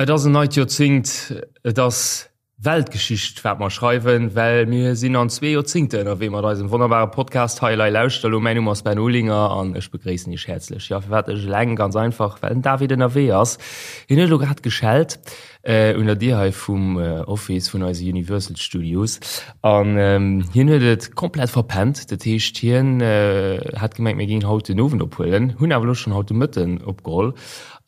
Et ass en neit Joerzéngt, et ass Weltgeschicht wat mer schreiwen, well mir sinn an zwee Joerzéngte ënnerwee mat eisem wonnerbare Podcast hei. Elei lauschter elo, mäin Numm ass Ben Olinger an ech begréissen Iech häerzlech. Jo, firwat ech eleng? Ganz einfach, well den David ënnerwee ass. Hien huet elo grad geschellt un der Dier hei vum Office vun eise Universal Studios an hien huet et komplett verpennt. Dat heescht, hien hat gemengt, mir géingen haut den Owend ophuelen, hunn awer elo schonn haut de Mëtten opgeholl.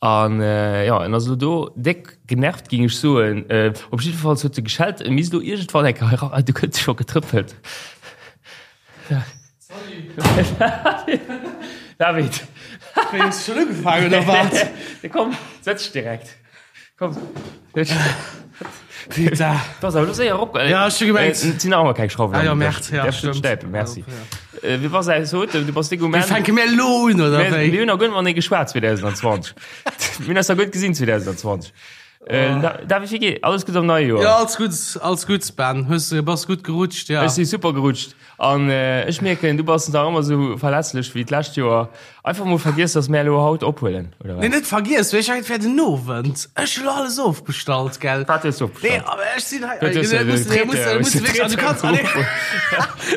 An jo, en ass elo do déck genervt, géing ech soen. Op jiddefalls huet e geschellt, e misst elo iergendwann eng Kéier eran. Du gëtt scho getrëppelt. David. Wéi, hues du schonn ugefaangen, oder wat? Komm, setz dech direkt. Komm. Putain. Du ass awer elo séier erop. Ja, ech hu gemengt. Et sinn nach ëmmer keng Schrauwen. Ah jo, Merde, ja, Däerfs du stimmt. stäipen, merci. Äh, Wie bass aus haut? Du bass déck um Wéi Enn. fänke mir elo un, oder Mir wéi? mir hunn nach guer net matenee geschwat 2020. Mir hunn eis nach guer net gesinn 2020. Äh, Da- David, wéi geet? Alles gutt am neie Joer? Ja, alles gutt, alles gutt, Ben. Hues du, bass gutt gerutscht, ja. Ech si super gerutscht. An ech mierken, du bass nach ëmmer esou verlässlech wéi d'lescht Joer. Einfach mol vergiess, dass mär elo haut ophuelen, oder wat? Nee, net vergiess, mee ech mengen, et wär den Owend. Ech hu lo alles ofbestallt, gell? Wat hues du ofbestallt? Nee, awer ech sinn hei. Du hues Nee, muss, nee, muss, muss, also du kanns,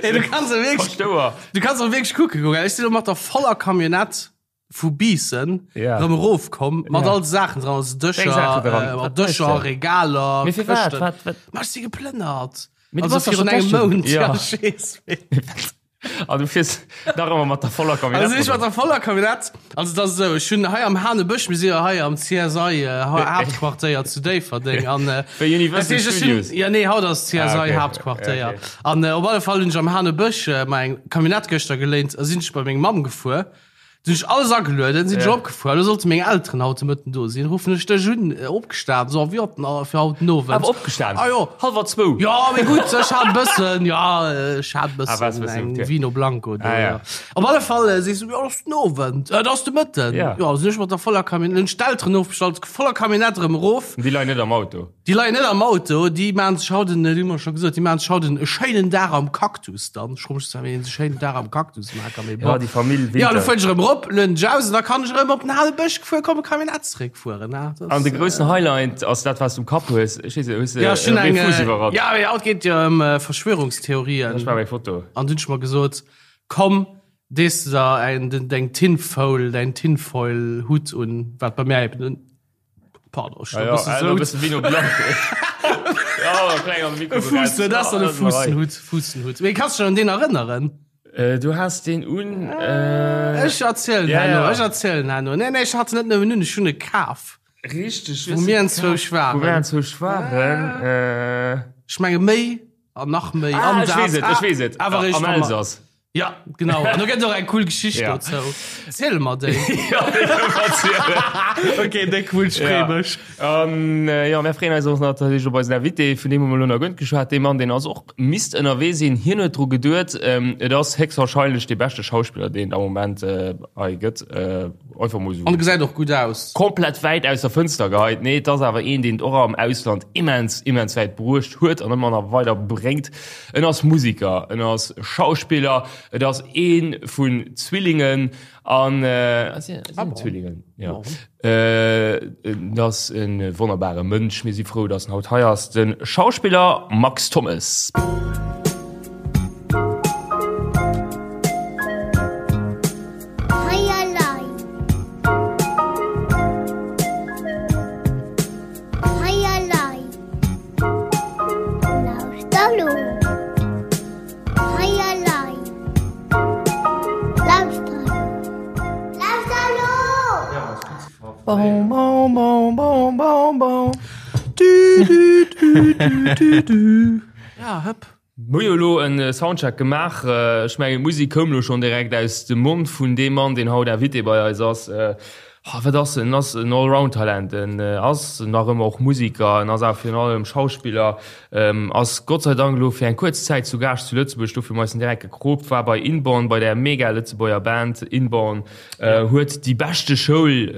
nee, du kanns och wierklech, Paschtouer. du kanns och wierklech kucke goen, gell? Ech sinn elo mat der voller Camionnette vu Biissen Ja. rëm erofkomm, mat Ja. all de Saachen dran, also Dëscher, Wéi Saachen dran? äh, mat Wat méchs Dëscher, de? Regaler, Mee fir wat? Këschten. Wat, wat? Ma ech si geplënnert. Mee du Also bass doch virun schon engem d'lescht Joer- Mount. Ja. Ja, ech weess. An du fiers nach ëmmer mat der voller Camionnette. Also ech mat der voller Camionnette. Also dat ass esou, ech hunn hei am Hanebësch, mir si jo hei am CSI äh, Haaptquartéier zu Déifferdeng an äh, Wéi Universal dat heescht, ech hunn- Studios. Ja nee, haut ass CSI Ah, okay. Haaptquartéier. Ja, okay. An äh, op alle Fall hunn ech am Hanebësch äh, mei eng Camionnette gëschter geléint a sinn ech bei meng Mamm gefuer. Sinn ech alles agelueden, sinn ech Ja. opgefuer. Elo sollte meng Elteren haut de Mëtten do sinn. Ruffen ech dech un, äh, opgestan, so, wéi haut den, fir haut den Owend. Awer opgestan? Ah jo. Hallwer zwou? Ja, mee gutt, ech hat e bëssen, ja, ech hat e Ah, war's bëssen bëssen eng okay. Vino Blanco do, Ah, ja. ja. Op alle Fall äh, sees du, ja, dat ass den Owend, äh, dat ass de Mëtten. Ja. Ja, sinn ech mat der voller Camionnette, hunn ech d'Elteren ofbestallt, voller Camionnette erëm erof. Déi leien net am Auto. Déi leien net am Auto, déi maachen sech haut en, dat hu mer scho gesot, déi maachen sech haut en e schéinen Dag am Cactus dann. Ech froe mech zwar, wéi een sech schéinen Dag am Cactus maache kann, mee Ja, bon. déi Famill Ja, Winter. lo fueren ech erëm erop, lueden ech aus an da kann ech erëm op den hale Bësch gefuer kommen, Camionnette zeréckfueren, ne? Dat An de ass, groussen Highlight ass dat, wat s du um Kapp hues. Ech weess net, hues de Ja, ech hunn e eng, Fuuss iwwerall? ja, mee haut geet et jo ëm Verschwörungstheorien. Ech maache meng Foto. An dunn hu ech mer gesot, komm, dees de der eng, deng Tinfoil, däin Tinfoil-Hutt un, wat bei mär eben en Pardon, ich Ja, ja, äh, bëssen Vino Blanc. Ja, kleng am Mikro. Fuussen, dat ass dann e Fuussenhutt, Fuussenhutt. Mee kanns du dech an deen erënneren? Äh, du has deen un. Äh, Ech erzielen Ja, herno, ja. ech erzielen herno. Nee, nee, ech hat en net nëmmen un, ech hunn e kaf. Richteg. Wou mir enzwousch Wou mir waren. enzwousch waren. Äh, Ech menge méi an nach méi. ah, an ech dat. weess et, ech weess et. Awer eréischt, Am wa mer- Elsass. Ja, genau. An do gëtt och eng cool Geschicht Ja. dozou. Ziel mer déi. Ja, déi kann ech erzielen. Okay, déck cool, ech free Ja. mech. An äh, ja, mir freeën eis och natierlech op eisen Invité, vun deem hu mer elo nach guer net geschwat. Dee Mann, deen ass och misst ënnerwee sinn. Hien huet dru geduet, ähm, et ass héchstwahrscheinlech dee beschte Schauspiller, deen et am Moment äh, hei gëtt. Äh, einfach mol An esou gesäit och gutt aus. komplett wäit aus der Fënster geheit. Nee, et ass awer een, deen et och am Ausland immens, immens wäit bruecht huet an ëmmer nach weider bréngt. En ass Musiker, en ass Schauspiller, et ass ee vun Zwillingen an ah, Zwillingen ja. Et ass e wonnerbare Mënsch. Mir si frou, datt en haut hei ass, de Schauspiller Max Thommes. Ja, hëpp. Mir hu jo elo en Soundcheck gemaach. Ech mengen, d'Musek koum elo schonn direkt aus dem Mond vun deem Mann, deen haut Invité bei eis ass. Ha, wat ass en? En ass en Allround-Talent. En ass nach ëmmer och Musiker, en ass awer virun allem Schauspiller, ass Gott sei Dank elo fir eng kuerz Zäit zu Gaascht zu Lëtzebuerg, dofir hu mer eis en direkt gekroopt, war bei Inborn, bei där mega Lëtzebuerger Band Inborn, huet déi beschte Schoul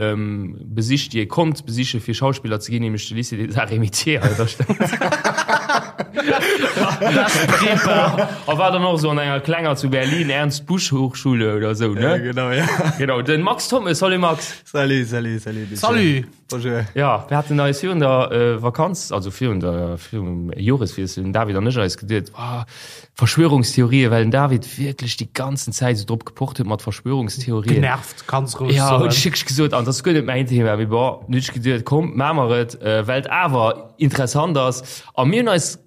besicht, déi ee konnt besiche fir Schauspiller ze ginn, nämlech de Lycée des Arts et Métiers hei an der Stad. A war dann och esou an enger klenger zu Berlin, Ernst Busch Hochschule oder esou, ne? Genau, ja. Genau, den Max Thommes. Salut Max. Salut, salut, salut. Salut. Bonjour. Ja, mir haten eis virun der äh, Vakanz, also virun der virum Joreswiessel, den David an ech eis geduet, oh, Verschwörungstheorien, well den David wierklech déi ganzen Zäit esou drop gepocht huet mat Verschwörungstheorien. Genervt, ganz roueg Ja, soen. hunn ech wierklech gesot, an dat ass guer net mäin Thema, mee bon, hunn ech geduet, komm, maache mer et, äh, well et awer interessant ass. A mir hunn eis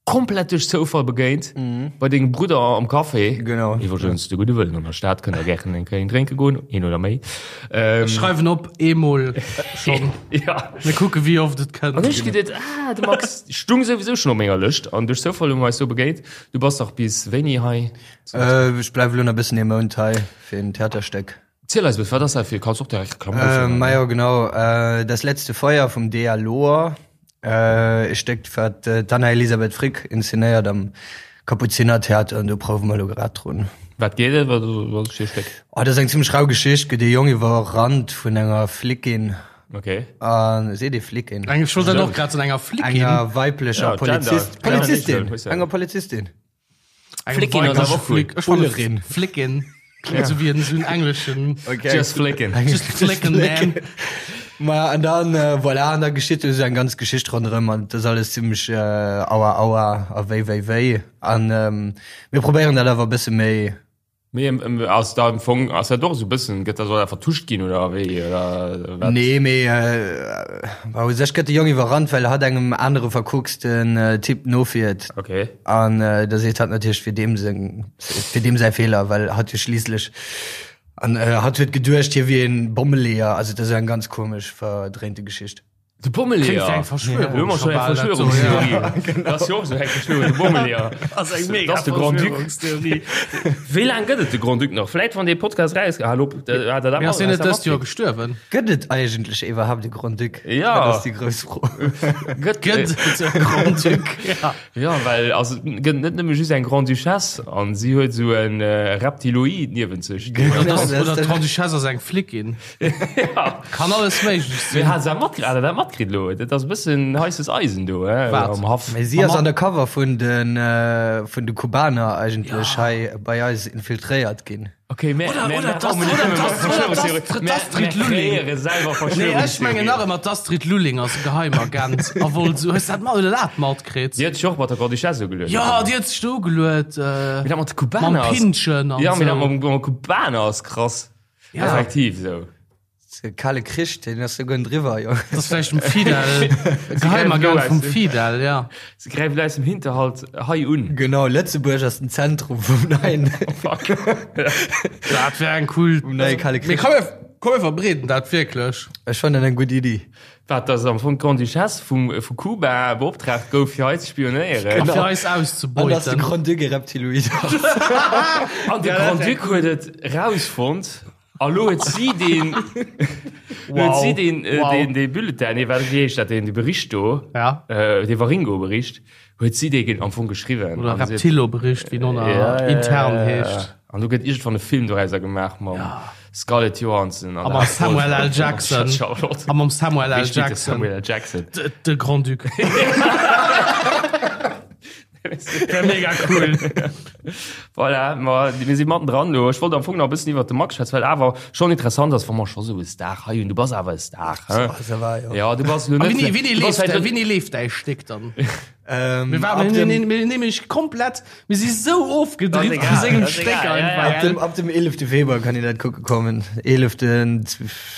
Komplett duerch Zoufall begéint bei dengem Brudder am Café. Genau. Iwwregens, de gudde Wëllen an der Stad kënnt der gären eng Kéier een drénke goen, een oder méi. Ech schreiwen op, eemol schonn. Ja. Mir kucke wéi oft et kënnt. An ech geduet, ah, de Max stung souwisou schonn op menger Lëscht an duerch Zoufall hu mer eis do begéint. Du bass dach bis wéini hei? Ech bleiwe lo nach e bëssen ee Mount hei fir en Theaterstéck. Ziel eis e bëssen, wat ass dat fir, kanns och direkt Reklamm dofir maachen. Majo genau, Das letzte Feuer vum Dea Lohr, e Stéck wat d'Anna Elisabeth Frick inszenéiert am Kapuzinertheater an do prouwe mer elo grad drun. Wat geet et, wat ass et fir e Stéck? Oh, dat ass eng zimmlech rau Geschicht, gëtt ee Jong iwwerrannt vun enger Flickin. Okay. A seet ee Flickin? Eng, ech wollt dat och grad soen, enger Flickin. Enger weiblecher Ja, Gender. Polizist, Polizistin, enger Polizistin. Flickin ass awer och cool. Ech fannen Flickin klingt sou wéi en sou en engleschen. Okay. Just flickin. Just flickin, man. Ma an dann äh, voilà, an da geschitt esou eng ganz Geschicht ronderëm an dat ass alles zimmlech äh, aua aua a wéi wéi wéi an ähm, mir probéieren dat awer e bësse méi Mee ass da am Fong, ass dat och esou e bëssen, gëtt dat soll dat vertuscht ginn oder wéi oder wat? Nee, mee bah, u sech gëtt de Jong iwwerrannt, well hatt engem anere verkucksten Typ nofiert. Okay. An da seet hatt natierlech, et wier deem seng, et wier deem säi Feeler, well hatt jo schliisslech, an hatt huet geduecht, hie wier e Bommeleeër. Also et ass eng ganz komesch verdréinte Geschicht. De Bommeleeër. Klingt wéi eng Verschwörung. Elo hu mer schon eng Verschwörungstheorie. Dat ass jo och esou eng Verschwörung, de Bommeleeër. Ass eng mega Dat ass de Grand-Duc. Verschwörungstheorie. Wéi laang gëtt et de Grand-Duc nach? Vläit wann dee Podcast raus, hal op, hat er dat Mee ass hien net hat dëst Joer gestuerwen? Gëtt et eigentlech iwwerhaapt e Grand-Duc? Ja. Dat ass déi grouss Fro. Gëtt, Gëtt et e Grand-Duc? Ja. Ja, well also, et gëtt net nëmme just eng Grande-Duchesse an si huet esou e Reptiloid niewent sech. Oder dass, oder d'Grande-Duchesse ass eng Flickin. Ja. Kann alles méiglech Mee sinn. hat se matkritt, hat der dat matkritt elo? Dat ass e bëssen heisses Eisen do, he, Wat? am Haff. Mee si ass undercover vun de, vun de Kubaner eigentlech hei bei eis infiltréiert ginn. Okay, mä, Oder- mä, oder mä, d'Astrid- oh, oder d'Astrid- Verschwörungstheorie. d'Astrid Mä, mä Lulling. kreéiere selwer Nee, ech mengen nach Verschwörungstheorien. ëmmer d'Astrid Lulling ass e Geheimagent a wollt sou. Hues dat mat oder dat matkritt? Déi huet sech och mat der Grande-Duchesse ugeluet. Ja, déi huet sech do ugeluet, äh, Mee dat mat de Kubaner mam ass. Pinnchen an Ja, mee dat sou. mam, mam Kubaner ass krass. Ja. Effektiv sou. De kale Krich, deen ass souguer driwwer, jo. Dat ass vläicht dem Fidel, e Geheimagent vum Fidel, ja. Se gräift elo aus dem Hinterhalt hei un. Genau, Lëtzebuerg ass den Zentrum vum neien. Fuck. Dat wär eng cool. Vum neie kale Mee Krich. komm, mir, komm, mir verbreeden dat wierklech. Ech fannen dat eng gutt Iddi. Wat, dass am Fong d'Grande-Duchesse vum, vu Kuba beoptraagt gouf, fir hei ze spionéieren? A fir eis An dass de auszebeuten. Grand-Duc e Reptiloid ass. An de Grand-Duc huet et rausfonnt. A lo huet si deen, lo huet si deen, äh, Wow. deen, dee Bulletin, nee, wat, wéi heescht dat, deen, dee Bericht do, Ja. äh, dee Waringo-Bericht, huet si dee am Fong geschriwwen. Oder An si huet- Reptilo-Bericht, wéi en och Ja, ja, intern ja, ja. heescht. An do gëtt iergendwann e Film dorauser gemaach mam Scarlett Johansson an A mam Samuel L. Jackson. Charlotte. A mam Samuel L. Wéi spillt de Jackson. Samuel L. Jackson? De, de Grand-Duc. Wär mega cool. Voilà, ma mir si matten dran lo. Ech wollt am Fong nach e bëssen iwwert de Max schwätzen, well awer schonn interessant ass, wa mer scho sou e Star hei hunn. Du bass awer e Star, hä? Ça va, jo. Ja, du bass lo A net. wéini, wéini du bass leeft, vläicht net- wéini leeft däi Stéck dann? Ähm, Mir ab waren, dem, mir, mir nämlech komplett, mir si sou ofgedrift Das vu ist egal, sengem das ist Stéck egal, ja, einfach. ja. ab dem, ab dem 11. Februar kann een dat kucke kommen. 11.,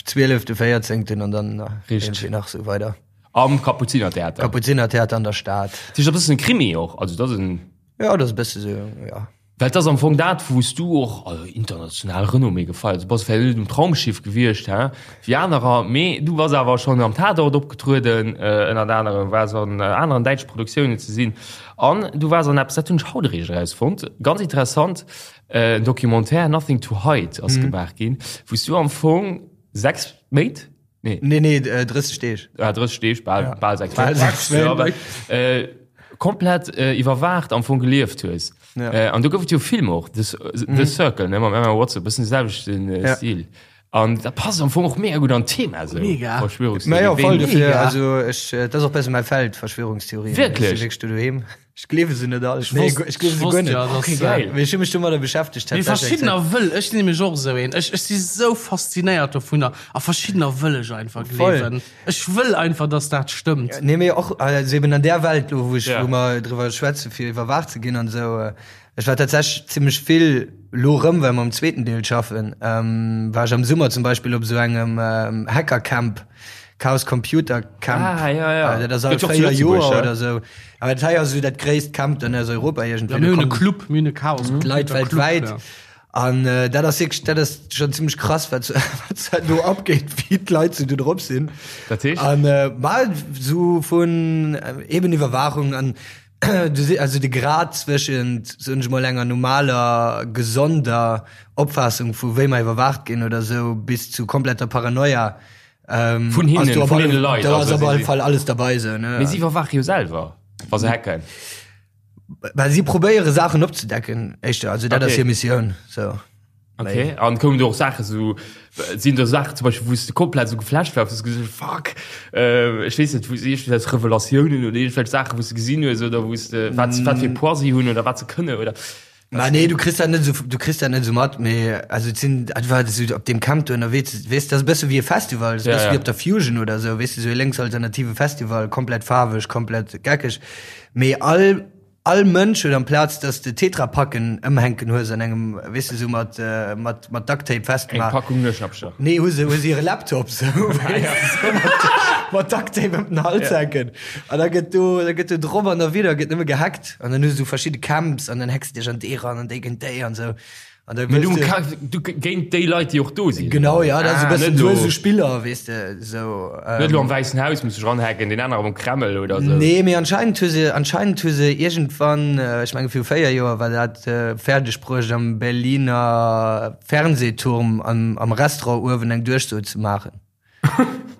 12., 14. an dann Richtig. irgendwie nach sou weider. Am Kapuzinertheater. Kapuzinertheater an der Stad. Dat ass e bëssen e Krimi och, also dat ass en. Ja, dat ass e bësse sou, ja. Well et ass am Fong dat, wou s du och, also international Renommée gefeiert hues. Du bass vläicht net um Traumschiff gewiescht, hä, wéi anerer, mee du bass awer schonn am Tatort opgetrueden, ënnert anerem, waars an aneren däitsche Produktiounen ze sinn an du waars an eppes, dat hunn ech haut eréischt erausfonnt, ganz interessant, en Documentaire, Nothing to Hide ass gemaach ginn, wou s du am Fong 6 Méint, Nee. Nee, nee, 30 Deeg. Ah, 30 Deeg, bal, ja. bal 6 Bal 6 Méint. Ja, aber, äh, komplett äh, iwwerwaacht am Fong gelieft hues. Ja. Äh, an du gouf et jo Film och, The, The mhm. Circle, ne, mam Emma Watson, bëssen de selwechten äh, Ja. Stil. An dat passt am Fong och mega gutt an d'Thema esou. Mega. Verschwörungstheorien. Ma jo, voll Ween- dofir. Also ech, dat ass och bësse mäi Feld, Verschwörungstheorien. Wierklech? Ech si wierklech do doheem. Ech gleewe se net all. Ech Nee, wosst, ech gleewe ech se guer wosst net. ja, dass, Okay, geil. Mee ech hu mech domadder beschäftegt Mee tatsächlech eng verschiddener Zäit. wëll, ech sinn nämlech och esou een. Ech, ech si sou faszinéiert dovunner a verschiddener wëll ech einfach Voll. gleewen. Ech wëll einfach, dass dat stëmmt. Nee, mee och, also eben an där Welt lo, wou ech, Ja. wou mer driwwer schwätze fir iwwerwaacht ze ginn an esou, Ech war tatsächlech zimmlech vill lo rëm, well mer um zweeten Deel schaffen, war ech am Summer zum Beispill op esou engem Hackercamp, Chaos Computer Camp. Ah, ja, ja. Dat ass all Gëtt jo och zu 4 Joer Lëtzebuerg, oder esou. Awer dat hei ass esou dat gréisst Camp dann aus Europa iergendwéi. Ja, mir Do hunn e kommen Club, mir hunn e Chaos Computer d'Leit Club, weltwäit. ja. An dat ass wierklech, dat ass schonn zimmlech krass, wat wat do abgeet, wéi d'Leit sou do drop sinn. Dat heescht? An ma sou vun eben Iwwerwaachung an Du si also de Grad zwëschent, soen ech mol, enger normaler, gesonder Opfaassung vu wéi mer iwwerwaacht ginn oder esou bis zu kompletter Paranoia. Ähm, vun hinnen, vun deene Leit. Do ass op alle Fall alles dabei esou, ne? Mee si iwwerwaache jo selwer, wa se hacken. Well si probéiere Saachen opzedecken, éischter. Also dat ass hir Missioun, sou. Okay, an koumen do och Saachen sou, sinn do Saachen zum Beispill, wou s de komplett sou geflasht waars, wou s de gesot hues, fuck, ech weess net, wou s iergendwelch Revelatiounen oder iergendwelch Saachen, wou s de gesinn hues oder wou s de, wat wat fir Poids si hunn oder wat se kënne oder? Ma nee, du kriss dat net sou, du kriss dat net sou mat, mee also et sinn, et war sou op deem Camp do ënnerwee, weess, dat ass e bësse wéi e Festival, dat ass e Ja, bësse ja. wéi op der Fusion oder sou, weess de, sou e lénksalternative Festival, komplett faarweg, komplett geckeg, mee all All Mënsch huet amplaz dass de Tetrapacken ëmhänken hues an engem, weess de, sou mat mat mat Ducktape Eng festgemaach. Packung Nueschnappcher. Nee, hu se hu se hire Laptop sou, weess de, sou mat mat Ducktape ëm den Hals hänken. An da gëtt do da gëtt do drop an derwidder gëtt nëmme gehackt. An dann hues du verschidde Camps an dann hacks de dech an dee ran an déi géint déi an sou. An da Mee du, wëlls de. ka, du géint déi Leit, déi och do sinn. Genau, ja, dat ass e Ah, bëssen, net du hues lo- esou Spiller, weess de, sou. Net elo am Wäissen Haus muss sech ranhacken, deen anere am Kreml oder sou. Nee, mee anscheinend hu se, anscheinend hu se iergendwann, ech menge viru 4 Joer war dat, fäerdeg bruecht am Berliner Fernsehturm am, am Restaurant uewen eng Duerchso ze maachen.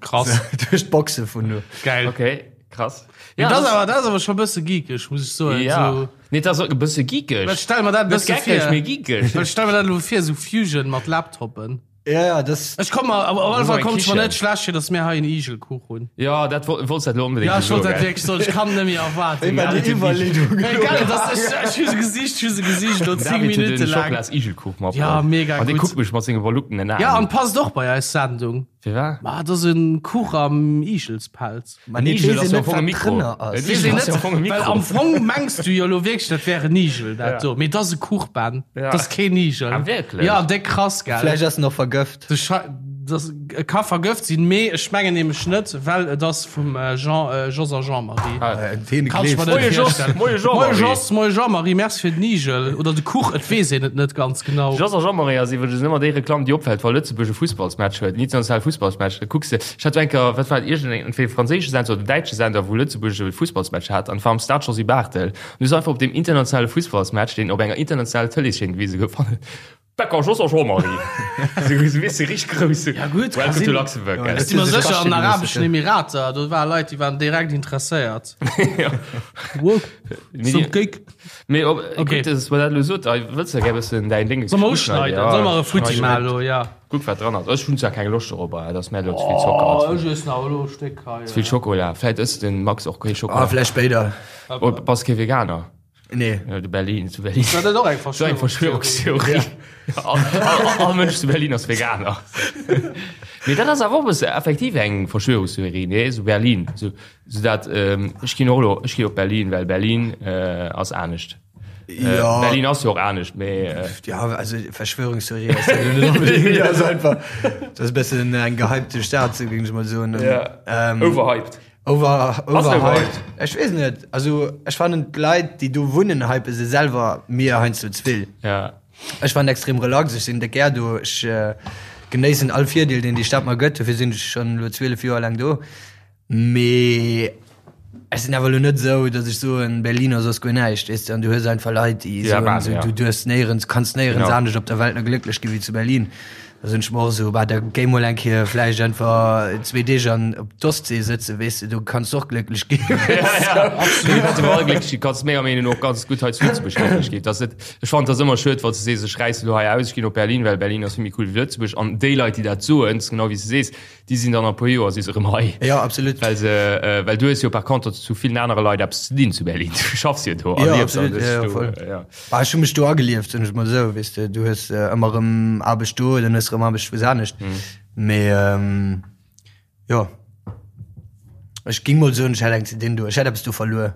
Krass. Duerch d'Boxe vun do. Geil. Okay, krass. Ja, dat ass awer, dat ass awer scho bësse geekeg, muss ech soen. Ja. So, Nee, dat ass och e bësse geekeg. Well stell mer dat e Net bësse geckeg, vir. mee geekeg. Well stell mer dat elo vir, sou Fusion mat Laptoppen. Ja, ja, das. Ech komm mer, op alle Das Fall ass eng kommt et mer Kichen. net schlecht vir, dass mir hei en Igelkuch hunn. Ja, dat wo- wollts dat elo onbedéngt Ja, ech wollt soen, dat gell? wierklech soen, ech kann net méi erwaarden. Immer gell? die Iwwerleedung. Hey, geil, das, ech, ech hu se gesicht, ech hu se gesicht, lo 10 David huet Minuten den lang. Schokolas-Igelkuch matbruecht. Ja, mega An dee gutt. kuckt mech mat senge verluckenen Aen. Ja, an passt och bei eis Sendung. Firwat? Ma, dat ass en Kuch am Igelspelz. Ma nee, Igel weess ass een jo am net, Fong e wat Mikro. drënner ass. En Weess Igel een ass jo net, am Fong e well Mikro. am Fong mengs du jo lo wierklech, dat wär en Igel, dat Ja. do. Mee dat ass e Kuch, Ben. Ja. Dat ass keen Igel. Ah, wierklech? Ja, déck krass, gell? Vläicht ass en och vergëft. De Schei, das e ka vergëft sinn, mee ech mengen nämlech net, well et ass vum Jean, Jos a Jean-Marie. Ah. Deen Kann ech mer gleefs net de. Moie Jos, virstellen. moie Jean-Marie. Moie Jos, moie Jean-Marie, merci fir den Igel oder de Kuch, et weess een et net ganz genau. Jos a Jean-Marie ass iwwregens ëmmer déi Reklamm, déi opfält, wa Lëtzebuerg e Fussballsmatch huet, en internationale Fussballsmatch. Da kucks de, ech hat eng Kéier, wat war et, iergendeng, entweder e franséische Sender oder däitsche Sender, wou Lëtzebuerg e Fussballsmatch hat an et war am Stade Josy Barthel. An du hues einfach op deem internationale Fussballsmatch, deen op enger internationaler Tëleeschaîne gewise gouf, Becker Jos a Jean-Marie. Sou weess de richteg grouss. Ja gutt, ka Welcome to sinn. Luxembourg. Ja, Ech si mer Huet se sech sécher, an den kaschte Arabeschen gelooss, Emirater, do ware Leit, déi waren direkt interesséiert. Ja. Wow, Mee some die- cake. Mee op, Okay. gutt, dass mer dat elo sot, ei, wëlls de gär bëssen däin Ding Soll mer uschneiden? Ja, Soll mer e Futti schneiden. maachen elo? Ja. Kuck wat dran ass. Ech hunn zwar keng Loscht dorobber, et ass mär elo ze vill Zocker. Oh, Ze ech iessen awer elo e Stéck hei. vill Schokola. Vläit ësst den Max och kee Ah, Schokola. vläicht spéider. Oh, bass kee Veganer? Nee. Ja, de Berlin, zu Berlin. War dat och eng So eng Verschwörungstheorie? Verschwörungstheorie. All, all, all Mënsch zu Berlin ass Veganer. Mee dat ass awer och e bësse effektiv eng Verschwörungstheorie, nee? So Berlin. So, so dat, ähm, ech ginn och elo, ech ginn op Berlin, well Berlin äh, ass anescht. Äh, Ja. Berlin ass jo och anescht, mee äh, Ja, also Verschwörungstheorie ass ja net unbedingt. Das ist einfach, das ist e bëssen eng gehypte Stad, sou géing ech mol soen. Ja. Ähm, overhyped. Over, Ass overhyped. overhyped? Ech weess net. Also ech fannen d'Leit, déi do wunnen, hype se selwer mir heiansdo ze vill. Ja. Ech fannen extrem relax, ech sinn déck gär do, ech äh, genéissen all Virdeel, deen déi Stad mer gëtt, dofir sinn ech schonn elo 12 Joer laang do. Mee ech sinn awer elo net esou, datt ech soen, Berlin ass soss guer näischt, weess de. An du hues einfach Leit, déi Ja, soen, bah, esou, ja. du duerfs néierens, kanns néierens Genau. anescht op der Welt nach glécklech gi wéi zu Berlin. Da sinn ech mer och esou, bah, da géi mol eng Kéier vläicht einfach zwee Deeg an op d'Ostsee sëtzen, weess de, do kanns de och glécklech ginn. Ja, ja, absolut. Du kanns iwwerall glécklech ginn, kanns menger Meenung no och ganz gutt hei zu Lëtzebuerg glécklech ginn. Dat ass net, ech fannen, et ass ëmmer schued, wann s de sees, ech räissen elo hei aus, ech ginn op Berlin, well Berlin ass vill méi cool wéi Lëtzebuerg. An déi Leit, déi dat soen, genau wéi s de sees, Déi sinn dann a puer Joer si se erëm hei. Jo, absolut. Well se, well du hues jo par contre zu villen anere Leit eppes ze dinn zu Berlin. Du schaffs jo do a liefs an hues dech do, jo. Bah, ech hu mech do agelieft, soen ech mol esou, weess de. Du hues ëmmer erëm Aarbecht do, dann hues de erëm Aarbecht wou anescht. Mee jo, ech géing mol soen, ech hätt eng ze dinn do. Ech hätt eppes do verluer.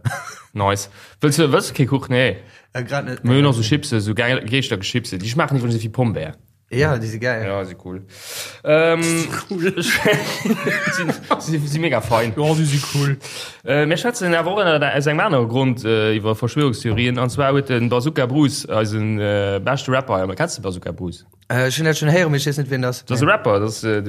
Nice. Wëlls du, wëlls du kee Kuch? Nee. Grad net. Mir hunn och sou Chipsen, sou Geeschtergeschipse. Déi schmaachen iwwregens ewéi Pombär. Ja, déi si geil. Ja, si cool. Ähm, cool. si, si mega fein. Ja, si si cool. Äh, mir schwätzen awer och ënner aus engem anere Grond äh, iwwer Verschwörungstheorien. An zwar huet den Bazooka Bruce, eisen äh, beschte Rapper, hei, kennst du Bazooka Bruce? Äh, ech hunn dat schonn héieren, mee ech weess net, wien dat ass. Dat ass e Rapper, dat ass äh,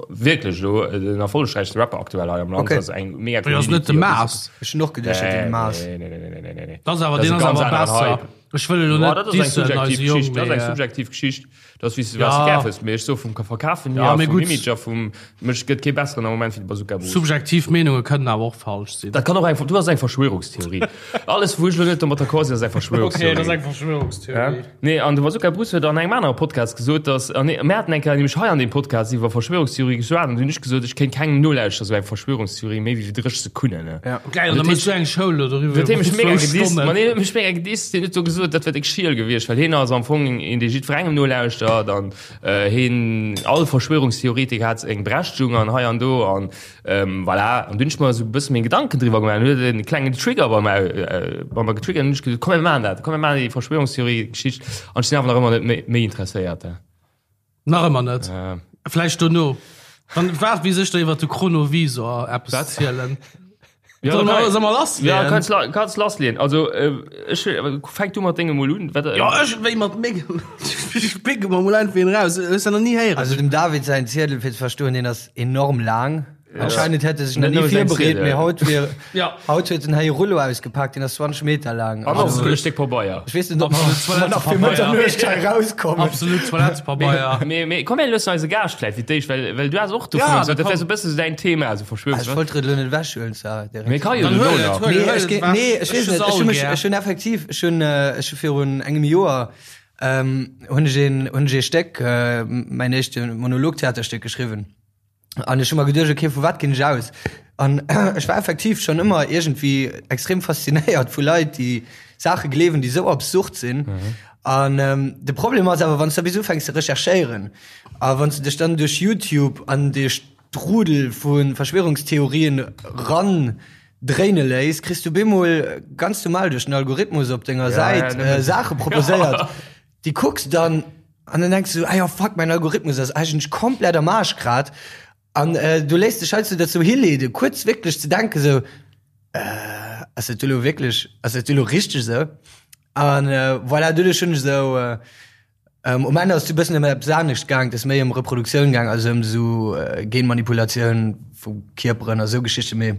wierklech elo äh, den erfollegräichste Rapper aktuell hei am Land. Okay. Dat ass eng mega Dat ass net de Maas. Ech hunn och geduecht, dat wier de Maas. Nee, nee, nee, nee, nee, nee, nee. Dat ass awer, Dat ass deen e ass ganz awer aneren besser. Hype. Ech wëll elo Boah, net dat ass eng dissen, subjektiv eise Jong, Geschicht. Dat ass eng mee, subjektiv Geschicht. Dat ass, wéi s du Ja. wat s du gär wëlls. Mee ech soe vum Verkafen hier, Ja, mee vum gutt. Image a vum, mech gëtt kee besseren am Moment wéi de Bazooka Bruce. Subjektiv Meenunge kënnen awer och falsch sinn. Dat kann och eng, du ass eng Verschwörungstheorie. Alles, wou ech elo net domat d'accord sinn, ass eng Verschwörungstheorie. Okay, dat ass eng Verschwörungstheorie. Ja? Nee, an de Bazooka Bruce huet an engem anere Podcast gesot, dass, an nee, mir haten eng Kéier nämlech hei an deem Podcast iwwer Verschwörungstheorie geschwat an du hunn ech gesot, ech kéint kengem nolauschtere sou eng Verschwörungstheorie méi wéi 30 Sekunnen. Ne? Ja. Geil, an da méchs du eng Show elo doriwwer. Huet hie mech mega iwwer zwou gedisst. Stonnen. Ma nee, huet mech mega gedisst. Hien huet do gesot, dat wär déck schiel gewiescht, well hien ass am Fong een, dee jiddwerengem nolauschtert an äh, hien, all Verschwörungstheoretiker hat eng Berechtigung an hei an do an ähm, voilà. An dunn hunn ech mer esou e bësse meng Gedanken driwwer gemaach an huet en klengen Trigger bei mer, äh, bei mer getriggert an hunn ech gesot, komm mir maachen dat, komm mir maachen déi Verschwörungstheorie-Geschicht an ech sinn awer nach ëmmer net méi, méi interesséiert. Nach ëmmer net. Äh. Vläicht dono. Dann waart bis ech der iwwer de Chronovisor eppes Wat? zielen. Ja, Soll da mer, kann- soll mer lass Ja, leeën? kannst, la- kannst lassleeën. Also, äh, ech, fänk du mat dengem mol un. Wat, äh, Ja, ech wéi mat mengem. Ech picke mer mol einfach een raus. Hues du nach ni héieren? Also dem David säin Ziedel, fir ze verstoen, deen ass enorm laang. Anscheinend hätt e sech nach Net ni nëmme säin virbereet, Ziedel. mee haut wier, Ja. haut huet en hei e Rullo ausgepaakt, deen ass 20 Meter laang. An och Also, e Stéck Pabeier. ech weess net, ob mer Absolut ob mer nach fir Toilettepabeier. Mëtternuecht hei rauskommen. Absolut Toilettepabeier. Mee, mee komm, mir loossen eise Gaascht vläicht fir d'éischt, well, well du has och dovun Ja, gesot, dat da wär sou e bësse sou däin Thema, sou Ah, ech Verschwörungs. wollt et elo net ewechhuelen, zwar direkt. Mee ka jo Dann dono huel et, nach. huel Nee, et ech ge- ewech. nee, ech weess Ech net. Ech hu mech, all gär. ech hunn effektiv, ech hunn, äh, ech hu virun engem Joer, ähm, hunn ech een, hunn ech ee Stéck, äh, mäin éischte Monologtheaterstéck geschriwwen. An ech hu mer geduecht, okay, vu wat ginn ech aus? An ech war effektiv schonn ëmmer iergendwéi extrem faszinéiert vu Leit, déi Saache gleewen, déi esou absurd sinn. An de Problem ass awer, wann s de bis ufänks ze recherchéieren a wann s de dech dann duerch YouTube an dee Strudel vu Verschwörungstheorien ran dréine léiss, kriss du bemol ganz normal duerch den Algorithmus op denger Säit Saache proposéiert. Déi kucks dann an dann denkst du, ah ja, fuck, mein Algorithmus ass eigentlech komplett am Arsch grad. An äh, du léiss dech heiansdo dozou hileeden, kuerz wierklech ze denken, sou, äh, ass dat elo wierklech, ass dat elo richteg sou? An äh, voilà, doduerch hunn ech sou, äh, ähm, um Enn ass et e bëssen ëm eppes anescht gaang, et ass méi ëm Reproduktioun gaang, also ëm sou äh, Genmanipulatioun vu Kierperen a sou Geschichten, mee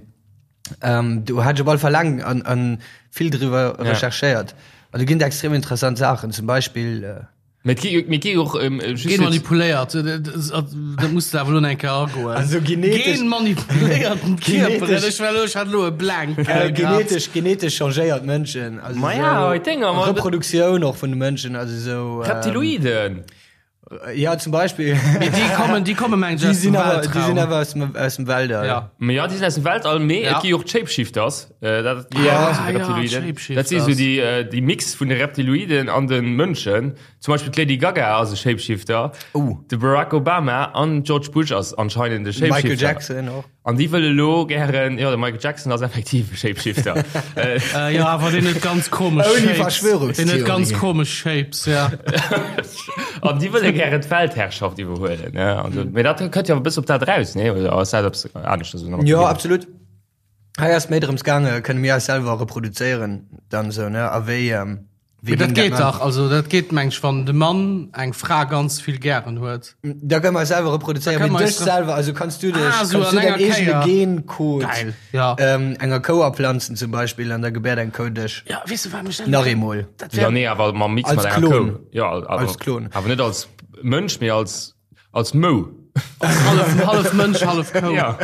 Ähm, do hat ech op alle Fall laang an, an vill driwwer Ja. recherchéiert. An do ginn et extrem interessant Saachen, zum Beispill äh, Mee et gi mee et gi och ähm, just Gen manipuléiert, dat muss de awer lo eng Kéier agoen. Also genetesch- Gen manipuléierten Kierperen, Genetesch- ech war lo, ech hat lo e Blank. äh, genetesch, genetesch changéiert Mënschen. Also Ma ja, so hei Dinger, ma- Reproduktioun och vun de Mënschen, also sou. ähm, Reptiloiden. Ja, zum Beispill. Mee déi kommen, déi kommen mengen ech Déi aus dem sinn awer, déi sinn Weltraum. awer aus dem, aus dem Weltall. Ja. Mee ja, déi sinn aus dem Weltall, mee Ja. et gi och d'Shapeshifters. Äh, dat, déi, Ja. dat Ah, sinn ja, Reptiloiden. Dat si Shapeshifters. sou déi, äh, déi Mix vun de Reptiloiden an de Mënschen. Zum Beispill d'Lady Gaga ass e Shapeshifter. Oh. De Barack Obama an George Bush ass anscheinend e Shapeshifter. Michael Jackson och. An déi wëlle lo gären, jo, de Michael Jackson ass effektiv e Shapeshifter. Äh, jo, awer deen huet ganz komesch Ouni Shapes. Verschwörungstheorien. Deen huet ganz komesch Shapes, ja. An déi wëlle gären d'Weltherrschaft iwwerhuelen, ne? Also, mee dat kënnt jo e bësse op dat eraus, nee? Oder ass dat eppes aneschters? Jo, absolut. Hei ass méi drëms gaange, kënne mir eis selwer reproduzéieren dann esou, ne? A wéi, ähm, Mee dat geet dach, also dat geet meng ech, wann de Mann eng Fra ganz vill gären huet. Da kënne mer eis selwer reproduzéieren, mee dech selwer, also kanns du dech, Ah, sou kanns du an däin enger eegene Kéier. Gencode Geil, ja. ähm, enger Kou aplanzen zum Beispill an da gebäert eng Kou dech. Ja, weess du wat mech dat. Nach eemol. Dat Ja, wär, nee, awer mam Mix Als mat enger Klon. Kou. Ja, awer, Als Klon. Awer net als Mënsch, mee als. Als Mou. Hallef, hallef Mënsch, hallef Kou. Ja.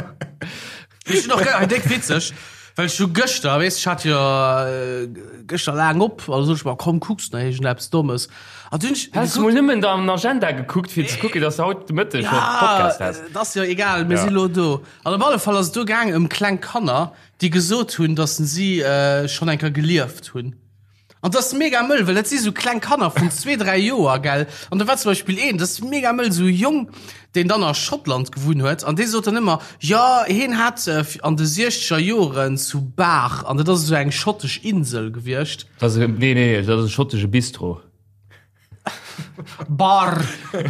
Ech hunn och ge- déck witzeg, well ech hu gëschter, weess, ech hat jo äh, gëschter laang op, also sot ech mer, komm, kucks nach iergendeppes Dommes. An dunn ech Has du mol nëmmen an Agenda gekuckt, fir ze kucken, dass du haut de Mëtteg schon Ja, Podcast has? et ass jo egal, mir Ja. si lo do. An op alle Fall ass et do gaang ëm kleng Kanner, déi gesot hunn, dass si äh, schonn eng Kéier gelieft hunn. An dat ass mega mëll, well dat si sou kleng Kanner vun zwee, dräi Joer, gell. An do war zum Beispill een, dat ass mega mëll, sou e Jong, deen dann a Schottland gewunn huet, an dee sot dann ëmmer, jo, hien hat an de siechzeger Joren zu Bar, an dat ass esou eng schottesch Insel gewiescht. Dat ass e, nee, nee, dat ass e schottesche Bistro. Bar,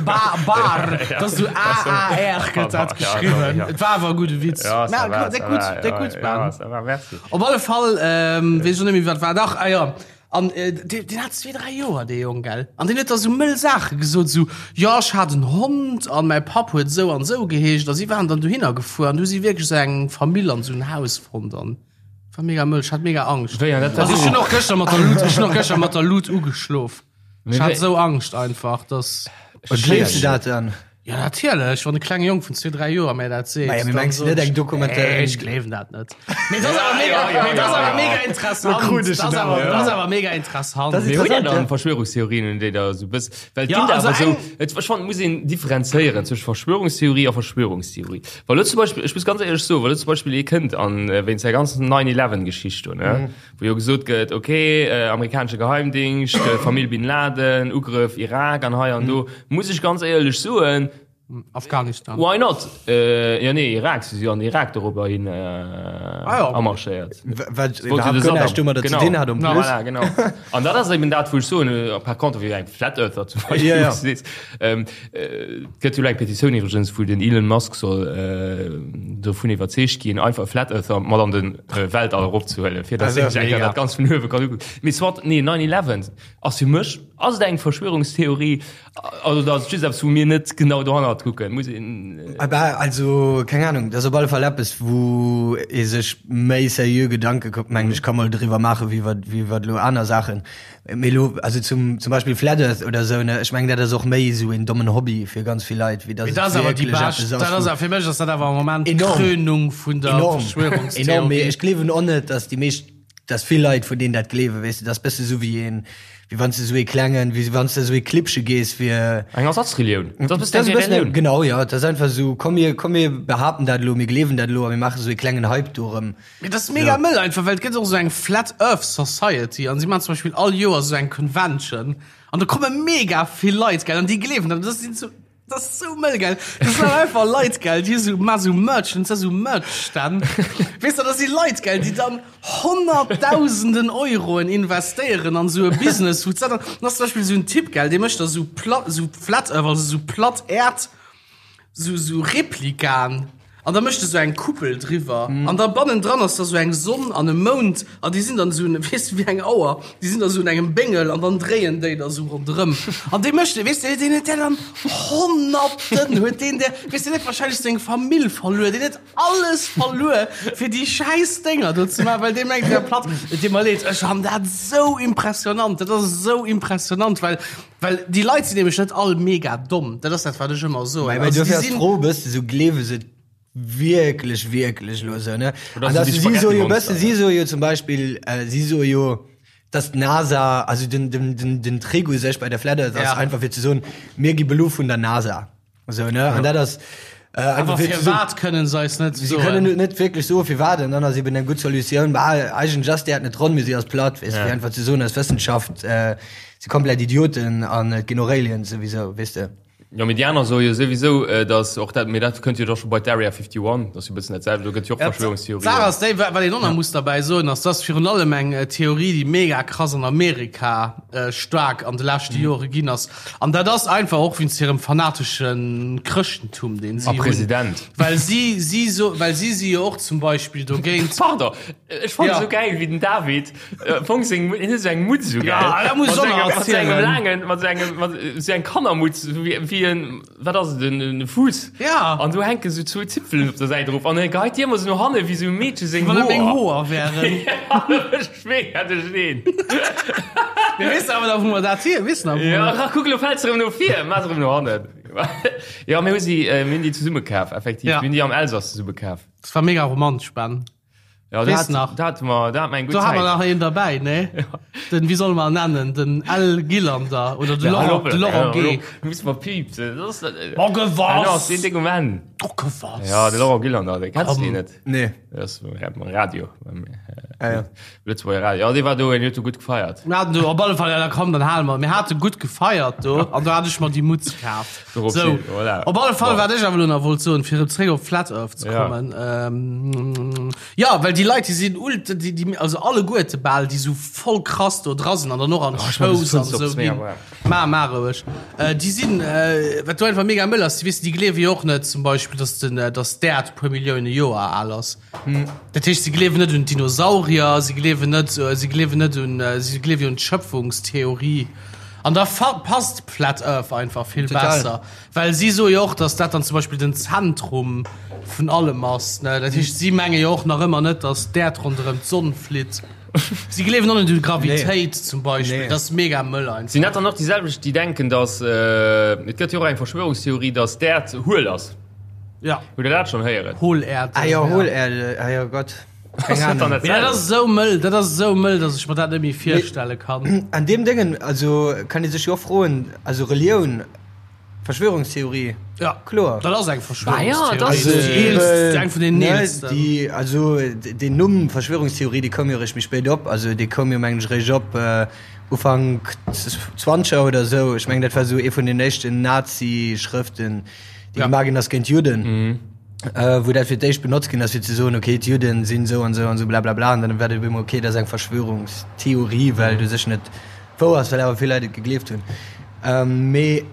ba, bar, dat ass esou A-A-R gëtt dat geschriwwen. Et war awer e gudde Witz. Ja, ça va, déck ça gutt, va, déck ja, gutt, ja, Ben. ça va, merci. Op alle Fall, ähm, weess ech och net méi, wat war. Dach, ah jo. An äh, deen, deen hat zwee, dräi Joer, dee Jong, gell? An deen huet da sou mëll Saache gesot, sou, jo, ech hat en Hond an mäi Papp huet esou an esou geheescht. A si waren dann dohinner gefuer an du hu si wierklech esou eng Famill an esou en Haus fonnt an war mega mëll. Ech hat mega Angscht. Wéi, an dat war Also ech hunn och gëschter mat der Lut, ech hunn och gëschter mat der Lut ugeschlof. Mee Ech hat wéi- esou Angscht einfach, dass. Und gleefs du dat dann? Ja, natierlech, wann e klenge Jong vun zwee, dräi Joer mär dat seet. Naja, mee dann mengs du sot net ech, eng Dokumentar- Nee, ech gleewen dat net. Mee dat ass awer mega, mee dat ass awer mega interessant. Da krut ech Dat ass en awer, awer, dat ass ja. awer mega interessant. Das ist Mee hutt Dir interessant, dann ja. Verschwörungstheorien, un déi der esou bëss, well et Ja, ginn der also awer esou, eng- et, ech fannen, et muss een differenzéieren zwësche Verschwörungstheorie a Verschwörungstheorie. Wa lo zum Beispill, ech muss ganz éierlech soen, wa lo zum Beispill ee kënnt an wéinst där ganzen 9/11-Geschicht do, ne, wou jo gesot gëtt, ok, amerikanesche Geheimdingscht, Famill Bin Laden, Ugrëff Irak an hei an do, muss ech ganz éierlech soen, Afghanistan. Why not? Jo nee, Irak, si si jo an den Irak dorobber hin amarschéiert. Wat iwwerhaapt guer näischt domadder ze dinn hat en plus. Voilà, genau. An dat ass eben dat, wou ech soen, par contre wéi eng Flat Earther zum Beispill, Ja, ja. wou s du sees, Et gëtt jo elo eng Petitioun iwwregens, wou den Elon Musk soll dovun iwwerzeegt ginn, einfach e Flat Earther mat an de Weltall eropzehuelen, fir datt hien sech eng Kéier dat Ganzt vun uewe kann ukucken. Mee soit, nee, 9/11 ass fir mech, ass et eng Verschwörungstheorie, also dat ass just eppes, wou mir net genau dohannert kucken, muss een. Bah, also, keng Ahnung, dat ass op alle Fall eppes, wou ee sech méi seriö Gedanke, mengen ech, ka mol driwwer maachen, wéi iwwer, wéi iwwer elo aner Saachen. Mee elo, also zum, zum Beispill Flat Earth oder esou, ne, ech mengen, dat ass och méi esou een dommen Hobby fir ganz vill Leit, wéi dass Mee et dat ass awer déi wierklech bescht, eppes ass, dat ass wou. awer, fir mech ass dat awer am Moment Enorm. d'Krönung vun der Enorm, enorm, mee Verschwörungstheorie. ech gleewen och net, dass déi meescht, dass vill Leit vun deenen dat gleewen, weess de, dat ass bësse sou wéi een, wéi wann s de sou ee klengen, wéi wann s de sou ee Clibbche gees fir. Eng Ersatzrelioun. Dat ass Dat ass e e bëssen, Relioun. genau, jo, dat ass einfach esou, komm mir, komm mir behaapten dat elo, mir gleewen dat elo a mir maache sou ee klengen Hype dorëm. Mee dat ass mega mëll einfach, well et gëtt och esou eng Flat Earth Society an si maachen zum Beispill all Joer esou eng Convention an do komme mega vill Leit, gell, an déi gleewen dat. Dat sinn sou, dat ass sou mëll, gell. Dat sinn dann einfach Leit, gell, déi esou maachen esou Merch, an esou Merch-Stänn. Weess de, dat si Leit, gell, déi dann Honnertdausenden Euroen investéieren an esou e Business, wou dat dann, dann ass zum Beispill esou en Typ, gell, dee mécht da esou plat, esou Flat Earth, also esou platt Äerd, sou sou Replikaen an da mécht e sou eng Kuppel driwwer an da bannendran ass da sou eng Sonn an e Mound an déi sinn dann sou weess de wéi eng Auer, déi sinn da sou un engem Béngel an dann dréien déi da sou ronderëm an dee mécht weess de deen huet där dann Honnerten huet deen där weess de deen huet wahrscheinlech seng Famill verluer, deen huet alles verluer fir déi schäiss Dénger do ze maachen, well dee mengt wär platt. Et deet mer leed, ech han dat sou impressionant, dat ass sou impressionant, well Well déi Leit sinn nämlech net all mega domm. Dat ass dat, wat ech ëmmer soen. Mä Also, dofir déi ass sinn- d'Fro e bëssen esou, gleewe se et wierklech, wierklech elo esou, ne? Oder An si dass déi si soe jo e Spaghetti-Monster, bëssen, si soe jo zum Beispill, äh, si soe jo, dass d'NASA, also den, den, den, den Trick u sech bei der Flat Earth ass Ja. einfach fir ze soen, mir gi belu vun der NASA. Esou, ne? An dat ass äh, einfach Awer fir ze soen, firwat kënnen se eis net Si kënnen soen? et net wierklech soen, firwat, an dann ass eben eng gutt Solutioun, bah, eigentlech ass d'Äerd net ronn, mee si ass platt, weess de, fir einfach ze soen, eis Wëssenschaft äh, si komplett Idioten an et ginn och Aliens souwisou, weess de. Jo, mee déi aner soe jo souwisou, datt och dat, mee dat kënnt jo da scho bei d'Area 51, dat ass jo e bëssen dat selwecht, do gëtt jo och Verschwörungstheorien. D'Saach ass déi, wat een och nach muss derbäi soen, ass, dass virun allem eng Theorie, déi mega krass an Amerika staark an de leschte Jore ginn ass, An dat ass einfach och wéinst hirem fanatesche Chrëschtentum, deen si A hunn. President. Well si, si so, well si si jo och zum Beispill dogéint. Pardon, ech fannen Ja. esou gäil, wéi den David am Fong seng, hien huet esou eng Mutz esou gäil. Ja, dat muss Mat ech och sengem, nach mat sengem erzielen. laangen, mat sengem, mat esou eng Kannermutz, esou wéi, wéi en, wat ass et, en, en Fuuss. Ja. An do hänken esou zwou Zipfelen op der Säit erof an e geheit déi ëmmer esou no hanne wéi esou e Meedche seng Wann et meng Hoer. Hoer wären. Ja, ech mega duercherneen. Mir wissen awer da, wou mer dat hier wissen. Ja, kuck, elo fält se erëm no vir, maach se erëm no hannen. Jo, mir hu si, mir hunn déi zesumme kaf, effektiv. Mir hunn déi am Elsass zesumme kaf. Dat war mega romantesch, Ben. Ja, da hat, nach. Da hatten wir, da hatten wir eng gutt Zäit. Do haben wir nach een dabei, ne? Ja. Den, wie soll man nennen? Den L. Gillander oder de Laurent, de Laurent G. Muss man piepsen. Das ist, oh, gewass! Ja, den Ding um Enn. Oh, gewass! Ja, de Laurent Gillander, den kennst du net? Nee. Das ist Radio. Ah, ja. Lëtzebuerger Radio. Ja, dee war do, en huet do gutt gefeiert. Mir haten do op alle Fall, ja, da komm, dann hale mer. Mir hate gutt gefeiert do an do hat ech mer déi Mutz kaf. Dorop So, hin, voilà. op alle Fall, Bon. wat ech awer elo nach wollt soen, fir erëm zréck op Flat Earth ze Ja. kommen. Ähm, ja, well déi Leit, déi sinn ult, déi, déi, also alleguerte bal, déi sou voll krass do dra sinn an dann och an Oh, ech mach Shows bis an Fënster op, sou ist mega ginn. warm. Ma, ma roueg. Äh, déi sinn, äh, wat do einfach mega mëll ass, déi, weess de, déi gleewe jo och net zum Beispill, dass den, äh, dass d'Äerd e puer Millioune Joer al ass. Dat heescht, si gleewen net un d'Dinosaurier, si gleewen net, si gleewen net un, si gleewe jo un d'Schöpfungstheorie. An da passt d'Flat Earth einfach vill Total. besser. Well si soe jo och, datt dat dann zum Beispill den Zentrum vun allem ass, ne? Dat heescht, si menge jo och nach ëmmer net, datt d'Äerd ronderëm d'Sonn flitt. Si gleewen och net un d'Gravitéit zum Beispill. Nee. Dat ass mega mëll einfach. Sinn dat dann och déi selwecht, déi denken, datt, et gëtt jo och eng Verschwörungstheorie, datt d'Äerd huel ass? Ja. Hutt der dat schonn héieren? Hohlerde. Ah jo, Hohlerde, ah jo Gott. Keng Ahnung. Mee dat ass esou mëll, dat ass esou mëll, dass ech mer dat net méi virstelle kann. An deem Déngen, also kann ee sech jo och froen, also Relioun, Verschwörungstheorie, Ja, kloer. Dat ass eng Ah ja, dat ass, Verschwörungstheorie. Déi eelst, eng vun den eelsten. Déi, also deen Numm Verschwörungstheorie, dee koum jo eréischt méi spéit op, also dee koum jo mengen ech eréischt op Ufank Zwanzeger oder esou. Ech mengen dat war esou ee vun den éischten Nazi-Schrëften, déi gemaach ginn ass géint d'Judden, wou dat fir d'éischt benotzt ginn ass, fir ze soen, okay, d'Judden sinn esou an esou an esou blablabla, an dann war dat op eemol, okay, dat ass eng Verschwörungstheorie, well et u sech net wouer ass, well awer vill Leit et gegleeft hunn. Mee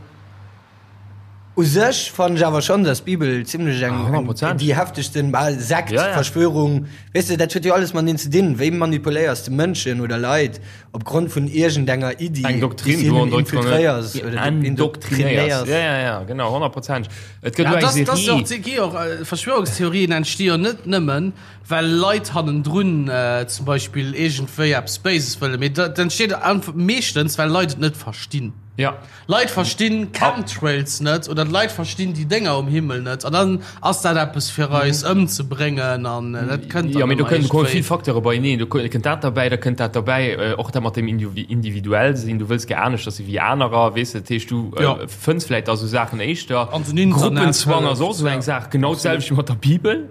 u sech fannen ech awer schonn, datt d'Bibel zimlech eng, déi heftegsten, bal Sekt, Verschwörung, weess de, dat huet jo alles mateneen ze dinn, wéi manipuléiers de Mënschen oder Leit, Op Grond vun iergendenger Iddi, Eng Doktrin, déi wou hinnen infiltréiers oder endoktrinéiers. Ja, ja, ja, genau, honnertprozenteg. Et gëtt Ja, elo eng das, das Serie. och, gi och, äh, Verschwörungstheorien entsti jo net nëmmen, well Leit hannendrun äh, zum Beispill iergendwéi eppes Béises wëllen, mee dat entsteet einfach meeschtens, well Leit et net verstinn. Ja. Leit verstinn Chemtrails net oder d'Leit verstinn déi Dénger um Himmel net an dann ass dat eppes fir eis ëmzebréngen an dat kënnt Jo, dann mee do ëmmer kënnen komme vill iergendwéi. Facteure beieneen. Do kënnt dat derbäi, da kënnt dat derbäi, och dat mat dem individuell sinn, du wëlls gär aneschters si wéi anerer, weess de. Dat heescht, du Jo. fënns vläicht da sou Saachen éischter. An den Internet Gruppenzwang ass och hëlleft, sou eng ja. Saach, genau d'selwecht wéi mat der Bibel.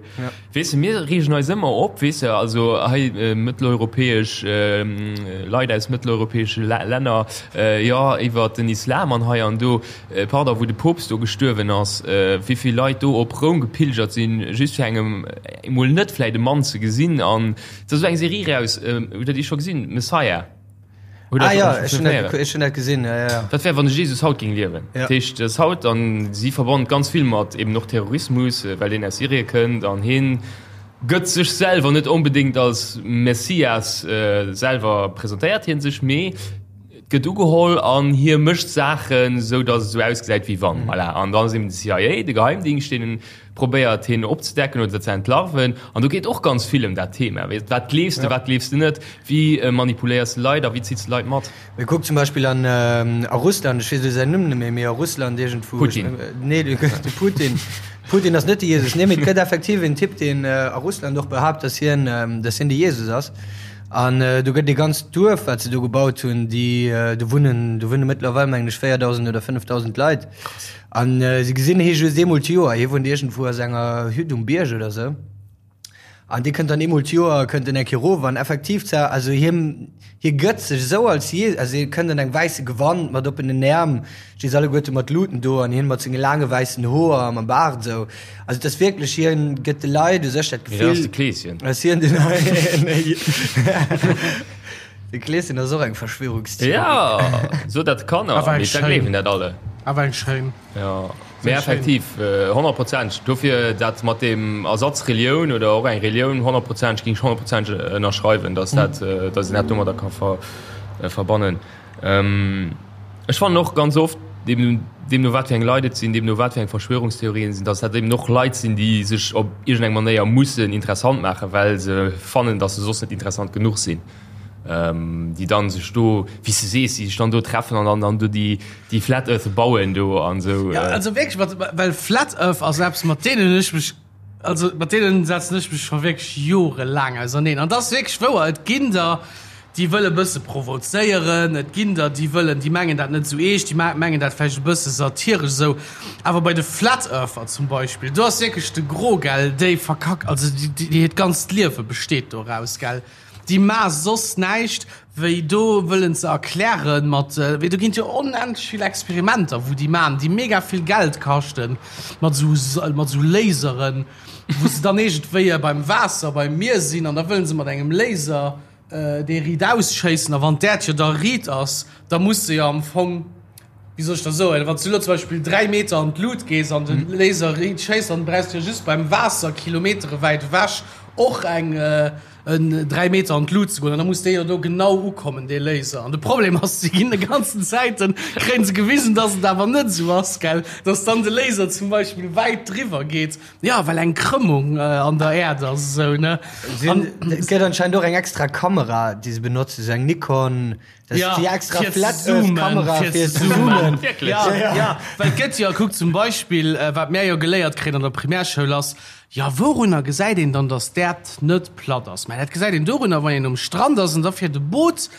Weess de, mir reegen eis ëmmer op, weess de, also hei mëtteleuropäesch Leit aus mëtteleuropäesche Länner, jo, iwwert den Islam an hei an do, pardon, wou de Poopst do gestuerwen ass, wéi vill Leit do op Roum gepilgert sinn, just fir engem emol net vläit e Mann ze gesinn. An et ass esou eng Serie raus, hutt der déi scho gesinn, Messiah? Hutt ah, ja, ech hunn dat, ech hunn dat gesinn, ja, ja. Wat wär, wann de Jesus haut géing liewen? Ja. Dat heescht, dass haut, an si verbannen ganz vill mat eben och Terrorismus, well deen aus Syrie kënnt an hien gëtt sech selwer net onbedéngt als Messias, selwer presentéiert hien sech, mee et gëtt ugeholl an hie mécht Saachen, esou dass et esou ausgesäit wéi wann. Voilà. An dann ass eben de CIA, de Geheimdingscht, deen probéiert hien opzedecken oder ze entlarven an do geet och ganz vill ëm dat Thema, weess, wat gleefs de, wat gleefs de net, wéi manipuléiers de Leit a wéi zills de Leit mat? Mee kuck zum Beispill an a Russland, ech weess elo säin Numm net méi, mee a Russland iergendwou, Putin. Nee, de Putin, Putin ass net de Jesus, nee, mee et gëtt effektiv en Typ, deen a Russland och behaapt, datt hien, datt hien de Jesus ass an do gëtt e ganzt Duerf, wat se do gebaut hunn, déi do wunnen, do wunne mëttlerweil mengen ech 4.000 oder 5.000 Leit. An si gesinn hie just eemol d'Joer. Hie wunnt iergendwou a senger Hütt um Bierg oder sou. An dee kënnt dann eemol d'Joer, kënnt en eng Kéier erof. An effektiv, zwar, also hie, hie gëtt sech esou als Je-, also hie kënnt an engem wäisse Gewand mat oppenen Äerm, sti se alleguerte mat Luten do an hien mat senge laange wäissen Hoer a mam Baart esou. Also et ass wierklech, hien gëtt de Leit u sech dat Mee dat ass Gefill, de Kleeschen. dass hien den. De Kleeschen ass och eng Verschwörungstheorie. Ja, so dat Kanner, Awer eng mee da schéin. gleewen dat alle. Awer eng schéin. Ja, mee schéin. effektiv, honnertprozenteg. Dofir dat mat dem Ersatz Relioun oder och eng Relioun, honnertprozenteg, géing ech honnertprozenteg ënnerschreiwen, dass dat, dass een dat domadder ka ver, verbannen. Ech fannen och ganz oft, deemno, deemno wat fir eng Leit et sinn, deemno wat fir eng Verschwörungstheorien sinn, dass dat eben och Leit sinn, déi sech op iergendeng Manéier mussen interessant maachen, well se fannen, dass se soss net interessant genuch sinn. Déi dann sech do, wéi s de sees, déi sech dann do treffen an dann dann do déi déi Flat Earth bauen do an esou. Ja, also wierklech, mat, well Flat Earth ass eppes, mat deenen ech mech, also mat deenen setzen ech mech scho wierklech jorelaang auserneen. An et ass wierklech wouer, et ginn der, déi wëlle bësse provozéieren, et ginn der, déi wëllen, déi mengen dat net esou eescht, déi mengen dat vläicht e bësse satiresch esou. Awer bei de Flat Earther zum Beispill, do ass wierklech de Gros, gell, déi verkack, also déi, déi hiert ganzt Liewe besteet doraus, gell. Déi maa soss näischt wéi do wëllen ze erklären mat, wéi do ginn et jo onendlech vill Experimenter wou déi maan, déi mega vill Geld kaschten, mat sou mat sou Laseren, wou se dann iergendwéi beim Waasser, beim Mier sinn an da wëllen se mat engem Laser dee riit ausschéissen a wann d'Äerd jo da riit ass, da muss se jo am Fong, wéi soll ech da soen, wann s du elo zum Beispill 3 Meter an d'Lut gees an de Laser riit schéisst, dann brauchs du jo just beim Waasser Kilometere wäit ewech och eng en 3 Meter an d'Lut ze goen an da muss dee jo do genau ukommen, dee Laser. An de Problem ass, si ginn de ganzen Zäiten, kréien se gewisen, dass et awer net esou ass, gell, dass dann de Laser zum Beispill wäit driwwer geet, jo, well eng Krëmmung an der Äerd ass esou, ne. An et gëtt anscheinend och eng extra Kamera, déi se benotzen, esou eng Nikon, dat ass déi extra Flat Earth Kamera fir ze zoomen. Wierklech? Ja, ja, well et gëtt jo, kuck zum Beispill, wat mär jo geléiert kréien an der Primärschoul ass, Jo, wourunner gesäit een dann, dass d'Äerd net platt ass? Mä dat gesäit een dorunner, wann een um Strand ass an da fiert e Boot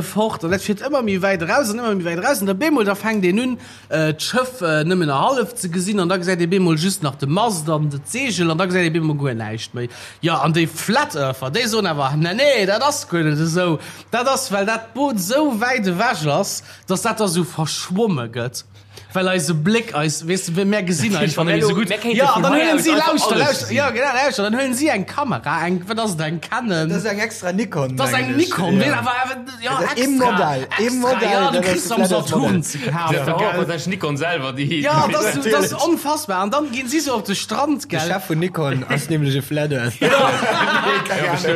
fort an dat fiert ëmmer méi wäit eraus an ëmmer méi wäit eraus an da bemol, da fänkt een un, d'Schëff nëmmen nach hallef ze gesinn an da gesäit ee bemol just nach de Mast an d'Seegel an da gesäit ee bemol guer näischt méi. Jo, an déi Flat Earther, déi soen awer, Nee, nee, dat ass guer net esou. Dat ass, well dat Boot esou wäit ewech ass, dass dat da sou verschwomme gëtt. Well eise Bléck eis, weess de, mär gesinn einfach net méi esou gutt. Jo, an dann huelen si, lauschter, lauschter, jo, genau, lauschter, dann huelen si eng Kamera, eng, wat ass et, eng Canon? Dat ass eng extra Nikon, Dat ass eng Nikon, wéi, awer, awer, jo, extra. E Modell, e Modell, jo, du kriss se am Saturn ze kafen, gell. Dat ass Nikon selwer, déi. Jo, dat ass, dat ass onfassbar. An dann ginn si sou op de Strand, gell. De Chef vun Nikon ass nämlech e Flat Earth.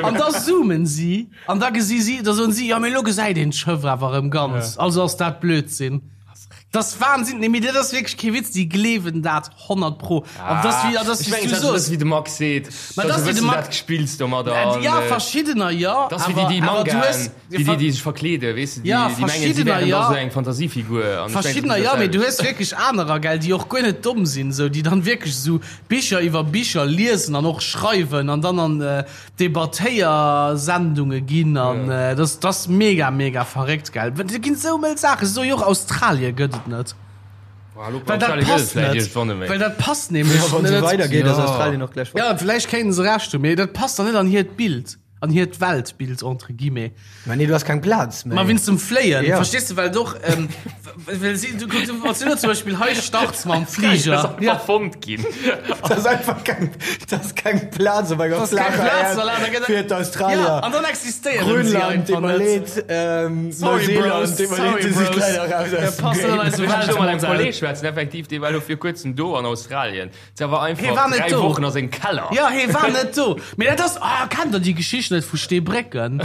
An da zoomen si, an da gesi si, da soen si, jo, mee elo gesäit een d'Schëff awer erëm ganz, also ass dat Blödsinn. Dat ass Wahnsinn, nee, mee dat ass wierklech kee Witz, déi gleewen dat 100 pro. An dat ass wéi, dat ass wéi s du soos. Wéi de Max seet, Ma dat ass wéi de Max. Dat gespills domadder. An, ja, verschiddener jo. Dat ass wéi déi, déi Mangaen, déi, déi, déi sech verkleeden, weess de, déi, déi mengen, si wären da sou eng Fantasiefigur. An Verschiddener jo, mee du hues wierklech anerer, gell, déi och guer net domm sinn, sou, déi dann wierklech sou Bicher iwwer Bicher liesen an och schreiwen an dann an Debattéiersendunge ginn an dat ass mega mega verréckt gell. Et ginn esou mëll Saachen, se soe jo och Australie gëtt et net. Well dat passt net, well dat passt nämlech net. Weidergeet ass Australien och gläich fort. Jo, vläicht kéinten se Recht hunn, mee dat passt dann net an hiert Bild, an hiert Weltbild entre guillemets. Ma nee, du has keng Plaz méi. Ma wéinst dem Fléien, verstees de, well et och, well si, du, du, wann s du elo zum Beispill hei starts mam Fliger. Das ass einfach fonnt ginn. Das ass einfach keng, das ass keng Plaz op enger flacher Äerd fir d'Australier. Ja, an dann existéieren si Grönland, einfach net. deet mer leed, Sorry, Neuseeland, Bros, deet mer leed, sorry, déi si Bros. leider raus Ja, aus dem passt net an Game. eise Ech muss elo mat engem Weltmodell. Kolleg schwätzen, effektiv, dee war elo vir kuerzem do an Australien. Se war Hee war einfach net 3 do. Wochen a sengem Keller. Ja, hee war net do. Mee dat ass, ah, kennt der déi Geschicht net vu Steebrécken?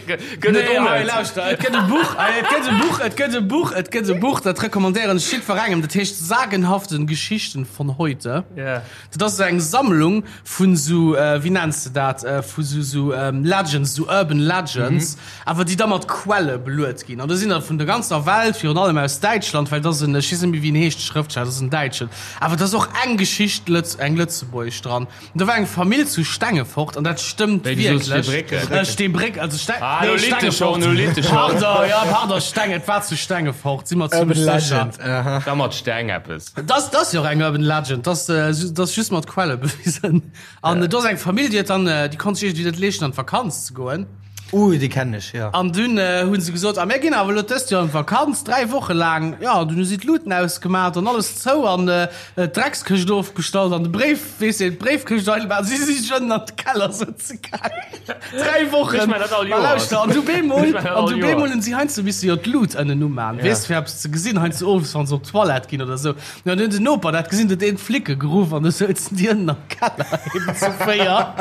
Gëtt et Nee, och hei, net. lauschter, et gëtt e Buch, et gëtt e Buch, et gëtt e Buch, et gëtt e Buch, dat recommandéieren ech jiddwerengem, dat heescht Sagenhaften Geschichten von heute. Ja. Dat ass esou eng Sammlung vun esou, wéi nenns de dat, vu sou, sou Legends, sou Urban Legends, awer déi da mat Quelle beluet ginn. An do sinn der vun der ganzer Welt, virun allem aus Däitschland, well et ass en, ech weess net méi wéi en heescht, de Schrëftsteller, dat ass en Däitschen, awer et ass och eng Geschicht, Lëtz, eng lëtzebuergesch dran. An do war eng Famill zu Stengefort, an dat stëmmt Wéi, du soos wierklech. Steebrécken? Steebréck, also Ste, Ah, nee, elo litt de schonn, Stengefort, elo litt de schonn. Pardon, ja, pardon, Steng, et war zu Stengefort, si mer Urban zimmlech sécher. Legend, aha. Da mat Steng eppes. Dat ass jo och eng Urban Legend, dat ass just mat Quelle bewisen. An do ass eng Famill, déi huet dann, déi konnt sech iergendwéi net leeschten an d'Vakanz ze goen. Uh, déi kennen ech, jo. An dunn hu se gesot, a mir ginn awer elo dëst Joer an d'Vakanz, 3 Woche laang. Jo, an dunn hu si d'Luten ausgemat an alles zou an d'Dreckskëscht ofgestallt an de Bréif, weess de, d'Bréifkëscht eidel. Si si sech ënnen an de Keller sëtze gaangen. 3 Wochen! Ech man dat all Ma Joer. lauschter, an du bemol, Ech man dat an all du Joer. bemol hunn si heiansdo misse jo d'Lut ënnen uman, Ja. weess, fir eppes ze gesinn, heiansdo owes, wann se op d'Toilette ginn oder sou. Ja, an du hunn den Noper dat gesinn, huet een d'Flicke geruff an du souzen déi ënnen am Keller eben zu 4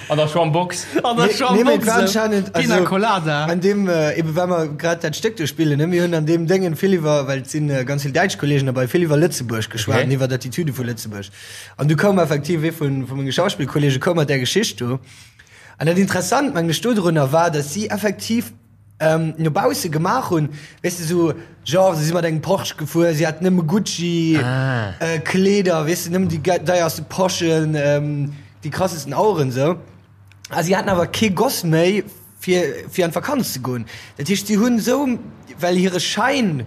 An der Schwammbox. an der Nee, nee, mee et war Schwammbox, anscheinend, Pina also, Colada. An deem, äh, eben well mer grad dat Stéck do spillen, ne, mir hunn an deem Déngen vill iwwer, well et sinn äh, ganz vill däitsch Kollegen derbei, vill iwwer Lëtzebuerg geschwat Okay. an iwwer d'Attitüde vu Lëtzebuerg. An du koum effektiv ee vun, vu menge Schauspillkollege koum mat där Geschicht do. An dat Interessant, mengen ech, dodrunner war, datt si effektiv no bausse gemaach hunn, weess de, sou genre se si mat engem Porsche gefuer, si haten nëmme Gucci Kleeder, weess de, nëmmen déi deierste Poschen, déi krassesten Aueren sou. A si haten awer kee Goss méi fir fir an d'Vakanz ze goen. Dat heescht, si hunn sou, well hire Schäin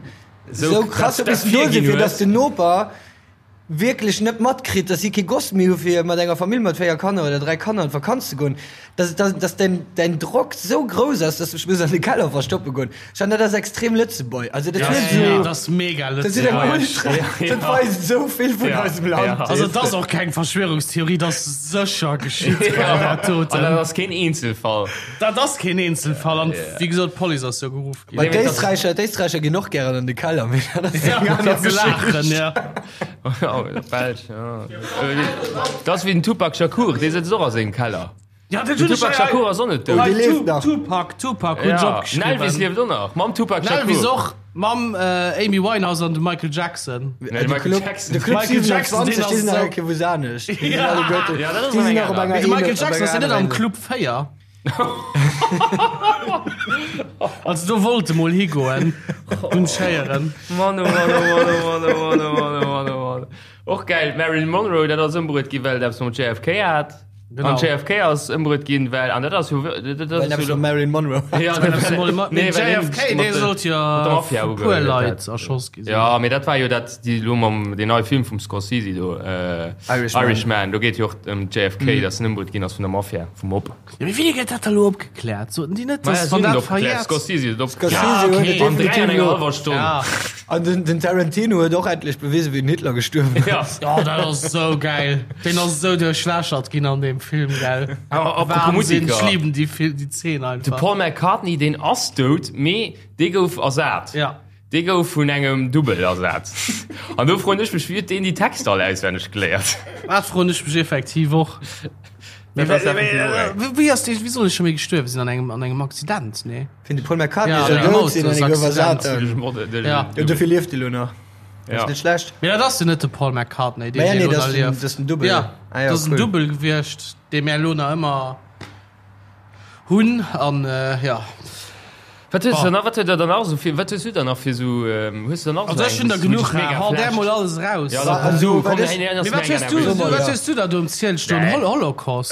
sou krass huet missen do sinn, fir datt den Noper wierklech net matkritt, dass si kee Goss méi hu fir mat enger Famill mat 4 Kanner oder 3 Kanner an d'Vakanz ze goen, dass, dass, dass däin, däin Drock sou grouss ass, dass du dech muss an de Keller verstoppe goen. Ech fannen, dat ass extrem Lëtzebuerg. Also dat huet sou, dat ass mega dat huet eng Ultra, dat weist sou vill vun eisem Land. Also dat ass och keng Verschwörungstheorie, dat ass sécher geschitt, dat doten. An dat ass keen Eenzelfall. Dat ass keen Eenzelfall an wéi gesot, d'Police ass jo geruff. Bei d'Éisträicher, d'Éisträicher ginn och gären an de Keller, mee dat ass eng aner Geschicht. Ja. Belsch, ja. Dat ass wéi den Tupac Shakur, dee sëtzt och a sengem Keller. Ja, den Tupac Shakur ass och net dout. Dee lieft nach. Tupac, Tupac hunn ech opgeschriwwen. Den Elvis lieft och nach, mam Tupac Shakur. Den Elvis och, mam Amy Winehouse an dem Michael Jackson. Nee, de Michael Jackson. De Club 27, déi sinn nach eng Kéier wou anescht. Déi sinn alleguerten, déi sinn nach op enger Mee de Michael Jackson ass jo net am Club 4. Also do wollt e mol higoen, hunn ech héieren. Mann oh Mann oh Mann oh Mann oh Mann oh Mann oh Mann oh Mann. Och geil, d'Marilyn Monroe, dat ass ëmbruet gi well et eppes mam JFK hat. Genau. An JFK ass ëmbruet ginn, well, an dat ass jo, dat Well ass eppes jo mam Marilyn Monroe hat. Ja, dat ass Nee, nee, well hien JFK, mat dee de- sollt jo mat der Mafia vu puer ugehuet Leit hat. erschoss gi sinn. Ja, mee dat war jo dat, déi elo mam, deen neie Film vum Scorsese do, Irishman. Irishman, do geet jo och ëm JFK, datt en ëmbruet ginn ass vun der Mafia, vum Mob. Ja, mee wéini gëtt dat da lo opgekläert? Soten déi net, Maja, dass si wann hunn et dat opgekläert. verjährt. Scorsese huet et opgekläert. Scorsese Ja, huet okay. et An 3 an definitiv enger lo. hallwer Stonn. Ja. An den, den Tarantino huet och endlech bewisen, wéi den Hitler gestuerwen Ja. ass. Oh, dat ass sou geil. Deen ass sou duerchlächert ginn an deem Film, gell? Awer apropos Wahnsinn, Musiker. ech liben déi Fil déi Zeen De einfach. Paul McCartney, deen ass dout, mee dee gouf ersat. Ja. Dee gouf vun engem Dubbel ersat. An do froen ech mech, wéi huet deen déi Texter all auswenneg geléiert? Dat froen ech mech effektiv och. Dat ass effektiv och eng. Wéi ass dee, wéi soll e scho méi gestuerwe sinn? An engem, an engem Accident, nee? Fir de Paul McCartney Ja, soll an engem dout sinn an e gouf ersat. Autosaccident. Ja. Ja. Dofir lieft e lo nach. Ja. Ass net schlecht. Mee dat ass jo net de Paul McCartney, deen Mä ja, nee, elo dat nach ass den, lieft. dat ass den Dubbel. Ja, Ah ja, dat ass en cool. Dubbel gewiescht, dee mär elo nach ëmmer Hunn an ja. Wat hues du nach, wat huet der dann nach esou fir, wat hues du dann nach fir esou, hues du dann nach Also ech hunn der genuch, hau där mol alles raus. Ja, da komm du, komm, Mee Mee wat hues du, wat hues du da do um Ziel stoen? Nee. Hol Holocaust?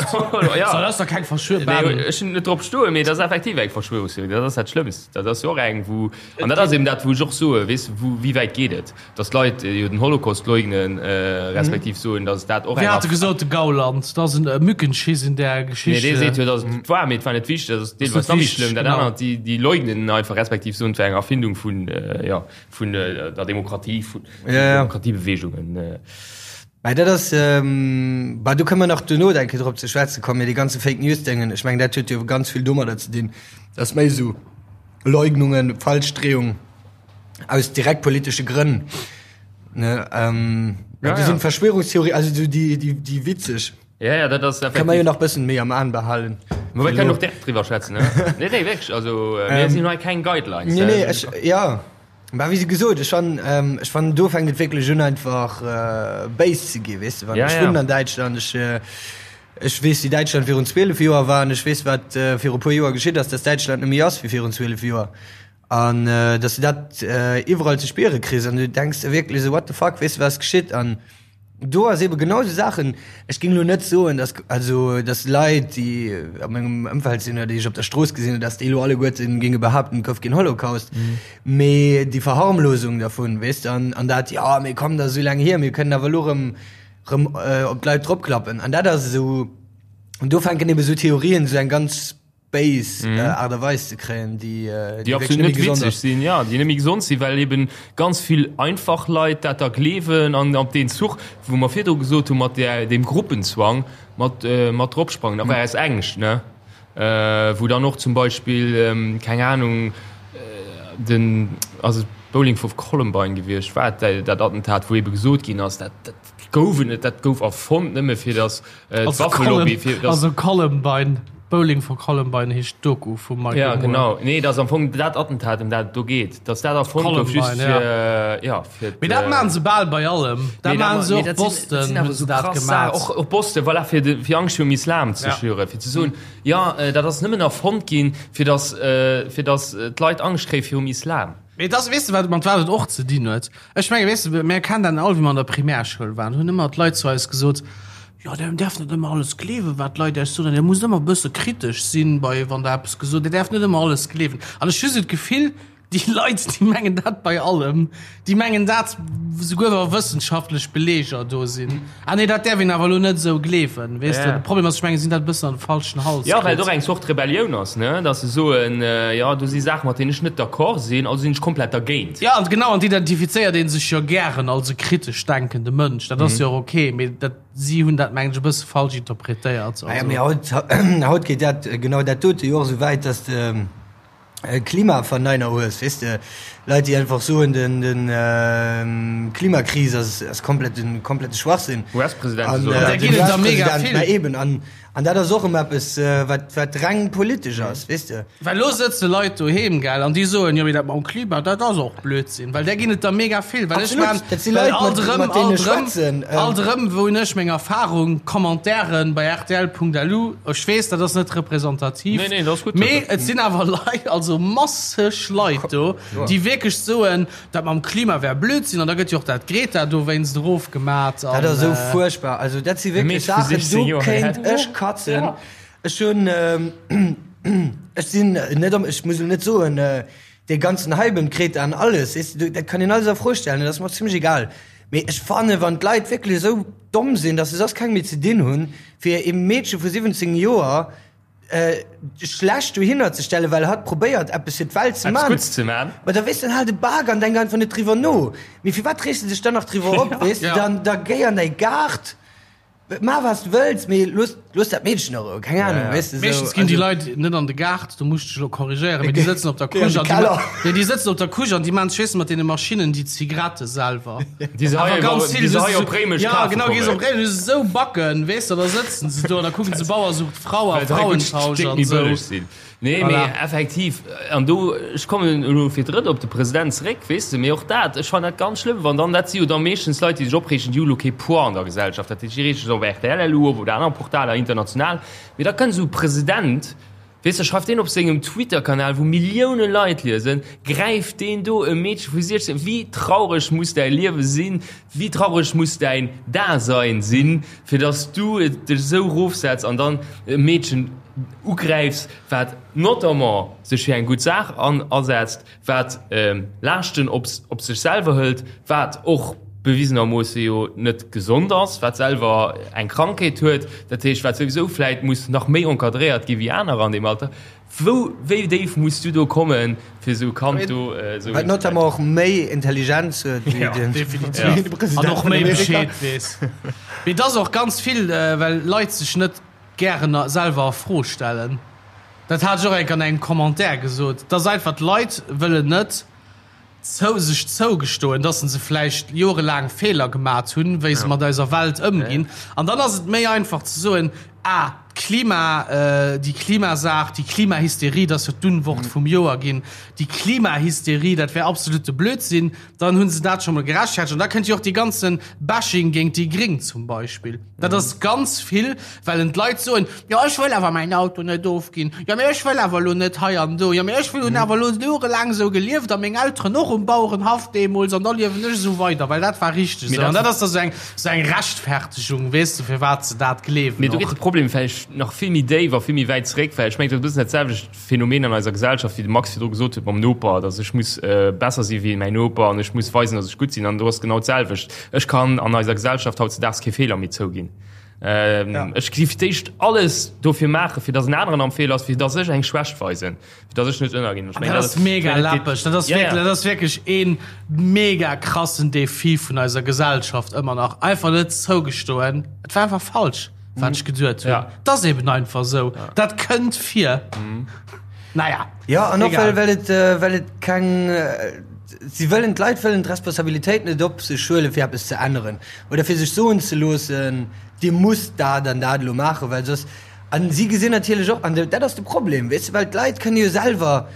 Ja. So, dat ass doch keng Verschwörung. Nee, ech hunn net drop stoen, mee dat ass effektiv eng Verschwörungstheorie, dat ass dat Schlëmmst. Dat ass jo och eng, wou, an dat ass eben dat, wou ech och soe, weess de, wou, wéi wäit geet et? Dass d'Leit jo den Holocaust leugnen, respektiv soen, dass dat och eng. Wéi hat e gesot, de Gauland, dat ass en Mückenschiss in der Geschichte. Nee, dee seet jo, dass et war, mee et war net wichteg. Dat ass deelweis nach méi schlëmm. Dat anert, déi, déi leugnen einfach, respektiv soen, et wär eng Erfindung vun, jo, vun der Demokratie, vun Demokratiebewegungen. Mä dat ass, bah, do kënne mer nach duerno eng Kéier drop ze schwätze kommen, mee dee ganze Fake News-Déngen, ech mengen, dat huet jo ganz vill domadder ze dinn, dass méi esou Leugnungen, Falschdreeung, aus direkt politesche Grënn ne ähm, Ja, ja, ja. sind Verschwörungstheorie also so die die die witzeg Ja, ja, dat ass kann man jo nach bëssen méi am An behalen Ma wir können och direkt driwwer schwätzen, ne? Nee, nee, wirklich. Also, äh, mir sinn hei keng Guidelines. Nee, nee, äh, ech, ja War wéi gesot ech fan ähm, ech fan do fänkt et wierklech un einfach äh, béis ze gi weess de wann Ja, ech ja. wunnen an Däitschland ech äh, ech weess wéi Däitschland virun 12 Joer war an ech weess wat äh, viru puer Joer geschitt ass dass Däitschland net méi ass wéi virun 12 Joer An dass du dat iwwerall ze spiere kriss an du denks der wierklech esou, what the fuck, weess de wat ass geschitt? An do ass ebe genau esou Saachen, ech géing elo net soen, dass also dass Leit, déi a mengem Ëmfeld sinn oder déi ech op der Strooss gesinn hunn, dass déi elo alleguerte géinge behaapten, et gouf keen Holocaust, mee déi Verharmlosung dervun, weess de, an an dat, jo mee komm, dat ass esou laang hier, mir kënnen awer elo erëm erëm op d'Leit dropklappen. An dat ass esou, an do fänken ebe esou Theorien esou eng ganz béis mm. äh, Art a Weis ze kréien, déi, äh, déi absolut net witzeg sinn, ja, déi net méi gesond sinn, well eben ganz vill einfach Leit dat da gleewen an op den Zuch, wou mer virdru gesot hu mat der dem Gruppenzwang mat äh, mat dropsprangen, awer mm. aus Ängscht, ne? Äh, wou dann och zum Beispill ähm, keng Ahnung äh, den also Bowling vu Columbine gewiescht war dat Attentat, wou ebe gesot ginn ass, dat, dat gouf et net, dat gouf erfonnt nëmme fir datt äh, Also d'Waffelobby fir also Columbine. Bowling for Columbine heescht d'Doku vum Michael Moore. Ja, genau. Nee, dat ass am Fong dat Attentat, ëm dat et do geet. Dass dat erfonnt gouf, just fir, ja, fir. Mee dat maachen se bal bei allem. Dat maachen se och Boston, hunn se dat gemaach. Och, och Boston, voilà, fir de, fir Angscht virum Islam ze schüren, fir ze soen, jo, dat ass nëmmen erfonnt ginn, fir dass, fir dass d'Leit Angscht kréie virum Islam. Mee et ass, weess de, wat, mat wat et och ze dinn huet? Ech menge, weess de, mir kennen dat all, wéi mer an der Primärschoul waren, hunn ëmmer d'Leit zu eis gesot, Jo, der däerft net ëmmer alles gleewen, wat d'Leit Iech soen, an Dir musst ëmmer e bësse kritesch sinn, bei, wann Der eppes gesot, Dir däerft net ëmmer alles gleewen. An ech hu sou d'Gefill, déi Leit, déi mengen dat bei allem, déi mengen dat souguer wa wëssenschaftlech Beleeger do sinn. Ah nee, dat däerf een awer elo net esou gleewen, weess de. De Problem ass, ech mengen, si hunn dat e bëssen an de falschen Hals Jo, well et och eng Zort Rebellioun ass, ne, datt se soen, jo, do si Saachen, mat deenen ech net d'accord sinn, also sinn ech komplett dergéint. Jo, an genau, an d'identifizéiert ee sech jo gären als e kritesch denkende Mënsch. Dat ass jo och ok, mee dat, si hunn dat, mengen ech, e bësse falsch interpretéiert. Ah ja, mee haut, haut geet dat, genau dat dote jo och esou wäit, datt de Klimaverneiner hues, weess de, Leit, déi einfach soen, den, den Klimakris ass, ass komplett, komplette Schwachsinn. US-Presidente soen dat. Den US-President, mä eben, an, an dat ass och ëm eppes, wat, wat reng politesch ass, weess de. Well elo sëtze Leit doheem, gell, an déi soen, jo, mee dat mam Klima, dat ass och Blödsinn, well där ginn et der mega vill. Well ech maan, dat si Leit, mat, mat deenen ech schwätzen. Alt erëm, wou hunn ech meng Erfahrung, Commentairen bei rtl.lu, ech weess, dat ass net representativ, Nee, nee, dat ass gutt. mee et sinn awer Leit, also masseg Leit do, déi wierklech soen, dat mam Klima wär Blödsinn, an da gëtt jo och dat Greta dowéinst erofgemat. Dat ass esou fuerchtbar. Also dat si wierklech Saachen, do kéint ech katzen. Ech hunn, ech sinn net am, ech muss elo net soen, dee ganzen Hype ëm d'Greta an alles, weess de, dat kann een alles a Fro stellen, dat ass mer zimmlech egal. Mee ech fannen, wann d'Leit wierklech esou domm sinn, datt se soss keng méi ze dinn hunn, fir ee Meedche vu 17 Joer schlecht dohinner ze stellen, well hatt probéiert eppes fir d'Welt ze man. Eppes Gutts ze man. Ma da weess de, dann hal de Bak an denk einfach net driwwer no. Mee firwat reegst de dech dann nach driwwer op, weess de? Dann da géi an däi Gaart. Maach wat s de wëlls, mee looss, looss dat Meedchen a Rou, keng Ahnung, weess de, sou. Meeschtens ginn déi Leit net an de Gaart, do muss ech dech elo korrigéieren, mee déi sëtzen op der Couche an déi, nee, déi sëtzen op der Couche an déi maachen sech, weess de, mat deene Maschinnen déi Zigarette selwer. Déi se hei ganz vill, déi se hei op Réimech kafe kommen. Ja, genau, gees op Réimech, hues esou Backen, weess de, da sëtzen se do an da kucken se Bauer sucht Frau a Frauentausch an esou. Nee, mee voilà. Effektiv, an do, ech kommen elo fir d'drëtt op de President zeréck, weess de, mee och dat, ech fannen dat ganz schlëmm, wann dann, dat si jo da meeschtens Leit, déi sech opreegen, déi hu elo kee Poids an der Gesellschaft, dat heescht, déi reege sech op rtl elo op oder aner Portaler international, mee da kënnt esou e President, weess de, schreift deen op sengem Twitter-Kanal, wou Millioune Leit liesen, gräift deen do e Meedche vu 16, wéi traureg muss däi Liewe sinn, wéi traureg muss däin Dasein sinn, fir dass du dech esou erofsetz an dann e Meedchen ugräifs, wat notamment sech fir eng gutt Saach an asetzt, wat Laaschten op op sech selwer hëlt, wat och bewisenermoosse jo net gesond ass, wat selwer eng Krankheet huet, dat heescht, wat souwisou vläit muss nach méi encadréiert gi wéi anerer an deem Alter. Wou, wéi déif muss du do kommen, fir esou e Kand do esou. Wat notamment och méi Intelligenz huet wéi den President an och méi Bescheed weess. Mee et ass och ganz vill, well Leit sech net gären selwer a Fro stellen. Dat hat ech och enk an engem Commentaire gesot, dass einfach d'Leit wëllen net zou sech zougestoen, dass se vläicht jorelaang Feeler gemat hunn, wéi se mat eiser Welt ëmginn. An dann ass et méi einfach ze soen, ah, d'Klima, déi Klimasaach, déi Klimahysterie, dat ass jo d'Unwort vum Joer ginn, déi Klimahysterie, dat wär absolute Blödsinn. Dann hu se dat scho mol gerechtfertegt. An da kënnt jo och dee ganze Bashing géint déi Gréng zum Beispill. Dat ass ganz vill, well en d'Leit soen, jo ech wëll awer mäin Auto net ofginn, jo mee ech wëll awer elo net hei an do, jo mee ech hunn awer elo jorelaang esou gelieft a meng Elteren och um Bauerenhaff deemools an da liewen ech esou weider, well dat war richteg esou. An dat ass da sou eng, sou eng Rechtfertegung, weess de, firwat se dat gleewen Mee do geet de Problem vläicht nach vill méi déif a vill méi wäit zeréck, well ech mengen, dat ass e bëssen dat selwecht Phänomen an eiser Gesellschaft, wéi de Max virdru gesot huet mam Noper, dass ech muss besser si wéi mäin Noper an ech muss weisen, dass ech gutt sinn. An do ass genau d'selwecht. Ech kann an eiser Gesellschaft hautzedaags kee Feeler méi zouginn. Ech gi fir d'éischt alles dofir maachen, fir dass en aneren am Feeler ass, fir dass ech eng Schwächt weisen, fir dass ech net ënnerginn. Ech mengen, dat ass mega läppeg. Dat ass wierklech, dat ass wierklech ee mega krassen Defi vun eiser Gesellschaft ëmmer nach. Einfach net zougestoen, et war einfach falsch. wat ech geduet hunn. Ja. Dat ass eben einfach esou. Ja. Dat kënnt vir. Mhm. Naja. Ja, an och well, well et, äh, well et keng äh, si wëllen d'Leit wëllen d'Responsabilitéit net op sech huelen, fir eppes ze änneren oder fir sech soen ze loossen, Dir musst dat an dat elo maachen, well soss. An si gesinn natierlech och, an dat ass de Problem, weess de, well d'Leit kënne jo selwer,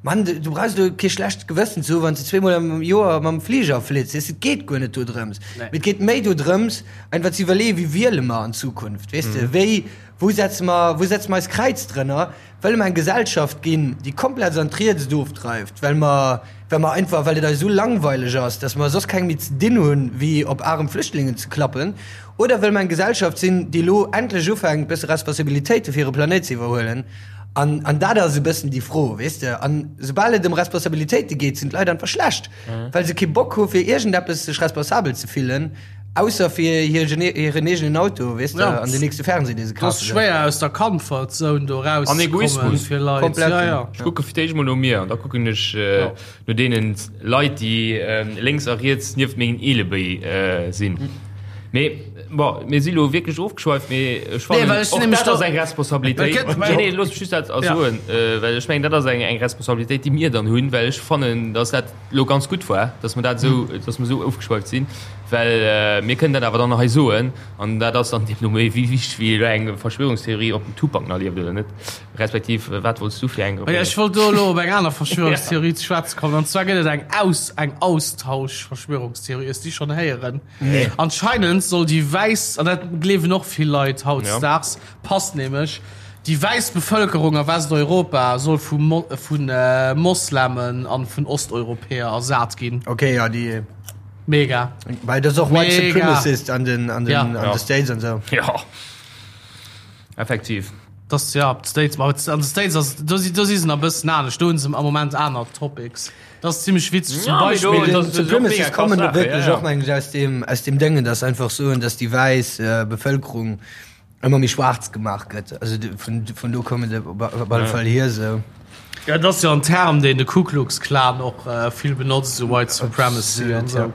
Mann, du brauchs elo kee schlecht Gewëssen ze hu wann s de zweemol am Joer mam Fliger flitt, weess de, et geet guer net dodrëms. Mee et geet méi dodrëms, einfach ze iwwerleeën, wéi wiele mer an Zukunft, weess de, wéi, wou setze mer, wou setze mer eist Kräiz drënner? Wëlle mer eng Gesellschaft ginn, déi komplett an d'Riets ofdreift, well mer, well mer einfach, well et eis esou langweileg ass, dass mer soss keng méi ze dinn hunn, wéi op arem Flüchtlingen ze klappen? Oder wëlle mer eng Gesellschaft sinn, déi elo endlech ufänkt, bësse Responsabilitéite fir hire Planéit ze iwwerhuelen? An, an dat ass e bëssen déi Fro, weess de. An soubal et ëm Responsabilitéite geet, sinn d'Leit einfach schlecht, well se kee Bock hu fir iergendeppes sech responsabel ze fillen. Ausser fir hir hiren eegenen Auto, weess de, Ja. an den nächste Fernseh, dee se Et ass kafe. schwéier aus der Comfort Zone do An rauszekommen Egoismus. fir Leit. Komplett. Ja, ja. Ech kucke fir d'éischt mol no mir an da kucken ech äh, Ja. no deenen Leit, déi äh, lénks a riets nieft mengen Eelebéi äh, sinn. Mee bon, mir si lo wierklech ofgeschweift, mee ech Nee, fannen well ech och nämlech dat ass do- eng Responsabilitéit. Well gëtt- Nee, nee, looss mech just dat Ja. soen, äh, well ech mengen, dat ass eng, eng Responsabilitéit, déi mir dann hunn, well ech fannen, dass dat lo ganz gutt war, dass mer dat esou, dass mer esou ofgeschweift sinn, well mir kënnen dat awer dann hei soen an dat ass dann deemno méi wéi wichteg wéi elo eng Verschwörungstheorie, ob den Tupac nach lieft oder net, respektiv wat wollts du fir eng? Jo, ech wollt do elo op eng aner Verschwörungstheorie ze schwätze kommen, an zwar gëtt et eng Aus, eng Austauschverschwörungstheorie. Hues déi schonn héieren? Nee. Anscheinend soll déi wäiss, an dat gleewen och vill Leit hautdesdaags, Passt nämlech, déi wäiss Bevëlkerung a Westeuropa soll vu vu Moslemen an vun Osteuropäer ersat ginn. Ok, ja, déi. Mega. Well dat ass och White Mega. Supremacist an den, an den, Ja. an Ja. de States an esou. Ja, effektiv. Das, ja, d'States, ma an de States ass, do si, do si se nach e bëssen anescht, do hunn se am Moment aner Topics. Dat ass zimmlech witzeg, zum Ja, mee do- Beispill. das- das ist och mega Supremacists krass kommen Sache, wierklech ja, ja. och, mengen ech, aus dem, aus dem Déngen, dass einfach soen, dass déi wäiss Bevëlkerung ëmmer méi schwaarz gemaach gëtt. Also vun, vun do kommen se op, op alle Fall hier esou. Ja, dat ass jo en Term, deen de Ku Klux Klan och äh, vill benotzt, esou White Supremacy an esou.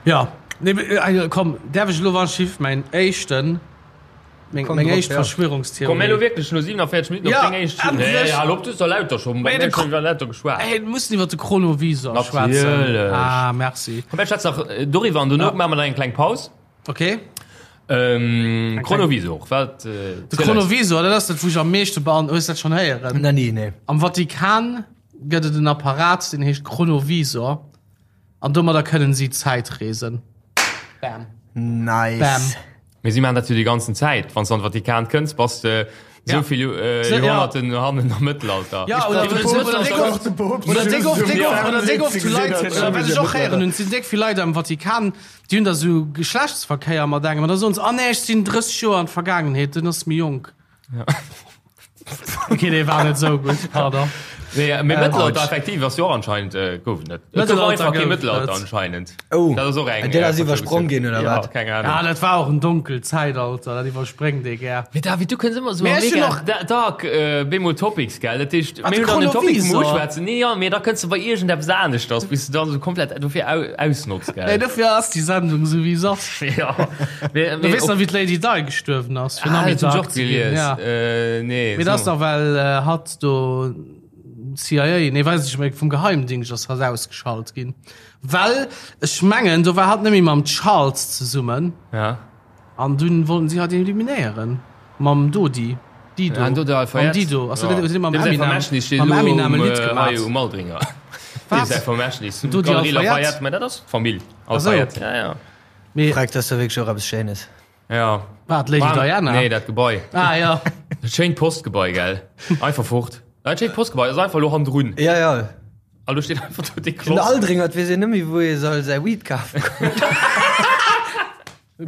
Ja, nee, äh, komm, däerf ech elo wann Schiff mäin éischten, meng, Komm meng drop, éischt ja. Verschwörungstheorie. Komm, mir elo wierklech no 47 Minutten op Ja, deng éischt. endlech! Nee, hal op, du hues der lauter scho, Mee mir de hunn iwwer lauter geschwat. Ey, mir mussen iwwer de Chronovisor schwätzen. Natierlech. Ah, merci. Komm, mir schwätzen nach äh, doriwwer an dono Ja. maache mer dann eng kleng Paus. Okay. Ähm, Chronovisor, wat? Äh, De Chronovisor, dat ass dat, wou ech am meeschte bean. Hues dat schonn héieren? Na nee, nee. Am Vatikan gëtt et en Apparat, deen heescht Chronovisor. An domadder kënnen si Zäitreesen. Bam. Nice. Bam. Mee si maachen dat jo déi ganzen Zäit. Wann s de an de Vatikan kënns, bass de Ja. esou vill äh, So, ja. Joerhonnerten hannen am Mëttelalter. Ja, oder, brauch oder, oder, de oder, Poopst. déck oft, oder déck oft, déck oft, oder déck oft zu Leit, oder wat ech och héieren hunn, et sinn déck vill Leit am Vatikan, déi hunn da sou Geschlechtsverkéier mat engem an da soen se, ah nee, ech sinn 30 Joer an d'Vergaangenheet, den ass méi jonk. Okay, dee war net sou gutt, pardon. Nee, mee Mëttelalter Ouch. effektiv ass jo och anscheinend äh, gouf et net. Et gouf Mëttelalter einfach kee gouf et Mëttelalter net. anscheinend. Oh, Dat ass och eng. dat ass äh, iwwersprong ginn, oder ja, wat? Keng Ahnung. Ja, dat war och en donkelt Zäitalter, dat iwwerspréngt ee gär. Mee David, du kënns ëmmer sou Mee ech hunn mega och- da- dark äh, bemol Topics, gell? Dat heescht, Wat, mir hunn dann den Topic Chronovisor? vum Uschwätzen. Nee, ja, mee da kënns du bei iergendeppes aneschters, bis du dann sou komplett dofir au ausnotz, Nee, gell? dofir ass déi Sendung sou wéi se ass. Ja. Mee, Du mee weess och- nach, wéi d'Lady Di gestuerwen ass, fir nach Ah, méi dat hunn ech dark och ze ginn. gelies. Ja. Äh, nee, Mee dat ass so. dach, well äh, hatt do CIA, nee, weess ech net méi, vum Geheimdingscht ass hatt ausgeschalt ginn. Well ech mengen, do war hatt net méi mam Charles zesummen. Ja. An dunn wollten si hatt eliminéieren. Mam Dodi. Dido. Ah, Dodo Mam Alfayette. Dido. Ass dat net, huet hie mam Dem säi Eminem, Vermächtnis steet mam elo Eminem e um, Lidd äh, gemaat. hei um Aldringer. Wat? Dem säi Vermächtnis. Dodi Galerie Alfayette? Lafayette, mä dat ass d'Famill Ach sou. Alfayette. Ja, ja. Mee, Freck, dat ass da wierklech och eppes Schéines. Ja. wat, Lady War- Diana? Nee, dat Gebai. Ah, ja. Dat schéint Postgebai, gell? Einfach fort. Dat schéint Postgebai ass einfach elo hannendrun. Ja, ja. An do steet einfach do dee Den Kloss. Aldringer, et weess een net méi, wou ee soll säi Weed kafe goen.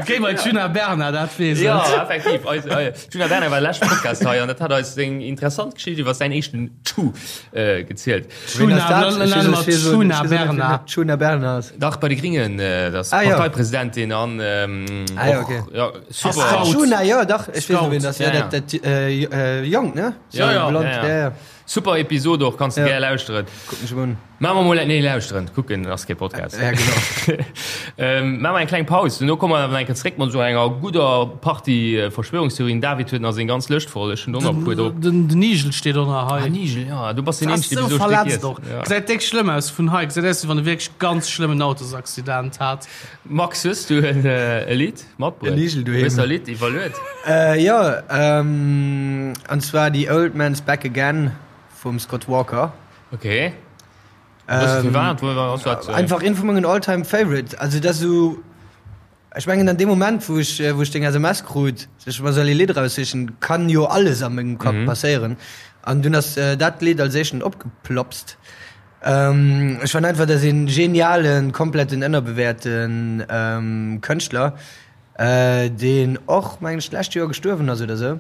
Géi bei d'Djuna Bernard, dat weess et. Ja, effektiv. Eis, äh, Djuna Bernard war leschte Podcast hei an dat hat eis seng interessant Geschicht iwwer säin éischten Tschu äh, gezielt. Ween ass dat? Djuna, Ech nenne mer weess- ech weess- Djuna ech weess net, wien Bernard. Djuna Bernard ass. Dach, bei de Gringen, äh, dat ass Ah, ja. Parteipresidentin an ähm, Ah, ja, och, okay. ja, super. Scout. Djuna, ja, dach, ech weess Scout. wien dat ass. Ja, Ja, ja. dat, dat äh, äh, Jonk, ne? Ja, ja, Blond, ja, ja. ja, ja. Super Episode och, kanns du Ja. gär lauschteren. Kucken ech mol un. Maache mer mol, nee lauschteren, kucken ass kee Podcast. Ja, genau. Ähm, maache mer eng kleng Paus, duerno komme mer awer nach eng Kéier zréck mat esou enger gudder Partie Verschwörungstheorien. David huet nach seng ganz Lëscht voll, ech hunn och nach e puer drop. Den, den Igel steet och nach hei. Ah, Igel, ja, du bass deen Ass Eenzegen, sou dee bis elo Stéck verletzt iess. och. Ja. Gesäit déck schlëmm aus vun hei. Gesäit aus, wéi wann e wierklech ganz schlëmmen Autosaccident hat. Max, hues du en e Lidd matbruet? En Igel doheem. Hues der e Lidd iwwerluet? Äh, jo, ähm, an zwar The Old Man's Back Again vum Scott Walker. Okay. Ähm, Firwat? Wo ass dat? Äh, einfach een vu mengen all-time favorite. Also dat so ech mengen an dem Moment wou ech äh, wou ech deng SMS krut, sech mer soll e Lidd raussichen, kann jo alles a mengem Kapp mhm. passéieren. An dunn ass äh, dat Lidd als éischten opgeplopst. Ähm, ech fand einfach, dat een genialen, kompletten ënnerbewäerten ähm, Kënschtler, äh, deen och mengen ech d'lescht Joer gestuerwen ass oder sou.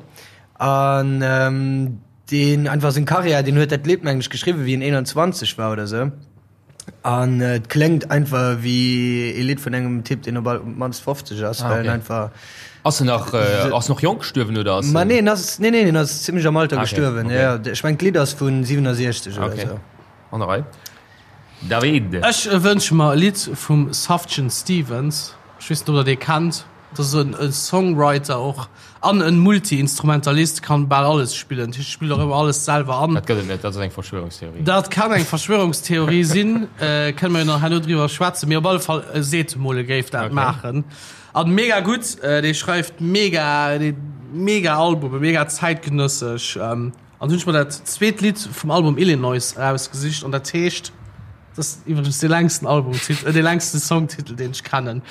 An ähm, Deen einfach seng Karriär, deen huet dat Lidd mengen ech geschriwwen wéi en 21 war oder sou an et kléngt einfach wéi ee Lidd vun engem Typ deen op all mannst 50 ass, well en einfach. Ass en nach, ass en och jonk gestuerwen oder ass en? Ma nee, en ass, nee nee, en ass zimmlech am Alter Ah, okay, gestuerwen, okay. jo. Ech mengen d'Lidd ass vun 67 oder Okay. sou. An der Rei. David. Ech wënsche mer e Lidd vum Sufjan Stevens. Ech weess net ob der dee kennt. Dat ass e Songwriter och an e Multi-Instrumentalist, kann bal alles spillen. Dat heescht, spillt och ëmmer alles selwer an. Dat gëtt et net, dat ass eng Verschwörungstheorie. Dat kann eng Verschwörungstheorie sinn, kënne mer jo nach herno driwwer schwätzen, mee op alle Fall, e seet emol, e géif dat maachen. An mega gutt, dee schreift mega, mega Albumen, mega zäitgenëssesch. An hunn ech mer dat zweet Lidd vum Album Illinois erausgesicht an dat heescht. Dat ass iwwregens dee längsten Albumtitel, äh, dee längsten Songtitel, deen ech kennen.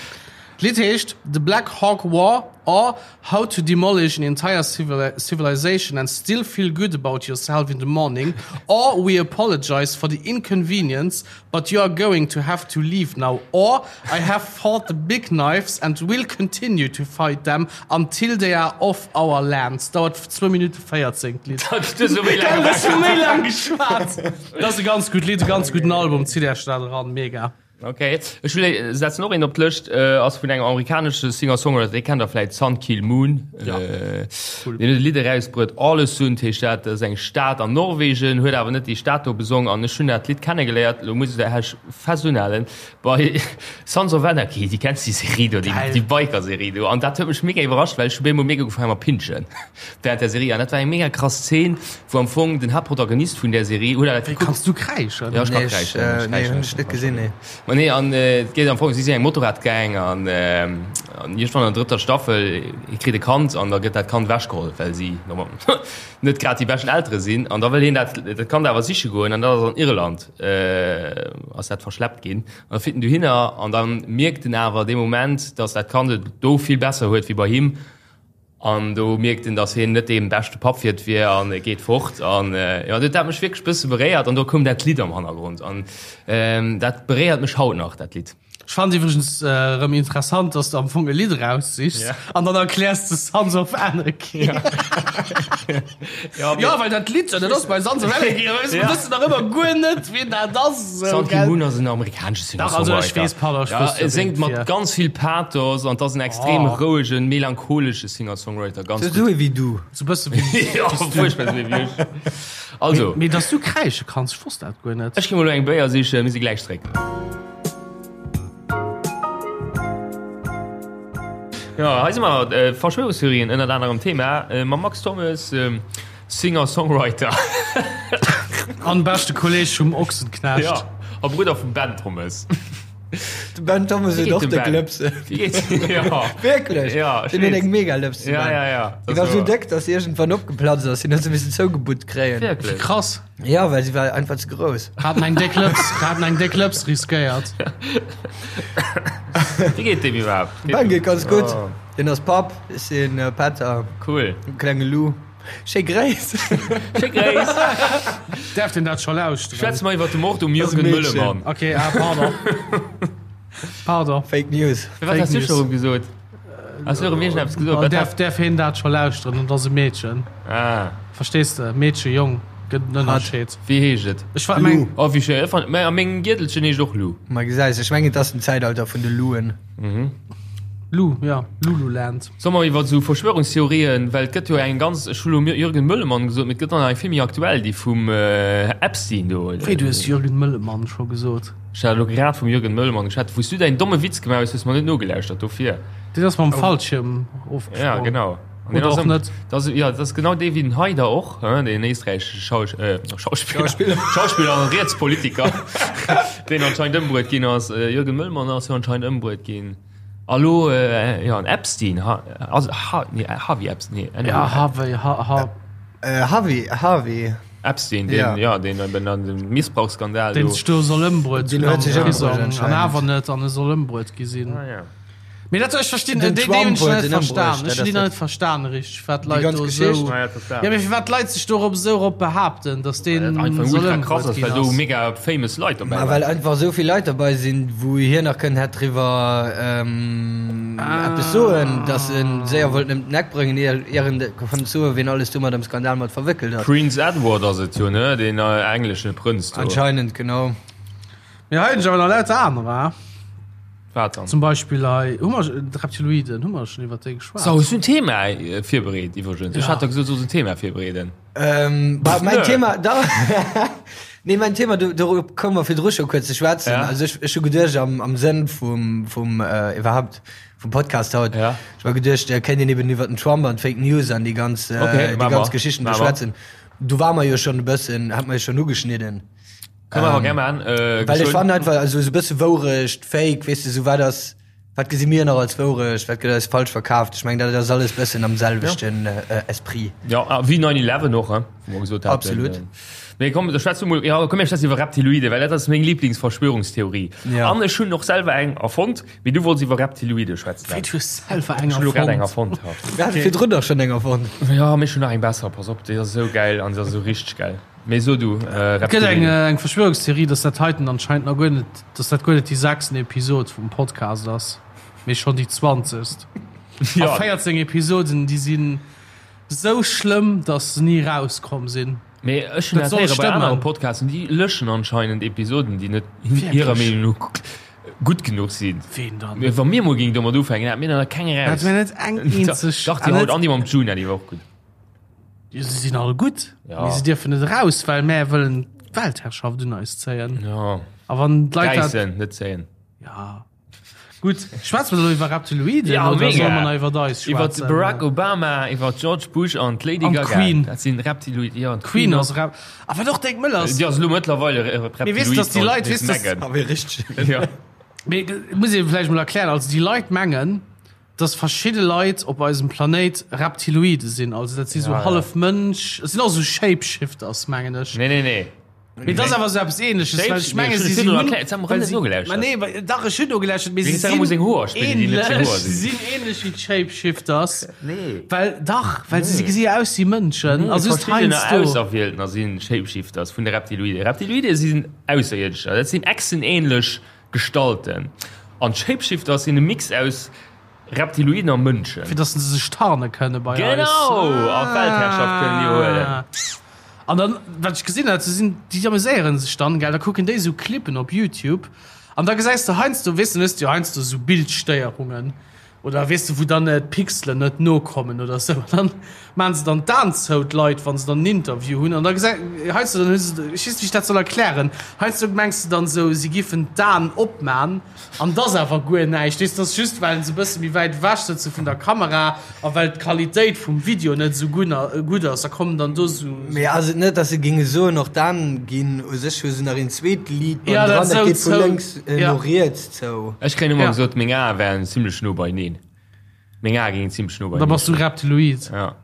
D'Lidd heescht The Black Hawk War or How to Demolish an Entire Civilization and Still Feel Good About Yourself in the Morning or We Apologize for the Inconvenience But You Are Going to Have to Leave Now or I Have Fought the Big Knives and Will Continue to Fight Them Until They Are Off Our Lands. Dauert zwou Minutte 14, d'Lidd. Dat hues du méi laang Ech hu méi laang geschwat. Dat ass e ganz gutt Lidd, e ganz gudden Album. Zitt Iech dat eran, mega. Ok, ech will setzen och een op d'Lëscht, ass vun engem amerikanesche Singer-Songwriter, dee kennt der vläit, Sun Kil Moon. Ja, cool. Deen huet e Lidd erausbruet, Ålesund heescht dat, dat ass eng Stad an Norwegen, huet awer net déi Stad do besong an ech hunn dat Lidd kennegeléiert, elo muss ech fest unhalen, Bei Sons of Anarchy, déi kenns déi Serie do, déi, déi Biker-Serie do. An dat huet mech mega iwwerrascht, well ech hu bemol mega ugefaangen mat pinschen während der Serie. An dat war eng mega krass Szene, wou am Fong den Haaptprotagonist vun där Serie, huet dat Wéi kanns du kräischen? Ja, ech kann Nee, ech, kräischen, ech nee, kräischen hunn ech net gesinn, nee. Ma nee, an et geet am Fong, si sinn eng Motorradgang an an iergendwann an der drëtter Staffel, hie kritt e Kand an da gëtt dat Kand ewechgeholl, well si normal net grad déi beschten Eltere sinn. An da wëll hien dat dat Kand awer siche goen an dat ass an Irland. ass dat verschleppt ginn an da fiert en dohinner an dann mierkt en awer dee Moment, dass dat Kand et do vill besser huet wéi bei him an do mierkt en, dass hien net dee beschte Papp fir et wier an e geet fort an jo dat hat mech wierklech bësse beréiert an do koum dat Lidd am Hannergrond an dat beréiert mech haut nach dat Lidd. Ech fannen et iwwregens erëm interessant, dass de am Fong e Lidd eraussichs Ja. an dann erkläers de Sons of Anarchy. Ja, Ja, well dat Lidd, dat ass bei Sons of Anarchy, a mir Ja. wëssen nach ëmmer guer net, wien dat ass. Esou, Sun Kil gell? Moon ass en amerikanesche Dach, also ech Singer-Songwriter. weess, pardon, ech Ja, wosst e jo, séngt wien et mat wier. ganz vill Pathos an 't ass en extrem Oh. rouegen, melancholesche Singer-Songwriter. Ganz Sou gutt. ee wéi du. Sou bësse wéi Ja, fuerchtbar sou ee wéi ech. Also, Mee dass du kräische kanns, ech wosst dat guer net. ech gi mol elo eng Béier sichen, mir si gläich zréck. Jo, hei si mer, Verschwörungstheorien ënnert anerem Thema, mam Max Thommes, Singer-Songwriter. An beschte Kolleg vum Ochsenknecht. Jo, a Brudder vum Ben Thommes. De Ben Thommes huet och déck Lëpsen. Wéi geet et? Jo. Wierklech? Jo, ech Deen huet weess. eng mega Lëps, de Ja, Ben. ja, ja. Déi war sou déck, dass se iergendwann opgeplatzt ass. Hien huet se missen zougebutt kréien. Wierklech? Krass. Ja, well si war einfach ze grouss. Haten eng déck Lëps, haten eng déck Lëps riskéiert. Wéi geet deem iwwerhaapt? Ben geet ganz gutt. Oh. Deen ass Papp, ech sinn Pätter. Cool. Klenge Lou. Schéi Gréiss. Schéi Gréiss. Däerf deen dat scho lauschteren? Schwätze mer iwwer de Mord um Das Jürgen Mädchen. Möllemann. Okay, ah, pardon. Pardon. Fake News. Wat has du News. scho erëm gesot? Has du erëm iergendeppes gesot? An Wat däerf, hat- däerf hien dat scho lauschteren? Und ass e Meedchen. Ah, Verstees de? Meedchen, Jong, gëtt en Ënnerscheed. wéi heescht et? Ech war meng. Oh, wéi schéin. Ech fand, mä a mengem Giertelchen heescht och Lou. Ma gesäis, ech mengen, et ass den Zäitalter vun de Louen. Lu, ja, Lululand. Solle mer iwwer esou Verschwörungstheorien, well et gëtt jo eng ganz, ech hu lo Jürgen Möllemann gesot, mee et gëtt och nach eng vill méi aktuell, déi vum Epstein do. Wéi, du hues Jürgen Möllemann scho gesot? Ech hat elo grad vum Jürgen Möllemann geschwat, wou s du däin domme Witz gemaach hues, hues mer net nogelauschtert, dofir. Deen ass mam Fallschierm ofgesprongen. Ja, genau. An deen Oder ass och ëm, net. dat ass, ja, dat ass genau dee wéi den Haider och, hein, deen éisträichesche Schausch, äh, Schauspiller, Schauspiller. Schauspiller an Rietspolitiker, deen anscheinend ëmbruet ginn ass. Jürgen Möllemann ass jo anscheinend ëmbruet ginn. A lo, jo, an Epstein, ha, ass, ha, nee, Harvey Epstein, nee, anyway. Ja, Harvey, ha, ha. Äh, Harvey, Harvey. Epstein, deen, ja, ja deen eben an dem Missbrauchsskandal Deen sech do soll ëmbruet Deen hunn huet am sech ëmbruet Prisong an anscheinend. awer net, an e soll ëmbruet gi sinn. Ah, ja. Mee dat, ech verstinn, Den déi, déi hunn Trump ech huet net en verstan. ëmbruecht, Ech dat hunn déi ass nach dat. net verstan richteg, wat Déi d'Leit ganz do Geschicht. esou. Ah, ja, dat war. Ja, mee firwat d'Leit sech dorop esou erop behaapten, datt Well deen dat einfach soll ultra krass ëmbruet ass, ginn well do ass. mega famous Leit dobäi Ma well waren. einfach esou vill Leit derbei sinn, wou hien nach kënnt hätt driwwer ähm, eppes soen, datt en séier wollt ëm den Eck bréngen, ier ier en konnt soen, wien alles domat am Skandal mat verwéckelt ass. Prince Edward ass et jo, ne? Deen engleschen Prënz do. Anscheinend, genau. Mee hei hunn ech awer nach lauter anerer. Wat dann? Zum Beispill hei, hu mer, d'Reptiloiden, hu mer schonn iwwer déi geschwat? So, hues du en Thema virbereet iwwregens? Ech Ja. hat der gesot, du solls en Thema virbereeden. Ähm, bah, mein Nö. Thema, da, nee, mein Thema, do, dorop komme mer virdru scho kuerz ze schwätzen. Ja. Also ech, ech hu geduecht am, am Sënn vum, vum, äh, iwwerhaupt vum Podcast haut, Ja. ech war geduecht, äh, kéint een eben iwwer den Trump an d'Fake News an déi ganz, äh, Okay, déi mach ganz mer. Geschichten do Mach mer. schwätzen. Do war mer jo schonn e bëssen, hat mer jo schonn ugeschnidden. Kënne mer awer gär maachen. Äh, Well ech geschwënn. fannen einfach, also esou e bësse Wourecht, Fake, weess de, esou wat ass, wat gesi mir nach als Wourecht, wat gëtt eis falsch verkaaft? Ech mengen, dat ass alles bëssen am selwechten Esprit. Ja, a wéi 9/11 och, hein, wou mer gesot haten. Absolut. Mee komm, da schwätze mol, ja, komm mir schwätzen iwwer Reptiloide, well dat ass meng Lieblingsverschwörungstheorie. Ja. An ech hunn och selwer eng erfonnt, mee du wollts iwwer Reptiloide schwätzen. Wéi, du hues selwer eng Ech hunn elo grad eng erfonnt? erfonnt, ja. Mir hate virdrun dach schonn eng erfonnt. Ja, mee ech hunn nach eng besser, pass op, déi ass esou gäil an se ass esou richteg gäil. Mee so du, Et gëtt eng eng Verschwörungstheorie, dass dat heiten anscheinend nach guer net, dass dat guer net déi sechsten Episod vum Podcast ass, mee schonn déi zwanzegst. Ja. A 14 Episoden, déi sinn sou schlëmm, dass se ni rauskomm sinn. Mee ech hunn Dat dat soll héiere bei anere stëmmen. Podcasten, déi löschen anscheinend Episoden, déi net hirer Wierklech? Meenung no gutt genuch sinn. Ween dann? Mee wa mir mol géingen domat ufänken, hätte mir der keng Hätte eraus. mir net eng eenzeg. Dach, déi haut an déi mam Juna, déi war och gutt. Jo, se sinn all gutt, Ja. mee se dierfen net eraus, well mär wëllen d'Weltherrschaft un eis zéien. Ja. A wann d'Leit dat. Räissen, net zéien. Ja. Gutt, schwätze mer elo iwwer Reptiloiden Ja, oder mega. solle mer nach iwwer eis Iwwer schwätzen? Barack Obama, iwwer George Bush an d'Lady An Gaga. d'Queen. Dat sinn Reptiloiden. Ja, an Queen ass Rep. A wat och déck mëll ass. Déi ass elo mëttlerweil e Reptiloid. Mee weess, dass déi Leit, weess, dass- Meghan. Ah, wéi richteg. Ja. Mee muss ee vläicht mol erklären, also déi Leit mengen, dass verschidde Leit op eisem Planéit Reptiloide sinn, also dat si sou Ja, ja. hallef Mënsch, et sinn och sou Shapeshifters, mengen ech. Nee, nee, nee. Mee dat ass awer sou eppes Ähnleches, well ech menge si si hunn, well si, ma nee, well, dach ech hunn nogelauschtert, mee si sinn ähnlech, si sinn ähnlech wéi d'Shapeshifters, well dach, well si gesi jo aus wéi Mënschen, a just Verschiddener heiansdo. Auserwieltener si Shapeshifters vun de Reptiloiden. Reptiloide sinn Ausserierdescher, dat sinn echsenähnlech Gestalten. An d'Shapeshifters sinn e Mix aus Reptiloiden a Mënschen. Fir dass se sech tarne kënne bei eis. Genau! A d'Weltherrschaft kënnen iwwerhuelen. An dann, wat ech gesinn hat, se sinn, déi ameséieren sech dann, gell, da kucken déi esou Clippen op Youtube an da gesäis de heiansdo, weess de, dann hues de jo heiansdo esou Bildstéierungen oder weess de, wou dann d'Pixelen net nokommen oder esou an dann maachen se dann d'Aen zou, d'Leit, wa se dann en Interview hunn an da gesäi, heiansdo dann hu se, ech weess net, wéi ech dat soll erklären, heiansdo mengs de dann esou, si giffen d'Aen opman An 't ass awer guer näischt, weess, 't ass just well se e bësse méi wäit ewech sëtze vun der Kamera a well d'Qualitéit vum Video net esou gutt ass, da kommen dann do esou. Mee ass et net, dass se géinge soen, och d'Aen ginn u sech, hu se nach een zweet Liit Ja, bannendran, dat dat sou geet vu zou, lénks ja. no riets zou. Ech kréien ëmmer Ja. gesot, meng Ae wären zimlech no beineen. Meng Ae géingen zimlech no Da beineen bass du stoen. Reptiloid. Ja.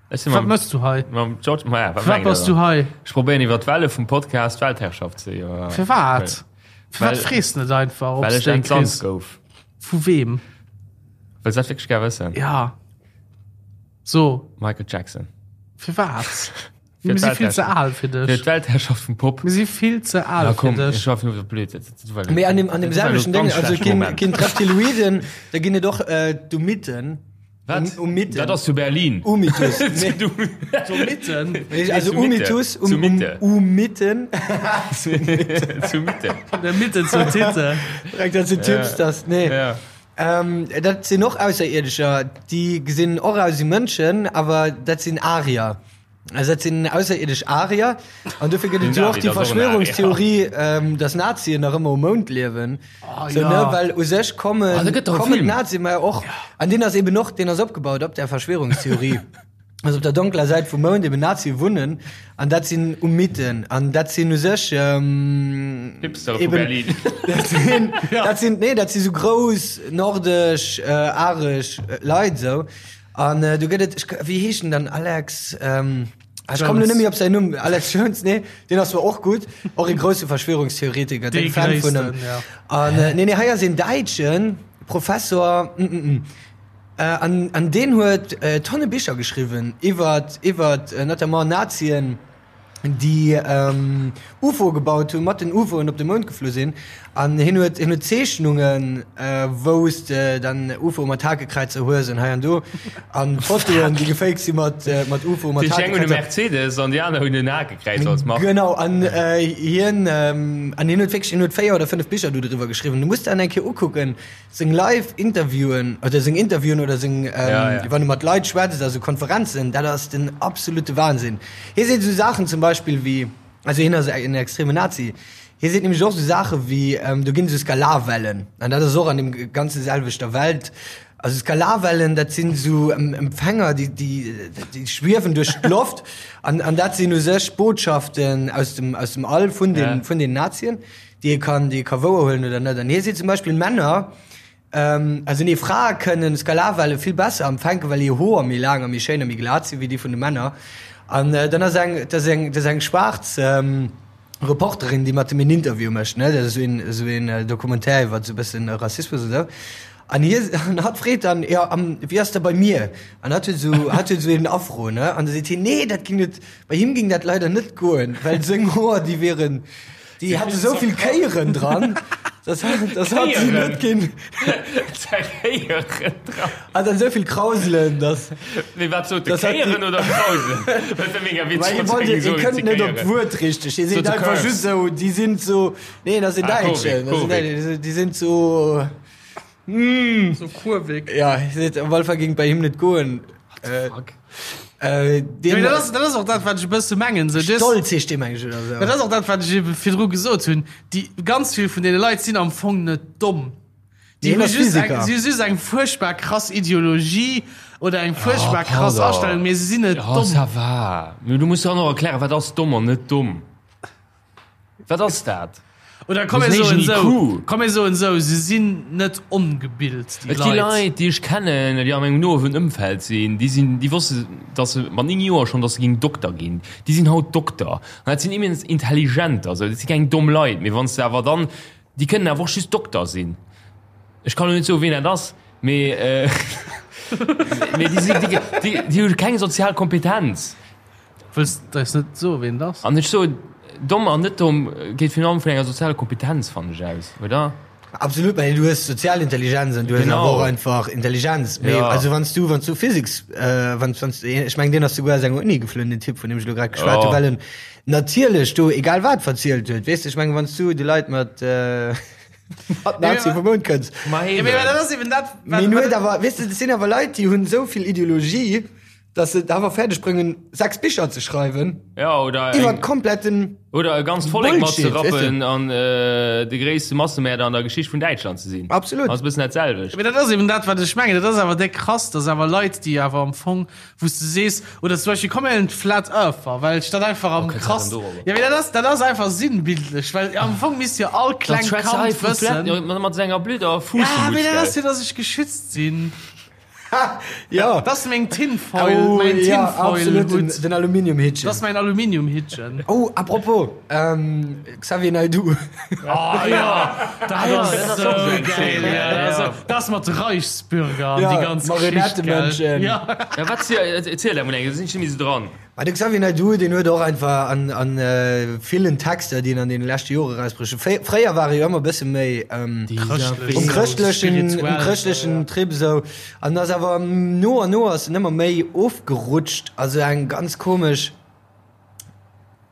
Ech sinn Wat mam, mëss du hei? mam George, ma ja, wat Firwat mengt der bass du dann? hei? Ech probéieren iwwer d'Welle vum Podcast d'Weltherrschaft ze iwwer. Firwat? Firwat Well- frees de net einfach, ob Well s ech de eng entsandt kriss? gouf. Vu weem? Wëlls dat wierklech gär wëssen? Ja. So, Michael Jackson. firwat? Fir Mir si vill ze d'Weltherrschaft. al fir Fir dech. d'Weltherrschaft vum Pop. Mir si vill ze al Ja, fir komm, dech. ech war fir blöd. Dat- dat war- Mee an dem, an dem dat war selwechten elo Ding, ganz also schlecht ginn, Moment. ginn d'Reptiloiden, da ginn et och äh, d'Umitten. Wat? Um, Umitten. Dat ass zu Berlin. Umitus. Nee, Zu Mitten? also zu Mitte. Umitus, um, Zu um, Mitte. Umitten. zu Mitte. Von der Mitte zur Titte. Direkt dazu Tipps, das, nee. Ja. Ähm, dat sinn och Ausserierdescher, déi gesinn och aus wéi Mënschen, awer dat sinn Arier. Also dat sinn ausserierdesch Arier. An dofir gëtt et jo och déi Verschwörungstheorie, ähm, dass Nazien nach ëmmer um Mound liewen. Oh, so, ja. ne, well u sech kommen, Ah, da gëtt doch e kommen Film. d'Nazien, ma och, an deen ass eben och, deen ass opgebaut op der Verschwörungstheorie. Also op der donkler Säit vum Mound eben Nazie wunnen an dat sinn Umiten an dat sinn u sech ähm, Hipster vu eben- Berlin. Dat sinn, dat sinn, nee, dat si sou grouss nordesch, äh, aresch äh, Leit sou. An äh, du gëtt et, ech, wéi heescht en dann Alex, ähm, ah, ech komm lo Jones. net méi op säin Numm, Alex Jones, nee, deen ass zwar och gutt, och e grousse Verschwörungstheoretiker, Dee déck Fan vun gréissten, em. ja. An äh, nee, nee, hei ass een Däitschen Professor, mm, mm, mm. An, an deen huet Tonne Bicher geschriwwen iwwer, iwwer notamment Nazien, déi UFOe gebaut hunn, mat den UFOen op de Mound geflu sinn. An hien huet, hien huet Zeechnungen, wou s de dann UFOe mat Hakekräizer hues an hei an do. An Fotoen, déi gefaked si mat, mat UFOe mat Déi eng hunn e Hakekräizer. Mercedes an déi aner hunn en Hakekräiz als Mark. Genau, an hien, an hien huet wierklech, hien huet 4 oder 5 Bicher do driwwer geschriwwen. Du muss der an eng Kéier ukucken. Seng live Interviewen oder seng Interviewen oder seng ähm, ja, ja. wann e mat Leit schwätzt, also Konferenzen, dat ass den absolute Wahnsinn. Hie seet esou Saachen zum Beispill wéi, also hien ass en extreme Nazi, hie seet nämlech och esou Saache wéi, ähm, do ginn esou Skalarwellen, an dat ass och an dem ganze selwechter Welt, also Skalarwellen, dat sinn esou Empfänger, déi, déi, déi schwiewen duerch d'Loft an, an dat sinn u sech Botschaften aus dem, aus dem All vun den, Ja. vun den Nazien. déi ee kann, déi ee ka wouerhuelen oder net. An hie seet zum Beispill, Männer, also nee, Frae kënnen Skalarwelle vill besser empfänken, well hir Hoer méi laang a méi schéin a méi glat sinn, wéi déi vun de Männer. An dann ass eng, dat ass eng, dat ass eng schwaarz Reporterin, déi mat em een Interview mécht, ne, dat ass esou een, esou een Documentaire iwwer esou e bëssen Rassismus an esou. An hie, an hatt freet dann, jo, an wéi ass dat bei mir? An hatt huet esou, hatt huet esou een Afro, ne? An da seet hien, nee, dat ging net, bei him ging dat leider net goen, well seng Hoer, déi wieren, Déi hatte sou vill Kéieren dran, dass dass hat si net ginn. Kéieren dran. Hat dann sou vill Krauselen, dass. Mee wat sot de? Dass hat déi- Kéieren oder Krauselen? Dat wär mega Well witzeg, hie wann se wollt, géing hie soen, kënnt ze net op Kéieren. d'Wuert richteg. Hie Sot seet de einfach Curves. just sou, déi sinn sou, nee, dat ass en Ah, Däitschen, Kurvig, dat ass en Kurvig. Däitschen, déi sinn sou. So kurvig. Ja, hie seet, op alle Fall géing et bei him net goen. Äh, Fuck. äh, Ja, deen, mee dat ass, dat ass och dat, wat ech e bësse mengen. So, des, Stolz heescht dee, meng ech, oder sou. dat ass och dat, wat ech ebe virdru gesot hunn. Déi ganz vill vun deene Leit sinn am Fong net domm. Déi Deen hu ass just eng, Physiker. si hu just eng fuerchtbar krass Ideologie oder eng fuerchtbar Oh, krass pardon. Astellung, mee se sinn net Ja, domm. ça va. Mee du muss dann och erklären, wat ass domm an net domm? Wat ass dat? Oder komm mir soen esou, komm mir soen esou, se sinn net ongebilt, déi Et gi Leit. Leit, déi ech kennen, déi a mengem noen Ëmfeld sinn, déi sinn, déi wosste, datt se mat 9 Joer schonn, datt se géing Dokter ginn. Déi sinn haut Dokter. An dat sinn immens intelligenter, esou, dat si keng domm Leit. Mee wann s de awer dann, déi kënnen awer och just Dokter sinn. Ech kann elo net soen, wien dat ass, mee, mee déi sinn, déi, déi, déi hu keng sozial Kompetenz. Wëlls de eis net soen, ween et ass? An ech soen, domm an net domm geet virun allem vun enger sozialer Kompetenz, fannen ech, aus, oder? Absolut, well du hues sozial Intelligenz an du hues Genau. awer och einfach Intelligenz. Mee Ja. also wann s du, wann s du Physiks, äh, wann, wann s, ech mengen, deen ass souguer aus enger Uni geflunn, den Typ, vun deem ech elo grad geschwat Ja. hu, well en natierlech do egal wat verzielt huet. Weess de, ech mengen, wann s du de Leit mat, äh, mat Nazi vum Mound kënns. Ma Ja, mee eben. dat ass eben dat, wat, Mee en huet wat, awer, weess de, dat sinn awer Leit, déi hunn esou vill Ideologie, Dass se et awer fäerdeg bréngen, 6 Bicher ze schreiwen Ja, oder iwwer eng, kompletten oder e ganzt Vollek mat ze Bullshit, weess rappen an äh, de gréisste Massemäerder an der Geschicht vun Däitschland ze sinn. Absolut. Ass e bëssen dat selwecht. Mee dat ass eben dat, wat ech mengen. Dat ass awer déck krass, dass awer Leit, déi awer am Fong, wou s de sees, oder zum Beispill, komm mir huelen d'Flat Earther, well ech dat einfach am Oh, kënnt dat krass, dann dorobber? ja, mee dat ass, dat ass einfach sinnbildlech, well am Fong misst jo all Dann klengt schwätzt hei Kand vu Flat, wëssen, ja, mat senger blöder ja, mee dat ass Fuussmutz. jo, dass ech geschützt sinn. Ja. Dat ass meng Tinfoil, Oh, mein ja, absolut, den, Tinfoil-Hut. den Aluminiumhittchen. Dat ass mein Aluminiumhittchen. Oh, apropos, ähm, Xavier Naidoo. Oh ja, dat ass dat ass och sou sou geil. Ja, ja. dat ass- dat ass mat Reichsbürger an Ja, déi ganz Geschicht, gell? Marionettemenschen. Ja. Ja, wat si, erziel dat mol eng, da sinn ech net méi sou dran. Ma de Xavier Naidoo, deen huet och einfach an, an villen Texter, déi en an deene leschte Jore erausbruecht huet, fréier war e jo ëmmer e bësse méi um chrëschtlechen, um chrëschtlechen Trip esou, an ass awer no an no ass en ëmmer méi ofgerutscht, also eng ganz komesch,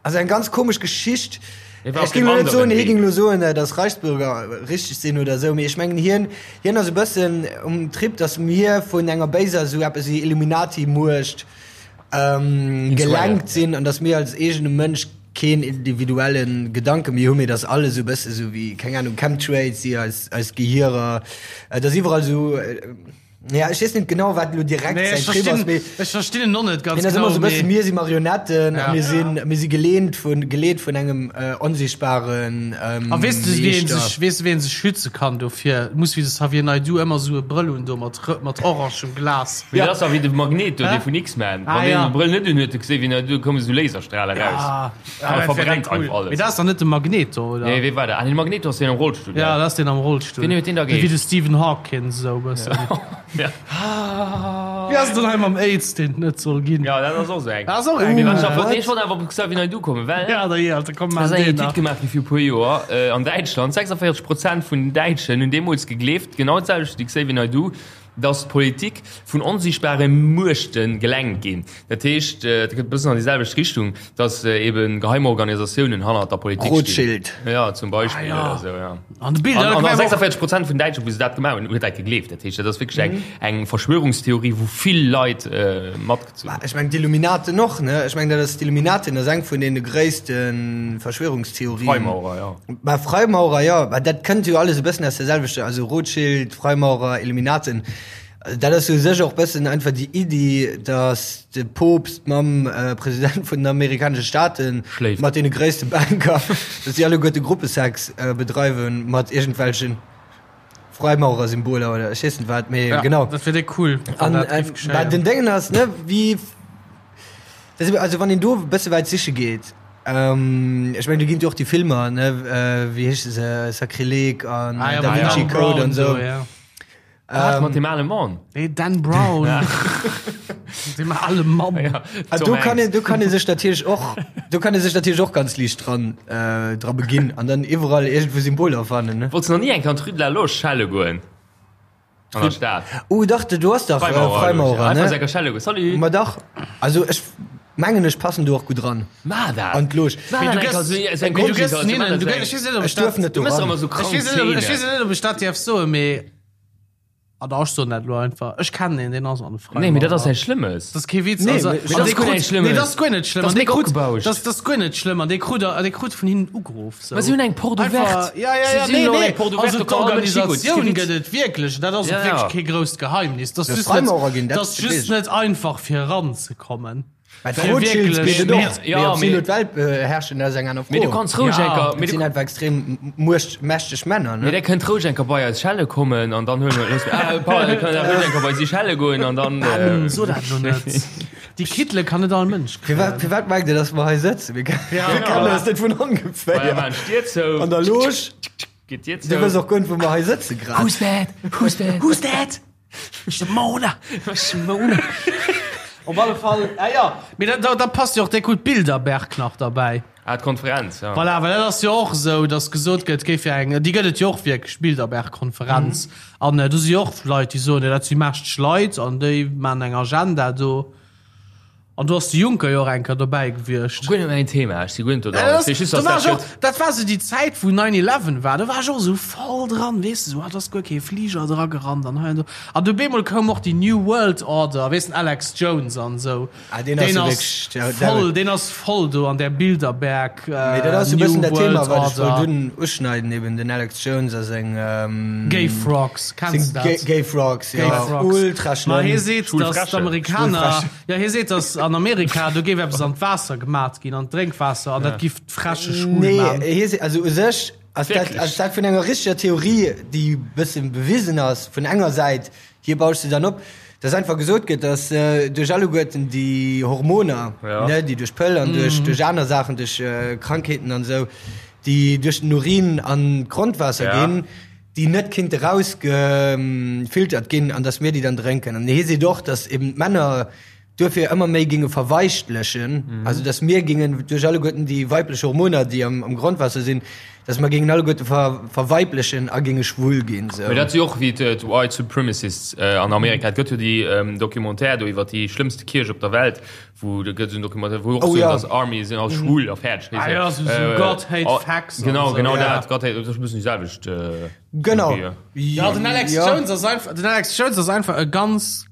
also eng ganz komesch Geschicht. Ech géing elo net soen, hie géing elo soen, datt Reichsbürger richteg sinn oder esou, mee ech mengen hien, hien ass e bëssen um Trip, datt mir vun enger béiser, esou eppes wéi Illuminati-Muecht gelenkt sinn an datt mir als eegene Mënsch keen individuelle Gedanke méi hunn, mee datt alles esou e bësse sou wéi, keng Ahnung, Chemtrails, déi eis, eis Gehierer, datt iwwerall esou. Ja, ech weess net genau, wat elo direkt Nee, säin ech Trip ass, verstinn, mee ech verstinn en och net ganz hien ass genau, ëmmer sou e bësse, mee mir si Marionetten a Ja. mir sinn, mir si geleent vun, geleet vun engem äh, onsichtbaren ähm, A weess de, wéi een Meeschter. sech, weess de, wéi een sech schütze kann dofir? Muss wéi de Xavier Naidoo ëmmer sou e Brëll hunn do mat, mat orangem Glas. Mee dat ass dach wéi de Magneto, Hä? dee vun X-Men. Ah, Wann deen ja. de Brëll net unhuet, du geséis wéi en, do komme sou Laserstrale raus. Ah, A ah, dat wär verbrennt cool. einfach alles. Mee dat ass dach net de Magneto, oder? Nee, wee war dat? Ah, nee, de Magneto ass deen am Rollstull, Ja, gell? dat ass deen am Rollstull. Wien huet deen da Wéi de geheescht? Stephen Hawkins, esou e bëssen. Ja. Wéi ass et dann hei mam Aids, deen et net soll ginn? Ja, dat ass och sou eng. Dat ass och eng. Mee wat ech awer, What? nee, ech wollt awer op Xavier Naidoo kommen, well Ja, da jee, Alter, komm, Da maan ass eng deen Etüd nach. gemaach gi fir e puer Joer an Däitschland. 46 Prozent vun den Däitschen hunn deemools gegleeft, genau d'selwecht wéi de Xavier Naidoo, dass d'Politik vun onsiichtbare Muechte gelenkt ginn. Dat heescht, dat gëtt e bëssen an déi selwecht Richtung, dass ebe geheim Organisatiounen hannert der Politik stinn. Rothschild. Ja, zum Beispill Ah, ja. oder sou, ja. An de Bild, An, an, an an 46 Prozent vun Däitschen, wou se dat gemaach hunn, huet dat gegleeft. Dat heescht, dat ass wierklech eng, eng Verschwörungstheorie, wou vill Leit äh, matgezunn hunn. Ech mengen d'Illuminaten och, ne? Ech mengen dat ass d'Illuminaten ass eng vun deene gréisste Verschwörungstheorien. Freimaurer, ja. Bah, Freimaurer, jo, bah, dat kënnt jo alles e bëssen aus der selwechter, also Rothschild, Freimaurer, Illuminaten. Dat ass u sech och bëssen einfach déi Iddi, datt de Poopst mam President vun den amerikanesche Staaten Schléift. mat deene gréisste Banker, datt déi alleguerte Gruppesex bedreiwen mat iergendwelchen Freimaurersymboler oder ech weess net wat, mee Ja, genau. dat wier déck cool, wann An dat géif bah, geschéien. den Déngen ass, ne, wéi, dat ass, also wann een do e bësse wäit siche geet, ech mengen do ginn et jo och déi Filmer, ne, wéi heesche se, Sakrileg an Ah ja, Da mat Vinci Dan Code Brown an esou. do, ja. Wat, mat deem ale Mann? Nee, Dan Brown. Deem ale Mann. Ja, Ah, Tom do kann Hanks. een, do kann ee sech natierlech och, do kann ee sech natierlech och ganz liicht dran, äh, dra beginn an dann iwwerall iergendwou Symboler fannen, ne? Wollts du nach ni eng Kéier an d'Rue de la Loge schelle goen? An der Stad? Oh dach, do ass dach äh, Freimaurer, Freimaurer, Einfach ne? sou eng Kéier schelle goen. Salut! Ma dach, also ech mengen ech passen do och gutt dran Ma dat! an d'Loge. Ma Mee dat du eng gëss- Kéier sou- sou eng Mee du gëss Grundsituatioun, hinnen, ma dat du sou gëss, eng- ech weess net, ob Ech ech dat, duerf net Du do mëss ran. ëmmer sou ech krank weess net, ob, ech weess Szenen. net, ob ech dat dierf soen, mee Ah da, ech soen dat elo einfach. Ech kennen een, deen ass an de Freimaurer. Nee, mee dat ass näischt Schlëmmes. Dat ass kee Witz. Nee, also, mee- an dat ass dee guer krut- näischt Schlëmmes. Nee, dat ass guer net schlëmm. Dat ass An dee mega krut, opgebauscht. dat, dat ass guer net schlëmm. An dee krut, dee krut vun hinnen ugeruff. So. Mä si hunn eng Porte Einfach- ouverte. Ja, ja, Si ja, sinn nee, elo nee. eng Porte ouverte, Also do kann all Mënsch higoen. d'Organisatioun Kee Witz. gëtt et wierklech. Dat ass Ja, och wierklech ja. kee grousst Geheimnis. Dat ass De just net, Freimaurer ginn, dat dat ass weess just ech. net einfach fir eranzekommen. Mä Fir d'Rothschilds wierklech geet et och. Ja, Mee ob si mee- elo d'Welt beherrschen, dat ass eng aner Fro. Mee du kanns roueg Ja. eng Kéier, Dat mee du sinn einfach extrem muecht, mächteg Männer, Mee ne? der kënnt roueg eng Kéier bei eis schelle kommen an dann huele mer loosse ah, pardon, kënnt der roueg eng Kéier bei si schelle goen an dann Ben, äh, so dat elo net. Déi Kittele kann net all Mënsch Firwat, kréien. firwat mengt Dir, dass mer hei sëtzen? Mir, Ja, mir kennen ja. eis net vun Bei ongeféier. man Stier zou. An der Loge, Geet Dir du zou. wëss och guer net, wou mer hei sëtze grad. Who's that? Who's that? Who's that? Simone! Simone. Op alle Fall, ah ja, mee da, da, da passt jo och déck gutt Bilderberg nach derbäi. Ah, d'Konferenz, ja. Voilà, well dat ass jo och esou, datt gesot gëtt, géif jo eng, déi gëtt et jo och wierklech, Bilderberg-Konferenz. An do si jo och Leit, déi soen, jo dat si mächteg Leit an déi maachen eng Agenda do. An do ass de Juncker jo och eng Kéier dobäi gewiescht. Guer net mäin Thema, ech si guer net do Ja, dran. dat Ech weess just, do dass war dat ech och, gëtt. dat war sou déi Zäit, wou 9/11 war, do war ech och esou voll dran, weess de, sou, ah, do ass guer kee Fliger dra gerannt an hei an do. An du bemol koum och déi New World Order, weess den Alex Jones an esou. Ah, deen ass Deen jo ass wierklech, der, der, voll, deen ass voll do an där Bilderberg, Mee dat ass e New bëssen dat Thema, World wat ech wollt Order. un, uschneiden, eben den Alex Jones a seng, ähm, Gay Frogs, kenns seng de Gay, dat? Gay Frogs, Gay ja, Frogs. ultra Ma schlëmm. hie seet, Schwul dass Fräschen. d'Amerikaner, Schwul Fräschen. ja, hie seet, dass an Amerika, do géif eppes an d'Waasser gemat ginn, an d'Drénkwaasser, an dat giff d'Fräsche schwul Nee, man. hie seet, also u sech ass dat, Wierklech? ass dat vun enger richteger Theorie, déi e bëssen bewisen ass, vun enger Säit, hie bauscht se dann op, dass einfach gesot gëtt, dass duerch alleguerten déi Hormoner, Ja. ne, déi duerch d'Pëll an duerch, duerch aner Saachen, duerch Krankheeten an esou, déi duerch den Urin an d'Grondwaasser Ja. ginn, déi net kinnte rausgefiltert ginn an dass mir déi dann drénken. An hie seet och, dass eben d'Männer. duerfir ëmmer méi ginge verweichtlechen, also dass mir gingen duerch alleguerten déi weiblech Hormoner, déi am, am Grondwaasser sinn, dass mer gingen alleguerte ver, verweiblechen a ginge schwul ginn. Sou. Mee dat si och wéi d'White Supremacists an Amerika. Et gëtt jo déi Documentaire do iwwer déi schlëmmste Kierch op der Welt, wou do gëtt esou en Documentaire, wou och Oh soen, ja. dass Army sinn all schwul a fäerdeg. Ah ja, sou, sou God hate facts an Genau, esou, genau ja. dat. God hate, dat ass e bëssen déi selwecht Genau. Theorie. Ja, den Alex Ja. Jones ass einfach, den Alex Jones ass einfach e ganz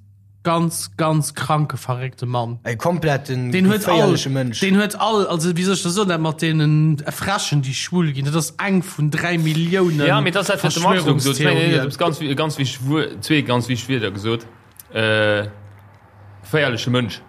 ganz ganz kranke verréckte Mann. E kompletten Den huet all, geféierleche Mënsch. den huet all, also wéi soll ech dat soen, dat mat deenen Fräschen déi schwul ginn, dat ass eng vun 3 Milliounen Ja, mee dat ass dat, wat de Max elo gesot huet. Nee, nee, Verschwörungstheorien. du hues ganz, ganz wichteg Wuer, zwee ganz wichteg Wierder gesot. Äh, geféierleche Mënsch.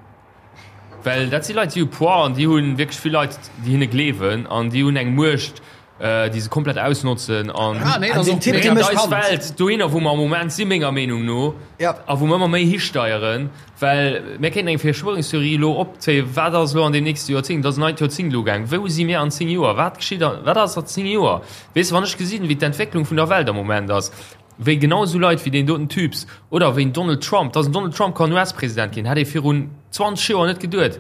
Well dat si Leit, déi hu Poids an déi hu wierklech vill Leit, déi hinne gleewen an déi hunn eng Muecht, déi se komplett ausnotzen an Ah, nee, An den Typ, dee bréngt mécht eis Welt dohinner, wou mer am Moment si menger Meenung no Ja. a wou mer ëmmer méi histeieren, well mir kéinten eng Verschwörungstheorie elo opzéien, wat ass elo an deem nächste Joerzéngt, et ass en neit Joerzéngt elo gaang, wou si mir an 10 Joer, wat geschitt an, wat ass a 10 Joer? Weess de, wann ech gesinn, wéi d'Entwécklung vun der Welt am Moment ass, wéi genau esou Leit wéi deen doten Typs oder wéi en Donald Trump, dass en Donald Trump kann US-President ginn, hätt ee virun 20 Joer net geduet.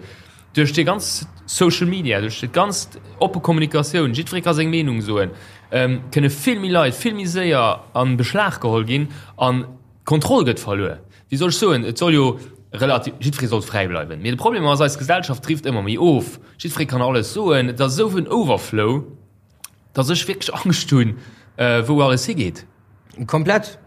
Duerch déi ganz Social Media, duerch déi ganz oppe Kommunikatioun, jiddweree ka seng Meenung soen, kënne vill méi Leit vill méi séier a Beschlag geholl ginn an d'Kontroll gëtt verluer. Wéi soll ech soen, et soll jo relativ, jiddweree soll fräi bleiwen, mee de Problem ass, eis Gesellschaft drift ëmmer méi of, jiddweree kann alles soen, et ass esou en Overflow. Dass ech wierklech Angscht hunn, wou alles higeet. Komplett.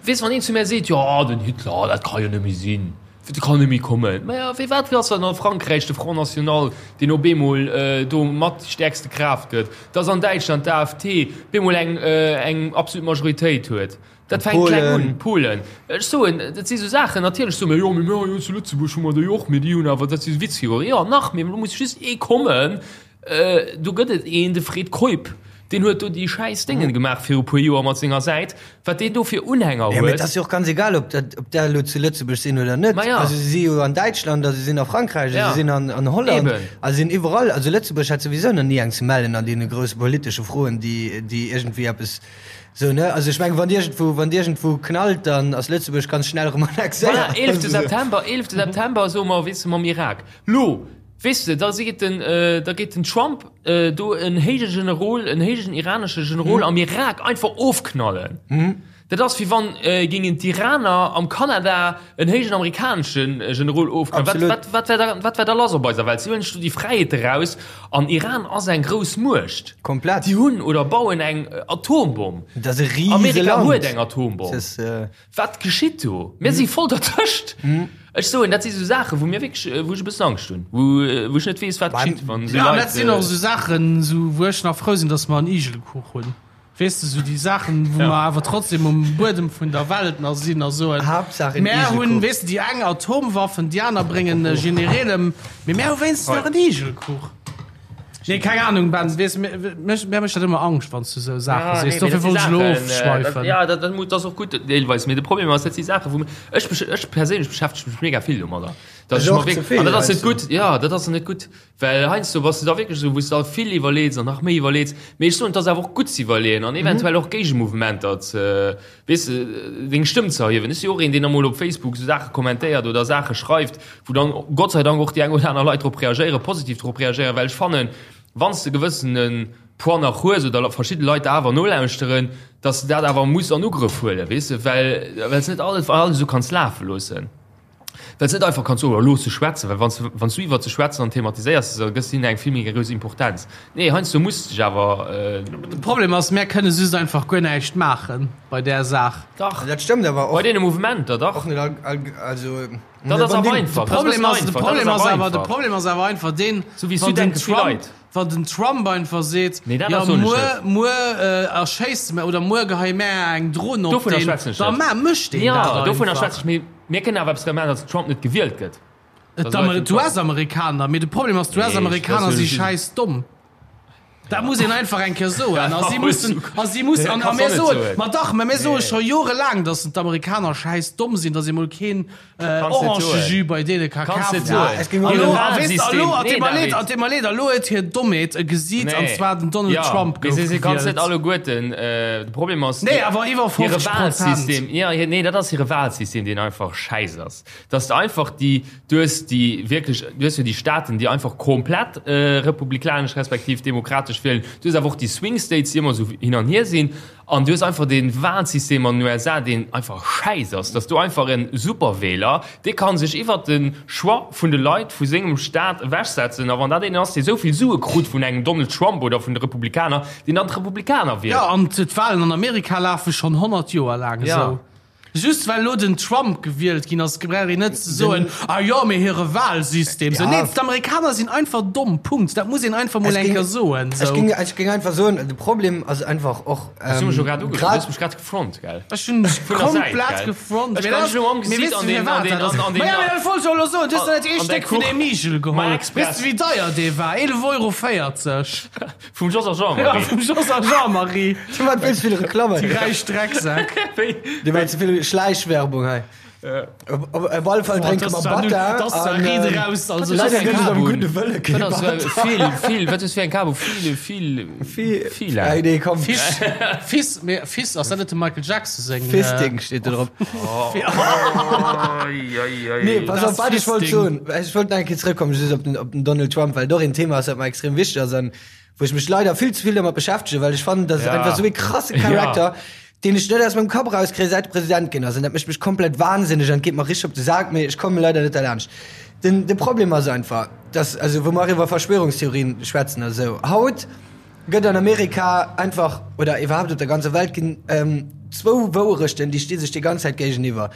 Weess, wann een zu mär seet, jo den Hitler, dat ka jo net méi sinn, dat kann net méi kommen. Maja, firwat ass dann a Frankräich de Front National, deen op eemol do mat déi stäerkste Kraaft gëtt, dass an Däitschland d'AfD bemol eng eng absolut Majoritéit huet? Dat fänkt kleng un. Polen. Ech soen, dat si sou Saachen, natierlech soe mir, jo, mee mir jo zu Lëtzebuerg hu mer déi och, mee déi hunn awer, dat si Witzfiguren. Jo, nach, mee elo muss just ee kommen, Do gëtt et een, de Fred Keup, deen huet do déi schäiss Déngen gemaach viru puer Joer mat senger Säit, wat deen do fir Unhänger Jo, mee et huet. ass jo och ganz egal, ob dat, ob där elo zu Lëtzebuerg sinn oder net. Ma ja. Also se si jo an Däitschland a se sinn a Frankräich a Ja. se sinn an, an Holland Eben. a se sinn iwwerall. Also Lëtzebuerg hat souwisou nach ni eng ze mellen an deene grousse politesche Froen, déi, déi iergendwéi eppes sou, ne? Also ech mengen, wann iergendwou, wann iergendwou knallt, dann ass Lëtzebuerg ganz schnell erëm Voilà, annexéiert. 11. September, 11. September soe mer, weess de, mam Irak. Lo, Weess de, da seet den, da geet den Trump do en héije Generol, en héijen iranesche Generol am Irak einfach ofknallen. Dat ass wéi wann géingen d'Iraner am Kanada en héijen amerikanesche Generol ofknallen. Wat, Absolut. wat, wat wär da, wat wär da lass op eiser Welt? Si huelen sech do déi Fräiheet eraus an Iran ass eng grouss Muecht. Komplett. Déi hunn oder bauen eng Atombomm. Dat ass e riese Amerika Land. huet eng Atombomm. Dat ass, Wat geschitt do? Mir si voll dertëscht. Ech soen, dat si sou Saachen, wou mir wierklech, wou ech e bëssen Angscht hunn, wou, wou ech net weess, wat geschitt, wann esou Ja, Leit. dat sinn och esou Saachen, esou wou ech nach frou sinn, datt mer en Igelkuch hunn. Weess de, esou déi Saachen, wou mer awer trotzdem um Buedem vun der Welt nach sinn a soen, Haaptsaach en mär hunn, Igelkuch. weess de, déi eng Atomwaffen, déi aner bréngen Genereel ëm, mee mär hu wéinstens nach en Igelkuch. Nee, keng Ahnung, Ben, weess, mech, mir mécht dat ëmmer Angscht, wann s du esou Saache Ja, sees. nee, Dofir mee dat wollt si ech elo Saachen, äh, dat, ofschweifen. ja, dat, dat, dat ass och gutt deelweis, mee de Problem ass, dat si Saachen, wou ech, ech, ech perséinlech beschäftege mech mega vill domadder. Dass Ech ech mer och ze wierk, vill, an dat ass net heiansdo. gutt, ja, dat ass net gutt, well heiansdo bass du da wierklech esou, wou s du da vill iwwerleets an nach méi iwwerleets. Mee ech soen, et ass awer och gutt ze iwwerleeën an eventuell och Géigemouvementer ze, weess de, deng Stëmm ze erhiewen. Ech si och een, deen emol op Facebook esou Saache kommentéiert oder Saache schreift, wou dann Gott sei Dank och déi eng oder aner Leit drop reagéieren, positiv drop reagéieren, well ech fannen, wann s de gewëssene Poids nach hues oder verschidde Leit der awer nolauschteren, dass de dat awer muss an Ugrëff huelen, weess de, well well s net alles alles esou kanns lafe loossen, well s net einfach kanns soen, oh looss se schwätzen, well wann s wann s du iwwert se schwätzen an thematiséiers se, da gëss de hinnen eng vill méi grouss Importenz. Nee, heiansdo muss de dech awer. De Problem ass, mär kënne just einfach guer näischt maache bei där Saach. Dach. Dat stëmmt awer och. Bei deene Mouvementer, dach. Och net all, all, also. Dat ass awer einfach. De Problem ass, de Problem ass awer, de Problem ass awer einfach deen, Sou wéi wann den Südenke vill Trump, Leit. wann den Trump einfach seet, Nee, dat jo ass soen ech muer, net. muer erschéisst mer oder muer geheie mär eng Dron op Dovunner deen, schwätzen ech da net. ma mécht deen Ja, dat dovunner einfach. schwätze ech, mee mir kënnen awer eppes dra maachen, datt den Trump net gewielt gëtt. Et Dat ass d'Amer- einfach. D'US-Amerikaner, mee de Problem ass, Nee, d'US-Amerikaner dat si ass jo schäiss domm. Dat muss een einfach eng Kéier soen. A si mussen, a si mussen, an a mir soen, ma dach, mä mir soe scho jorelaang, datt d'Amerikaner schäiss domm sinn, datt ee mol keen Orangejus bei deene ka kafen. A lo, a weess de, a lo, et deet mer leed, et deet mer leed, a lo huet hir Dommheet e Gesiit, an zwar den Donald Trump gouf gewielt. Kanns net alleguerten, de Problem ass, Nee, awer iwwer 50 Prozent. Nee, dat ass hire Wahlsystem, deen einfach schäiss ass. Dass de einfach déi, du hues déi wierklech, du hues jo déi Staaten, déi einfach komplett republikanesch respektiv demokratesch wielen, du hues awer och déi Swing States, déi ëmmer esou hin an hier sinn, an du hues einfach dee Wahlsystem an den USA, deen einfach schäiss ass, dass du einfach e Superwähler, dee ka sech iwwert de Choix vun de Leit vu sengem Staat ewechsetzen, a wann dat een ass, dee esou vill Sue krut vun engem Donald Trump oder vun de Republikaner, deen dann d'Republikaner wielt. Jo, an d'Wahlen an Amerika lafe schonn 100 Joer laang esou. Just well elo den Trump gewielt ginn ass, brauch een net ze soen, ah jo, mee hire Wahlsystem. Sou, nee, d'Amerikaner sinn einfach domm, Punkt. Dat muss een einfach mol eng Kéier soen. Ech géing, ech géing einfach soen, de Problem ass einfach och, Ech hu mech jo grad uge, du hues mech grad gefront, gell? Ech hunn dech komplett gefront. Ech kann dech elo am Gesiit an den, an den, an den. Ma ja, mee dat wollt ech och elo soen, du hues der net ee Stéck vun deem Igel geholl. Weess de wéi deier dee war? 11 Euro 40. Vum Jos a Jean-Marie. Ja, vum Jos a Jean-Marie. Du mat vill ze vill Reklamme. Déi räich Drecksäck. Dir maacht ze vill Schläichwerbung hei. Op, op, op alle Fall drénke mer Batter. Das war Ried raus. Also, leider gëtt et am gudde Wëlle kee Batter. Vill, vill, wat ass fir eng Kabo? Vill, vill, vill, vill. Hey, nee, komm. Fiss, Fiss, mee Fiss, ass dat net dem Michael Jackson seng? Fisting steet do drop. Nee, pass op, wat ech wollt soen. Ech wollt nach eng Kéier zrëckkommen, just op den, op den Donald Trump, well et och een Thema ass, wat mer extrem wichteg ass an wou ech mech leider vill ze vill domat beschäftegen, well ech fannen, dat ass einfach esou ee krasse Charakter, deen ech net aus mengem Kapp erauskréien, säit e President ginn ass. An dat mécht mech komplett wahnsinneg an et geet mer richteg op de Sak, mee ech komme leider net derlaanscht. Den, de Problem ass einfach, dass, also wou mer och iwwer Verschwörungstheorien schwätzen a sou, haut gëtt an Amerika einfach, oder iwwerhaapt op der ganzer Welt ginn zwou Wouerechten, déi sti sech déi ganz Zäit géigeniwwer.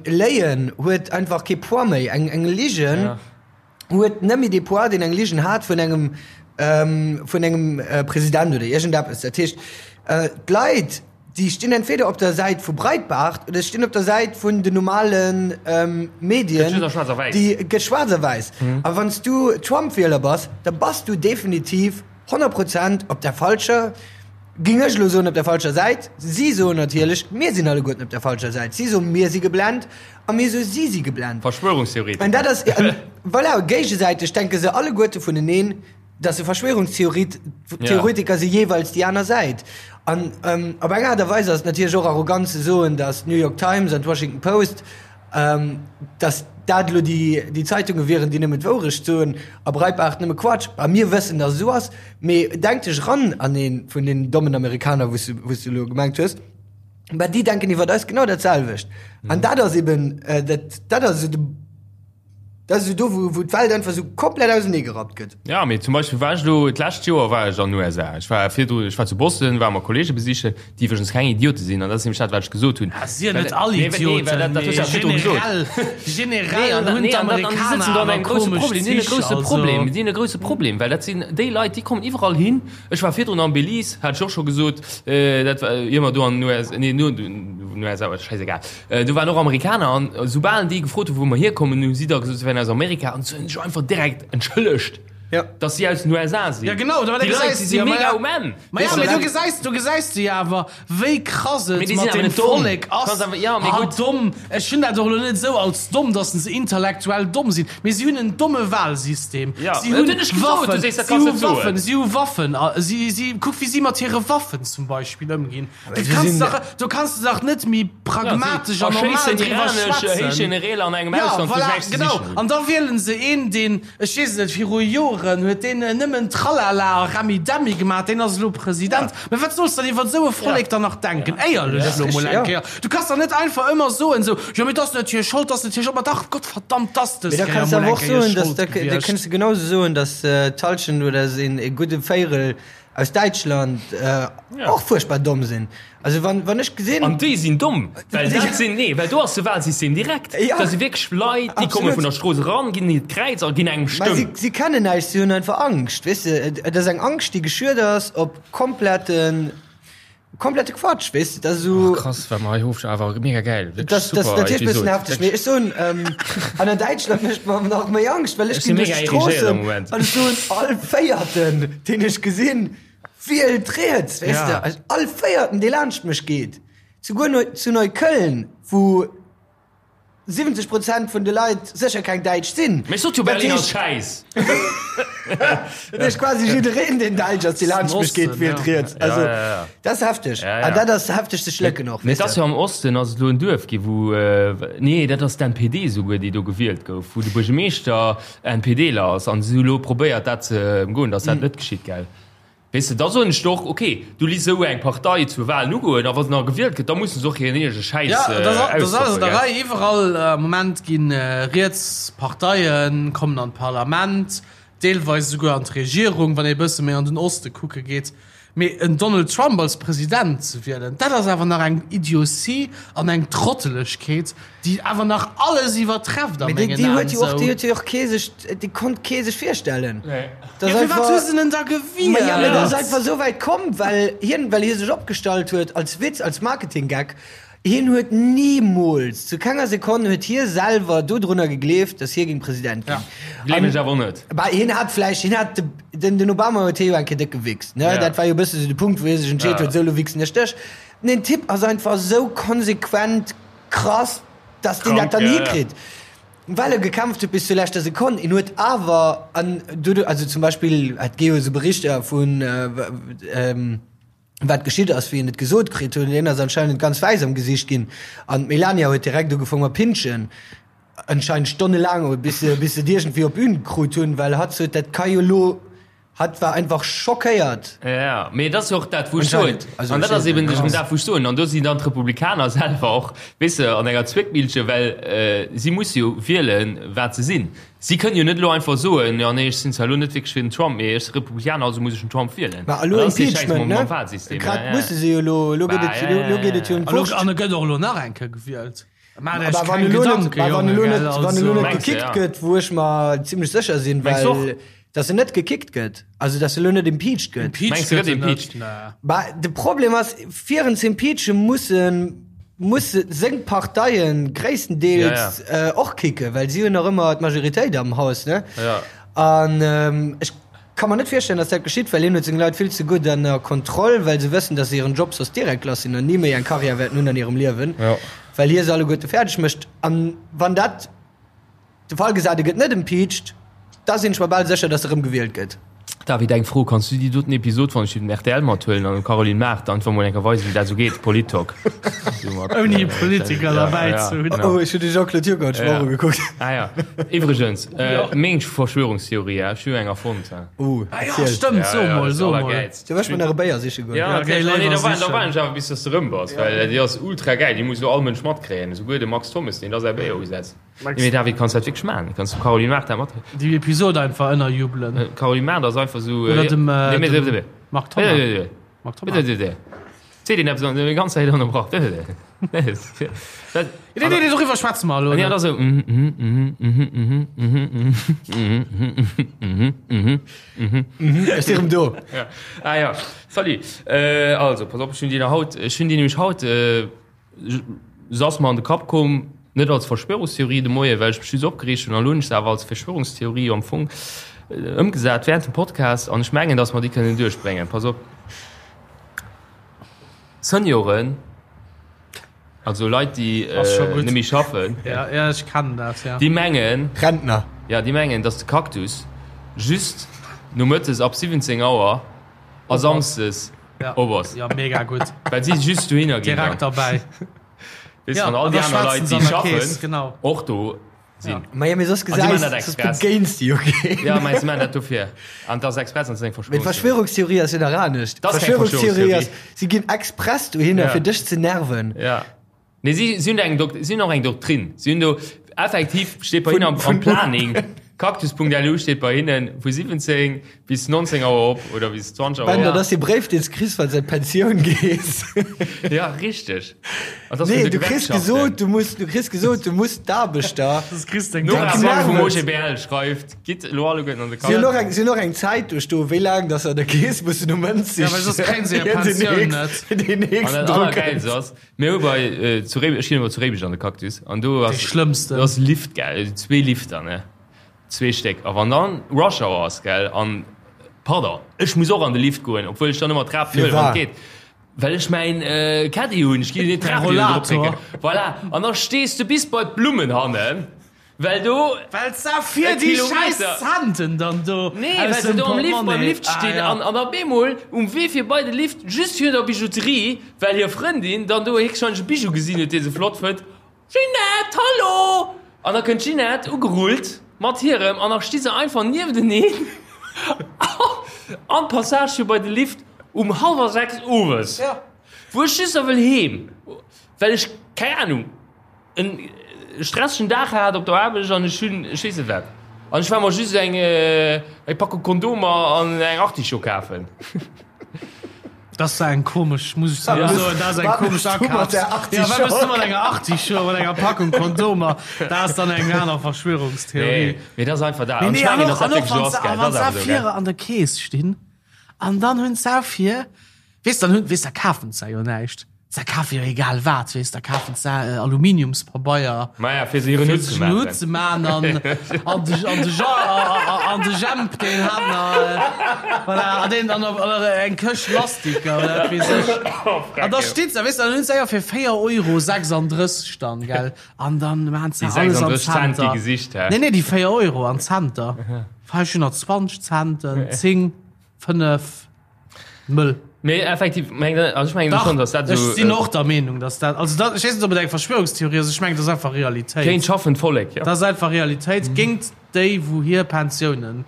Léien huet einfach kee Poids méi. Eng, eng Ligen huet net méi dee Poids, deen eng Ligen hat vun engem, vun engem President oder iergendeppes. Dat heescht, d'Leit, déi stinn entweder op der Säit vu Breitbart oder stinn op der Säit vun den normale Medien. Gëtt just a schwaarz a wäiss. Déi gëtt schwaarz a wäiss. A wann s du Trump-Wieler bass, da bass du definitiv 100 Prozent op der falscher, ging ech elo soen, op der falscher Säit. Si soen natierlech, mir sinn alleguerten op der falscher Säit. Si soen, mir si geblent a mir soe, si si geblent. Verschwörungstheoretiker. An dat ass, voilà, géigesäiteg denke se alleguerte vuneneen, dass se Verschwörungstheoretiker si jeeweils déi aner Säit. An op eng Aart a Weis ass et natierlech och arrogant ze soen, dass d'New York Times an d'Washington Post, dass dat elo déi Zeitunge wieren, déi nëmmen d'Wourecht soen a Breitbart nëmme Quatsch. A mir wëssen, dass et esou ass. Mee denk dech eran an ee vun deenen dommen Amerikaner, wou s du elo gemengt hues. Mä déi denken iwwer eis genau dat selwecht. An dat ass eben, dat dat ass esou de. Dat ass esou do, wou, wou d'Welt einfach esou komplett auseneegerappt gëtt. Ja, mee zum Beispill war ech elo, d'lescht Joer war ech an den USA. Ech war virdru, ech war zu Boston, war mer Kollege besichen, déi iwwregens keng Idiote sinn, an dat ass nämlech dat, wat ech gesot hunn. Ah, si net all Idioten, mee generell, generell hunn d'Amerikaner awer komesch Zich, also. Grouse Problem, déi hunn e grouse Problem, well dat sinn déi Leit, déi kommen iwwerall hin. Ech war virdrun am Belize, hat ech och scho gesot, dat war, ier mer do an den USA, nee, no den USA, schäisegal. Do waren och Amerikaner an soubal déi gefrot hu wou mer hierkommen, hu si da gesot, se wären aus Amerika an se hunn sech einfach direkt entschëllegt, Ja. dass si aus den USA sinn. Ja genau, da, déi Leit, déi si mega um Enn. Ma ja, mee du gesäis, du gesäis du jo awer, wéi krass et mat dem Vollek ass. Ja, mee gutt. Domm, ech hunn dat och elo net esou als domm, dass se intellektuell domm sinn, mee si hunn en domme Wahlsystem. Ja, si hunn Waffen, si hu Waffen, si hu Waffen, si, si, kuck wéi si mat hire Waffen zum Beispill ëmginn. Du kanns dach, du kanns dach net méi pragmatesch an normal driwwer schwätzen. Ja, voilà, genau. An da wielen se een, deen, ech weess et net, viru Joren huet deen nëmmen Tralala a Remmidemmi gemaach, deen ass elo President. Mä wat solls de dann iwwer esou e Vollek dann nach denken? Éierlech elo mol eng Kéier. Du kanns dach net einfach ëmmer soen, esou, jo mee 't ass net hir Schold, 't ass net hir Schold. Ma dach, Gottverdammt, 't ass dës Mee da Kéier kanns de mol awer eng och Kéier soen, dass, Schold da gewiescht. kënns de genauso soen, dass d'Hallschent oder e gudde Véierel aus Däitschland och fuerchtbar domm sinn. Also wann, wann ech gesinn. An déi sinn domm, well dat sinn, nee, well do ass de Wahlsystem direkt. Ja. Dat si wierklech Leit, déi komme vun der Strooss eran, ginn hiert Kräiz a ginn engem Mä si, Stëmm. si kennen näischt, si hunn einfach Angscht, weess de. Et ass eng Angscht, déi geschürt ass op kompletten. Komplette Quatsch, weess de, dat ass esou. Oh, krass, wat mer hei ofsch awer mega gäil. Wierklech Das, das super natierlech bëssen Episod. hefteg, mee ech soen, ähm, an an Däitschland mécht mer nach méi Angscht, well ech Ech sinn ginn duerch mega irrigéiert am d'Stroossen Moment. an ech soen, all Véierten, deen ech gesinn, wielt riets, weess Ja. de, also all Véierten, dee laanscht mech geet, souguer Neu zu Neukölln, wou 70 Prozent vun de Leit sécher keng Däitsch sinn. Mee ech sot jo, Dat Berlin ass heescht, schäiss. dat heescht quasi jiddereen, deen Däitsch ass, dee laanscht mech geet, wielt riets. Also, Ja, ja, ja. dat ass hefteg. Ja, ja. An dat ass hefteg ze schlécken och, Mee weess et ass de. jo am Osten ass et elo en Duerf gi wou, nee dat ass d'NPD souguer déi do gewielt gouf, wou de Buergermeeschter NPDler ass an si hu elo probéiert dat ze ëmgoen, datt dat net geschitt, gell? Weess de, da soen ech der och, ok, du liss esou eng Partei zur Wahlen ugoen a wa se nach gewielt gëtt, da musse se och hiren eegene Schäiss Ja, dat ass alles ausstoppen, an der gell? Rei. Iwwerall am Moment gi riets Parteien kommen an d'Parlament, deelweis esouguer an d'Regierung, wann ee e bësse méi an den Oste kucke geet. Mee en Donald Trump als President ze wielen, dat ass awer nach eng Idiotie an eng Trottelegkeet, déi awer nach alles iwwertrefft a Mee déi, mengen déi Aen. huet jo och, déi Esou. huet jo och kee sech, déi konnt kee sech virstellen. Nee. Dat Ja, ass firwat hu einfach, se en da ma ja, mee dat ass gewielt? einfach esou wäit komm, well hien, well hie sech opgestallt huet als Witz, als Marketing-Gag. Hien huet nimools, zu kenger Sekonn huet hie selwer dodrunner gegleeft, datt hie géing President ginn. Gleewen ech awer net. Bah, hien hat vläicht, hien hat de, den, den Obama huet hie jo eng Kéier déck gewichst, ne? Ja. Dat war jo e bësse sou de Punkt, wou hie sech entscheet Ja. huet, sou, lo wichsen ech dech. Den Typ ass einfach sou konsequent krass, datt deen dat Krank, dann ja, ja. hikritt. Well e gekämpft huet bis zur leschter Sekonn. Hien huet awer, an dodu, also zum Beispill, et gi jo esou Berichter vun, ähm, wat geschitt ass, wéi en et gesot kritt huet, hien ass anscheinend ganz wäiss am Gesicht ginn an d'Melania huet direkt ugefong mat pinschen, anscheinend stonnelaang, bis se bis se et iergendwéi op Bühn krut hunn, well hatt sot, dat ka jo lo, hatt war einfach schockéiert. Ja, mee et ass jo och dat, wou ech soen, Anscheinend, also an dat ech ass eben ja. dat, wou ech soen, an do sinn dann d'Republikaner selwer och, weess de, an enger Zwéckmillche, well si musse jo wielen, wat se sinn. Si kënnen jo net elo einfach soen, jo nee, ech sinn zwar elo net wierklech fir den Trump, mee ech si Republikaner, also muss ech den Trump wielen. Ma elo Dat ass dee Schäiss Impeachment, mam, ne? mam Wahlsystem. Grad Ja, ja. musse se jo elo, elo geet et, Bah, ja, elo ja, geet et jo ja. ëm An elo, d'Wurscht. an e gëtt och elo nach eng Kéier gewielt. Maacht Iech Aber wann keng elo net, Gedanken, wann Jonge, elo gell, net, wann elo also. net Mengs de, gekickt ja. gëtt, wou ech mer zimlech sécher sinn, Mengs well och? dass en net gekickt gëtt, also dass e lo net impeached gëtt. Impeached Mengs de, gëtt gëtt en net? impeached? Nee. Bah, de Problem ass, fir en ze impeachen, mussen musse seng Parteien gréisstendeels Ja, äh, och kicken, well si hunn nach ëmmer d'Majoritéit am Haus, ne? Ja. An ähm, ech ka mer net virstellen, dass dat geschitt, well hien huet seng Leit vill ze gutt ënner Kontroll, well se wëssen, dass se hiren Job soss direkt lass sinn an ni méi eng Karriär wäerten hunn an hirem Liewen, Ja. well hie se alleguerte fäerdeg mécht. An wann dat De Fall gesat, e gëtt net impeached, da sinn ech mer bal sécher, datt e rëm gewielt gëtt. David, eng Fro, Kanns du déi doten Episod wann ech déi den rtl mathuelen an dem Caroline Mart einfach mol eng Kéier weisen wéi dat esou geet, Polit-Talk? Ouni Politiker derbäi ze hunn. Oh, ech hunn de Jean-Claude Juncker haut schwor ugekuckt. Ah ja. Iwwregens, meng Verschwörungstheorie, ech hu jo eng erfonnt. Oh, Ah ja, erziel. stëmmt, so mol, so mol. Du wësch mer nach e Béier siche goen. Ja, Okay, nee, léiwer da war, da sichen. war ech awer bis dass de rëm bass, well déi ass ultra gäil, déi muss elo all Mënsch matkréien, esouguer de Max Thommes, deen da säi Béier usetzt. Nee, mee David, kanns dat wierklech maachen? Kanns du Caroline Mart dat mat? Déi Episode einfach ënnerjubelen. Caroline Mart ass einfach sou. Oder dem, äh, nee, mee, dem nee, Marc Thomas. Nee, nee, Marc Thomas. nee, nee. Seet een eppes an déi ganz Zäit ënnerbrach. Nee, nee, dat, Nee, nee, nee, doriwwer schwätze mer elo nee, dat net. ass sou. Mhm, mhm, mhm, mhm, mhm, mhm, mhm, mhm, mhm, mhm. Ech si rëm do. Ja. Ah ja, salut. Äh, also, pass op, ech hunn déi nach haut, ech hunn déi nämlech haut, äh, Se ass mer an de Kapp komm, net als Verschwörungstheorie de Moien, well ech mech just opgereegt hunn, an elo hunn ech se awer als Verschwörungstheorie am Fong ëmgesat während dem Podcast, an ech mengen, datt mer déi kënnen duerchbréngen. Pass op, Senioren, also Leit, déi Ass scho gutt. net méi schaffen, Ja, ja, ech kennen dat, ja. déi mengen, Rentner. ja, déi mengen, datt de Cactus just nomëttes ab 17 Auer a Samsdes Ja. op ass. Ja, mega gutt. Well si just dohinner ginn. Direkt derbäi. Weess Ja, wann all an déi da aner schwätzen Leit, se déi an der schaffen, Kees, genau. och do sinn. Ja. Ma ja, mee soss sie machen gesäis, dat soss express. begéins de jo keen. Ja, meinst du, man dat dofir? An dat ass express an seng Mee Verschwörungstheorie. d'Verschwörungstheorie ass jo nach anescht. Das ass keng Verschwörungstheorie ass, Verschwörungstheorie. si ginn express dohinner, Ja. fir dech ze nerven. Ja. Nee, si, si hunn eng Dok si hunn och eng Doktrin. Si hunn do effektiv steet bei hinnen am, am Planning. Cactus.lu steet bei hinnen vu 17 bis 19 Auer op oder bis 20 Auer. Ben, dat ass dee Bréif, deen s kriss, wann s an d'Pensioun gees. Ja, richteg. An dat ass vun Nee, de du kriss Gewerkschaften. gesot, du muss, du kriss gesot, du muss d'Aarbechter. Das kriss deng Nora Pensioun. Back vum OGBL schreift, Gitt elo alleguerten an de Si hunn och Cactus. eng, si hunn och eng Zäit do stoen, wéi laang dass se an der Keess mussen um Mënz Ja, well soss kréien se hir Pensioun net. Deen An nächsten dat Drock Allergäilst ass, Mir hu bei zu Réimech, ech ginn ëmmer zu Réimech an de Cactus an do ass, Déi schlëmmsten. do ass Lift gell, zwee Lifter ne, zwee Stéck a wann dann Rush Hour ass gell an, pardon, ech muss och an de Lift goen, obwuel ech dann ëmmer d'Trap huelen wann et geet, well ech mäin Caddy hunn, ech ginn net d'Trap hinnen drop drécken, voilà, an da stees de bis bei d'Blummen hannen. Well do. Well se fir déi schäiss Centen dann do. Nee, well se do am Lift, beim Lift stinn an an op eemol um Wee fir bei de Lift just virun der Bijouterie, well hir Frëndin dann do héchstwahrscheinlech e Bijou gesinn huet, dee se flott fënnt, Ginette, hallo! An da kënnt d'Ginette ugerullt mat hirem an da sti se einfach niefteneen an d'Passage fir bei de Lift um hallwer 6 owes, wou ech just da wëll heem, well ech, keng Ahnung. En stressegen Dag hat op der Aarbecht an ech hunn, ech weess net wat, an ech war mer just eng eng Packung Kondomer an eng Artichaut kafen. Dat ass eng komesch, muss ech soen, dat ass eng komesch Akaf. Ja, wat wëlls du mat enger Artichaut, mat enger Packung Kondomer? Dat ass dann eng aner Verschwörungstheorie. Nee, mee dat ass einfach dat. Nee, An ech nee, an mengen, och, dass dat an och wierklech esou wann ass, se, gell? a wann Dat ass se awer esou, gell? vir an der Keess stinn an dann hunn se vir, Weess, dann hunn, weess, da kafen se jo näischt. Se kafe jo egal wat, weess, da kafen se Aluminiumspabeier. Maja, fir se hiren Fir Hutt sech ze en Hutt maachen. ze man an, an de, an de Jean, an de Jemp, deen hat nach, voilà, an deen, an, an eng Këscht Lastiker oder wat weess ech. An da steet se, weess, dann hunn se jo fir 4 Euro 36 dann, gell, an dann maan se Déi alles an 36 Cent, déi Center. gesicht, hä? Nee, nee, déi 4 Euro an Center. 520 Centen, 10, 5. Mëll. Mee effektiv, meng, also ech mengen schon, dass dat Ech so, sinn äh, och der Meenung, dass dat, also dat, ech weess net, ob et eng Verschwörungstheorie ass, ech mengen, dat ass einfach Realitéit. Géint schaffend Vollek, ja. Dat ass einfach Realitéit mhm. géint déi, wou hir Pensiounen.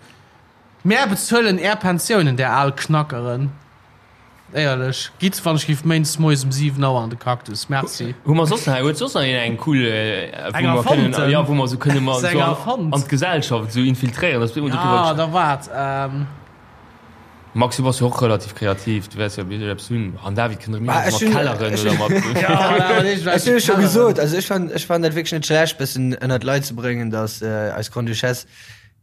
Mär bezuelen är Pensiounen, där al Knackeren. Éierlech, gitt, wann ech giff méindes moies um 7 Auer an de Cactus. Merci. Hu mer soss nach, huet soss nach een eng cool, äh, wou Eng mer kënnen, erfonnten? ja, wou mer so kënne mer Eng so an, erfonnt? an d'Gesellschaft so infiltréieren, dass wir immer Ja, darüber da waart. Ähm, Max, du bass jo och relativ kreativ, du wäers jo bestimmt eppes hunn. An David kënnt erëm Bah, mat ech hunn- Kelleren ech oder hunn- mat. ja, Ech hunn scho gesot, also ech fand, ech fand dat wierklech net schlecht, bëssen ënnert d'Leit ze bréngen, dass äh, eis Grande-Duchesse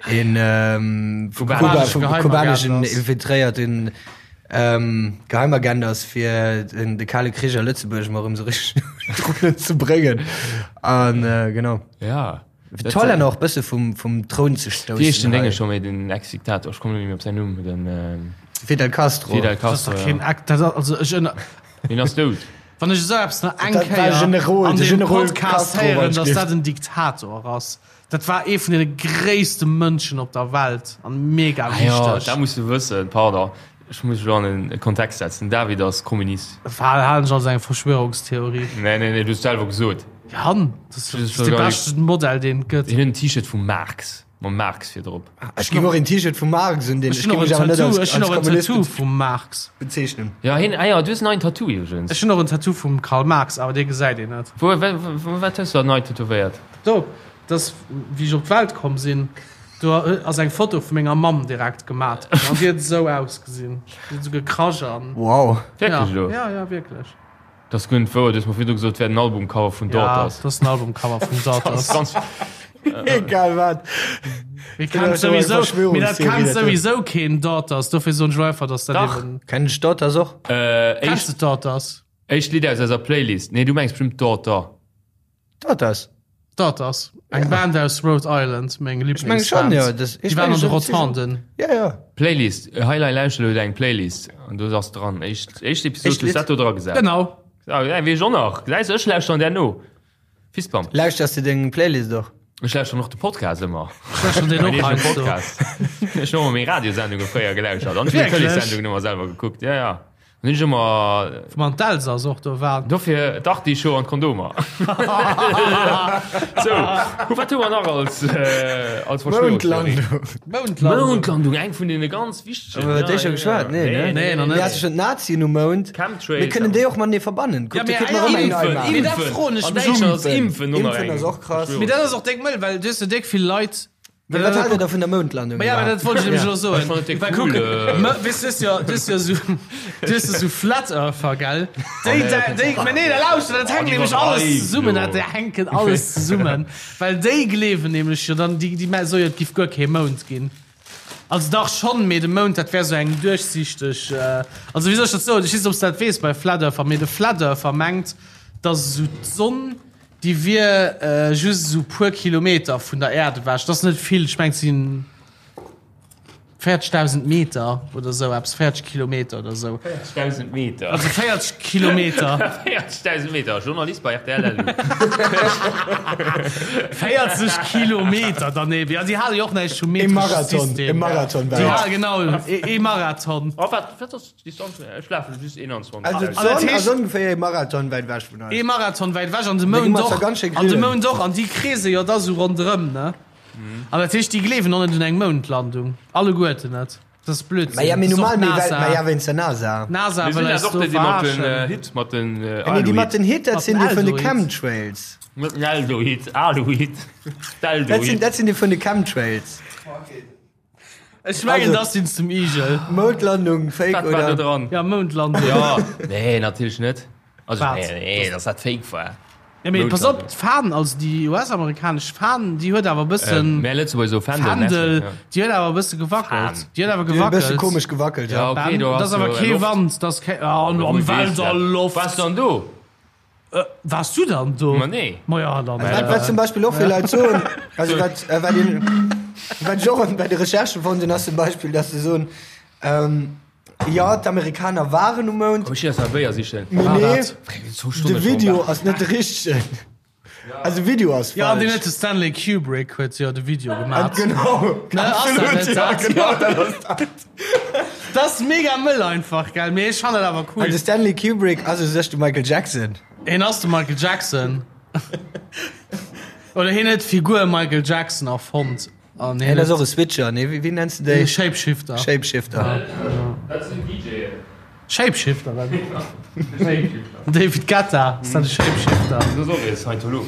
een ähm, vu Kuba, Kubanesche vum Geheimagent kubaneschen ass. infiltréierten ähm, Geheimagent ass, fir den, de Kale Krich a Lëtzebuerg mol erëm sou richteg un d'Rullen ze bréngen. An äh, genau. Ja. Fir d'Hollänner och bësse vum, vum Troun ze stoussen. Wéi heescht den hei. Dénge scho méi, den Ex-Diktator? Ech kommen net méi op säin Numm. Den Fidel Castro. Fidel Das ass Castro, doch ja. keen Ex, dat ass, also ech ënner, Deen ass dout. wann ech esou eppes nach eng Dat war Kéier Generol, an de deem Generol Podcast Castro, héieren, wann dass ech dat en Diktator ass. Dat war ee vun deene gréisste Mënschen op der Welt an mega Ah jo, wichteg. dat muss du wëssen. Pardon, ech muss elo an e Kontext setzen. Den David ass Kommunist. Halen ech als eng Verschwörungstheorie. Nee, nee, nee, du hues selwer gesot. Jan, dat ass de beschten Modell deen et gëtt. Hien huet en T-Shirt vum Marx, mam Marx virdrop. Ech géif och een T-Shirt vum Marx un deen Ech ech hunn géif och mech en awer net Tattoo, als ech hunn als och en Kommunist Tattoo vum Marx. bezeechnen. Ja, hien, ah ja, du hues en neien Tattoo iwwregens. Ech hunn och en Tattoo vum Karl Marx, awer dee gesäit een net. Wou, wou, wat hues du da nei tätowéiert? Do, dat ass wéi ech op d'Welt komm sinn. Do ass eng Foto vu menger Mamm direkt gemat ginn an déi huet esou ausgesinn. Déi huet esou gekrasch an. Wow. Wierklech elo? Ja, ja, wierklech. Dat ass guer net wouer, du hues mer virdu gesot, et wär den Albumcover vun Ja, Daughters. dat ass den Albumcover vun Daughters. Ganz, Egal wat. Mir kennt souwisou, mee dat kennt souwisou keen Daughters, dofir soen ech lo einfach, dass dat Dach. eben. Kennen ech Daughters och? äh, Kenns éischt, de Daughters? éischt Lidd aus eiser Playlist. Nee, du mengs bestimmt Daughter. Daughters. Daughters, eng Band aus Rhode Island, meng Ech meng schon, Lieblingsband. jo. Das, Déi waren an de Rotonden. Ja, ja. Playlist, Highlight lauschter elo deng Playlist an do ass dran. Éischt, éischt Episod Éischt hues Lidd. dat do dra gesat. Genau. Ah, ja, weess ech och nach. Gesäis du, ech lauschteren där no. Fistbump. Lauschters du deng Playlist och? Ech lauschteren och de Podcast ëmmer. Ech lauschteren deen och Mäin eegene heiansdo. Podcast. Ech hunn ëmmer meng Radiosendunge fréier gelauschtert an ech hunn Wierklech? d'Tëleessendungen ëmmer selwer gekuckt. Ja, ja. Dann hunn ech ëmmer Wou man d'Elsass och do war. Dofir d'Artischo an d'Kondomer. Sou, hu wat hu mer nach als, äh, als Verschwörungstheorie? Moundlandung. Moundlandung. Moundlandung, eng vun deene ganz wichtegen. Hu mer iwwer déi scho geschwat? Nee, ne? Nee, nach net. Mir hate schonn d'Nazien um Mound. Chemtrails. Mir kënnen déi och matenee verbannen. Kuck, Ja, do mee kritt mer erëm eng nei impfen, Maach. impfen. Mee dat froen ech An mech. Däitschland ass Impfen och nach Impfen eng ass och krass. Mee dat ass och déck mëll, well du hues jo déck vill Leit. Mee wat haalt der da vun der Moundlandung? Ma ja, mä dat wollt ech nämlech elo soen. Ech fannen et Well cool, kuck, äh. mä weess, du hues jo, du hues jo esou, du hues jo esou Flat Earther, gell? Déi, nee, déi, déi, mä nee, da lauschter, dat hänkt déi nämlech alles iwwerdreiwen zesummen, jo. dat hänken alles zesummen. Well déi gleewen nämlech jo dann, déi, déi mä soe jo, et giff guer kee Mound ginn. Also dach schonn, mee de Mound, dat wär esou eng duerchsichteg, also wéi soll ech dat soen? Ech weess net, ob s de dat weess bei Flat Earther, mee de Flat Earther mengt, datt esou d'Sonn, Déi wier just esou puer Kilometer vun der Äerd ewech. Dat ass net vill, ech mengen et si 40.000 Meter oder esou eppes, 40 Kilometer oder esou. 40.000 Meter? Also 40 Kilometer. 40.000 Meter, Journalist bei rtl LU. 40 Kilometer daneben, ja, déi hale jo och näischt vum E metresche Marathon, System. e Marathon Déi wäit. hale, genau, e Marathon. Oh, wat, wat ass Distanz, ech lafe just 21. Also dat d'Sonn heescht- ass ongeféier e Marathon wäit ewech vun eis. Ee Marathon wäit ewech an de Da gi Mound mer zwar och. ganz schéi An de grillen. Mound och. An déi kreese jo da sou ronderëm, ne? An dat heescht, déi gleewen och net un eng Moundlandung. Alleguerten net. Dat ass Blödsinn. Ma ja, mee Dat ass och normal, mee well, d'NASA. ma ja, wéinst der NASA. D'NASA Mir wëll sinn eis dat och do déi, déi mat den verarschen. Hit, mat den Nee, déi mat Aluhit. den Hit, dat Mat sinn den déi vun de Aldohit. Chemtrails. Mat den Aldohit, Aluhit, Dat sinn, d'Aldohit. dat sinn déi vun de Chemtrails. Ech mengen, Also- dat sinn zum Igel. Moundlandung, Fake Wat war do oder? dran? Ja, Moundlandung. Ja, nee, natierlech net. Also, Wat? nee, nee, dass dat fake war. Ja, mee pass op, Moundlandung. d'Fan, also déi US-amerikanesch Fan, déi huet awer e bëssen. Mär Lëtzebuerger soe Fändel, Fändel, merci, ja. déi huet awer e bësse gewackelt. Fan. Déi huet awer Déi huet e bësse gewackelt. komesch gewackelt, Ja, ja. okay, do Dat ass ass awer jo kee Loft. Wand, dat ass kee. Ah, am Wou weess Welt dat? a Loft. Waars du dann do? Waars du dann do? Ma nee. Ma ja, dann. Wat, wat zum Beispill och vill Leit soen, also wat, äh, wat, een, wat ech och bei de Recherchen fonnt hunn, ass zum Beispill, dass se soen, ähm, jo, d'Amerikaner waren um Mound, Komm, ech gi eis nach e Béier sichen. mee War nee, dat? de Video ass net de richtegen. Also de Video ass Ja, an deen falsch. huet de Stanley Kubrick huet jo de Video gemaat. Genau, Ne, ass dat absolut, net ja, dat? genau, dat ass dat. Dat ass mega mëll einfach, gell? Mee ech fannen dat awer cool. An de Stanley Kubrick ass u sech de Michael Jackson. Hien ass de Michael Jackson. Oder hien huet d'Figur Michael Jackson erfonnt. An Hien ass och e Switcher, nee, wéi nenns de déi? Shapeshifter. Shapeshifter. Dat sinn DJen. Shapeshifter, wat? David Guetta, ass dat e Shapeshifter? Dat ass och e Scientolog.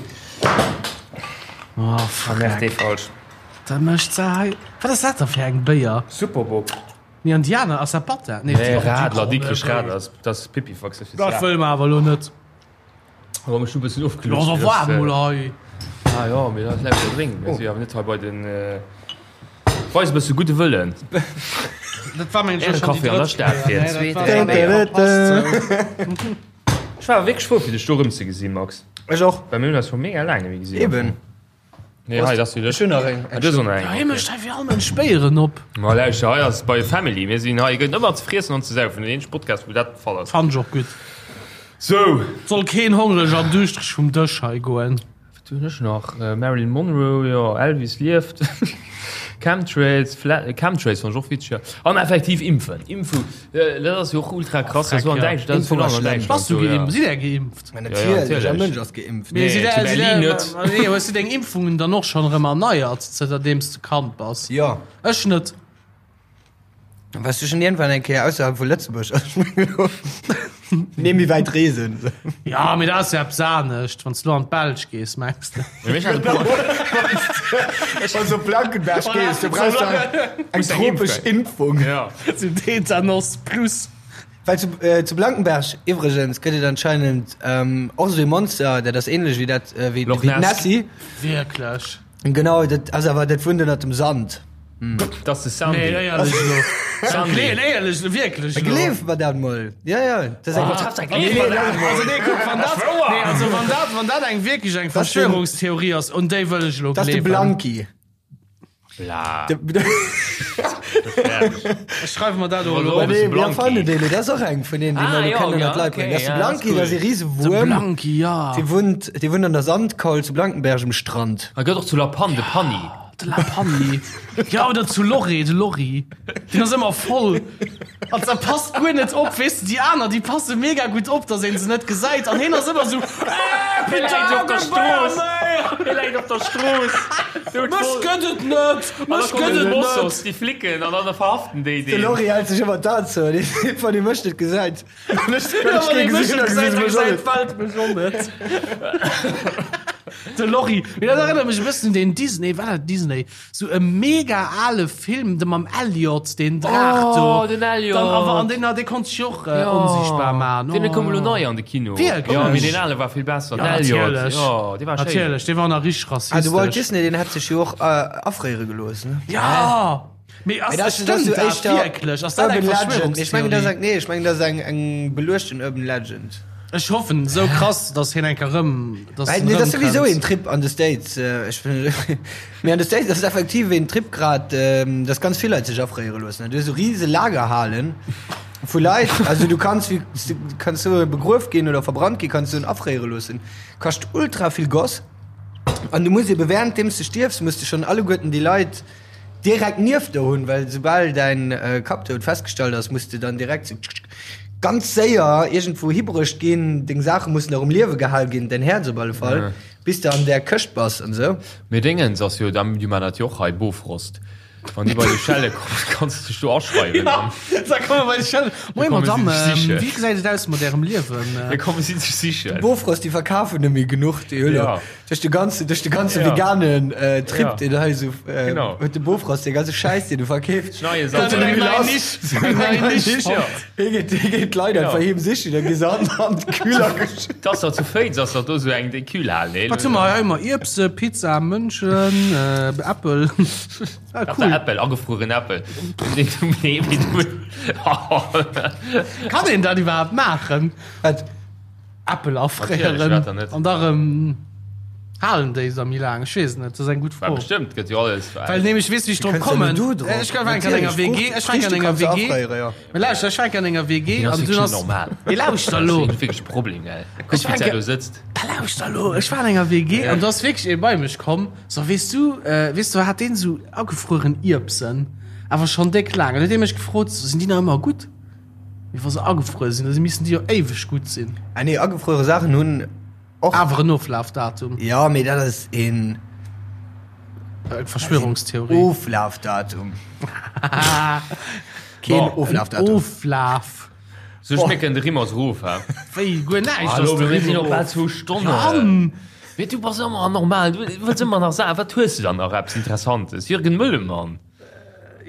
Oh, fuck. Merkt dee falsch. Da mécht se hei. Wat ass dat da fir eng Béier? Superbock. Nee, an déi aner ass dat Batter? Nee, Nee, Radler, Dikrech Radler, dat ass Pipifax. Dat wëlle mer awer elo net. Awer mech hu bëssen ofgelutscht. Lo ass waarm mol hei. Ah jo, mee dat läit jo drénken. Mir si awer net hei bei den. Weis e bësse gudde Wëllen. Dat war mengen ech Ehre schon déi Café an der drëtt Stad Kéier. fir Nee, dat zweet, war dräi Béier. verpasst sou. Ech war wierklech frou fir dech do erëmzegesinn, Max. Ech och. Well mir hunn eis scho mega laang net méi gesinn. Eben. Nee, hei, dat ass jo Ech hunn nach eng. Ah, du hues och nach eng. Ja, hie mécht hei fir all Mënsch Béieren op. Ma lauschter, hei ass bei Family. Mir sinn hei, gëtt ëmmer ze friessen an ze saufen. Den eenzege Podcast, wou dat de Fall ass. Fannen ech och gutt. Sou. Soll keen hongreg an duuschtereg vum Dësch hei goen. Wat hunn ech nach? Marilyn Monroe, jo, Elvis lieft, Chemtrails, Chemtrails fann ech och witzeg, jo. An effektiv impfen, Impfu, dat ass jo och ultra krass, dat ass an Däitschland, dat ass virun allem an Däitschland Bass du esou, ja. geimpft? Sidd där geimpft? Ma Ja, ja, natierlech, all natierlech. Mënsch ass geimpft. Mee Nee, sidd zu där, sidd Berlin där, net. nee, hues du deng Impfungen dann och schonn erëm erneiert, zënterdeems de Kand bass? Jo. Ech net. Wars du schon irgendwann eng Kéier ausserhalb vu Lëtzebuerg? Nee, méi wäit reesen. Ja, mee dat ass jo eppes anescht, wann s du an d'Belsch gees, mengs de? Wann s op Blankenberg gees, du brauchst da eng tropesch Impfung. Ja. Sou Tetanos plus. Well zu, äh, zu Blankenberg iwwregens gëtt et anscheinend ähm, och esou ee Monster, dat ass ähnlech wéi dat, äh, wéi, Loch wéi Ness. d'Nessie. Wierklech? Genau, dat ass awer, dat wunnt ënnert dem Sand. Dat ass de Sandy. Nee, éierlech elo. Sandy. Nee, éierlech, wierklech elo. Gleef mer dat mol. Ja, ja. Dat ass eng. Nee, nee, also nee, kuck, wann dat, nee, also wann dat, wann dat eng wierklech eng Das den- Verschwörungstheorie ass, un déi wëll ech elo Dat ass de gleewen. Blanki. Bla. De, Ech schreiwe mer dat och elo Also, op. nee, Blanki. mir fannen deen, dat ass och eng vun deenen, déi Ah, mer elo ja, kennen ja, an d'Leit bréngen. okay, Dat ass de ja, dat ass Blanki, dat ass e cool. De Risewuerm. Blanki, ja. Dee wunnt, dee wunnt an der Sandkaul zu Blankenberg um Strand. A gëtt och zu La Panne, de Panni. De La Panni. Ja, oder zu Lorry, de Lorry. Deen ass ëmmer voll. An da passt guer net op, weess de, déi aner, déi passe mega gutt op, dass een se net gesäit. An hien ass ëmmer esou, Äh, Hie läit op der Putain, Strooss. méi! Hie läit op der Strooss. Mech gëtt et net! Mech gëtt et net! Mossos, déi Flicken, an dann verhaften déi De deen. Lorry hält sech ëmmer d'An zou, dee wann ee mech net gesäit. Wann ech Ja, wann kee ee mech gesinn net hunn, gesäit, da da gesi se mech och gesäit net. d'Welt mech och net. De Lorry. Mee dat erënnert mech e bëssen un deen Disney, war dat Disney? Sou e mega ale Film, de mam Elliot, deen Draach do. Oh, den Elliot. Dann, awer, an deen, dee konnt sech och äh, onsichtbar man. Deen koum elo nei an de Kino. Wierklech? Jo, mee deen ale war vill besser. Ja, Den Elliot. natierlech. Jo, dee war schéin. Natierlech, dee war nach richteg Ah, de Walt rassistesch. Disney, deen hat sech jo och äh, afréiere gelooss, ne? Ja! Mee ass, Mee dat stëmmt ass so dat éischter wierklech? Ass dat eng Urban Legend. Ech mengen, dat ass Verschwörungstheorie? eng, nee, ech mengen, dat ass eng, eng beluechten Urban Legend. Ech hoffen esou krass, dass hien eng Kéier rëm, dass Well, en nee, dat ass rëm souwisou kënnt. een Trip an de States. Äh, ech, mee an de States ass effektiv een Trip grad, ähm, dass ganz vill Leit sech afréiere loossen. Du hues esou riese Lagerhalen vu Leit, also du kanns wéi, du kanns so begrueft ginn oder verbrannt ginn, kanns du en afréiere loossen. Kascht ultra vill Goss. An du muss ebe währenddeems du stierfs, muss du schonn alleguerten déi Leit direkt nieft der hunn, well soubal däin Kappdoud festgestallt ass, muss de dann direkt sou ganz séier iergendwou hibruecht ginn, deng Saache mussen nach um Liewe gehal ginn, däin Häerz op alle Fall, bis de an där Këscht bass an sou. Mee Déngens ass jo, déi man dat jo och hei, Bofrost. Wann déi bei de Schelle kommen, kanns de dech do aschreiwen. Ja, da komme bei de Schelle. Moin komme Madame, si dech sichen. wéi gesäit et aus mat Ärem Liewen? Da komme si dech sichen. Bofrost, déi verkafen net méi genuch, déi hunn Ja. Duerch de ganze, duerch de ganze Ja. veganen äh, Trip, Ja. deen hei esou äh, Genau. huet de Bofrost, dee ganze Schäiss, deen e verkeeft. Neie Gëtt Sammel. eng nei Nisch, eng nei Nisch. Ja. Hie geet, hie geet d'Leit einfach heem sichen, da gi se an, an d'Kühler geschütt. T'ass doch zu Féiz, ass doch do sou eng déi Kühlhal, nee? Wat hu mer hei? Hu mer Ierbse, Pizza, Mënschen, äh, Äppel. Ah, Cool. cool. Äppel, agefrueren Äppel. Nee, nee, mee du. Kann een dat iwwerhaapt maachen? Wat? Äppel Natierlech, afréieren wat dann net? an da rëm halen déi se méi laang? Ech weess et net, dat ass eng gutt Well Fro. bestimmt gëtt jo alles. Well nämlech, weess du wéi ech drop Kënns ja kommen? net do drop. Ech war enk an enger Natierlech, WG, ech war enk an enger Friichte kanns du WG. afréieren, jo. Mee lauschter, ech war enk an enger WG Deen ass an dunn wierklech ass. net normal. Mee lauschter elo! Dat ass wierklech e Problem, gell? Kuck, Ech war wéi enk. do sëtzt. Da lauschter elo! Ech war an enger WG an do ass wierklech ee bei mech komm, so, weess du, weess du, hat deen esou agefrueren Ierbsen, awer schonn déck laang. An huet dee mech gefrot, sinn déi nach ëmmer gutt? Mee wa se agefruer sinn, da missten déi jo éiweg gutt sinn. Ah nee, agefruere Saachen hunn och. Awer en Oflafdatum. Ja, mee dat ass een. Eng Verschwörungstheorie. Oflafdatum. Keen Bon. Oflafdatum. Oflaf. Sou schmecken de Rimmers erof, hä? Wéi, guer näischt ass Hallo, de mir sinn Rimmer och bal erof. zwou Stonnen. Mann! Mee du bass ëmmer anormal, du wëlls ëmmer nach Saachen. Wat hues du dann nach eppes Interessantes? Jürgen Möllemann.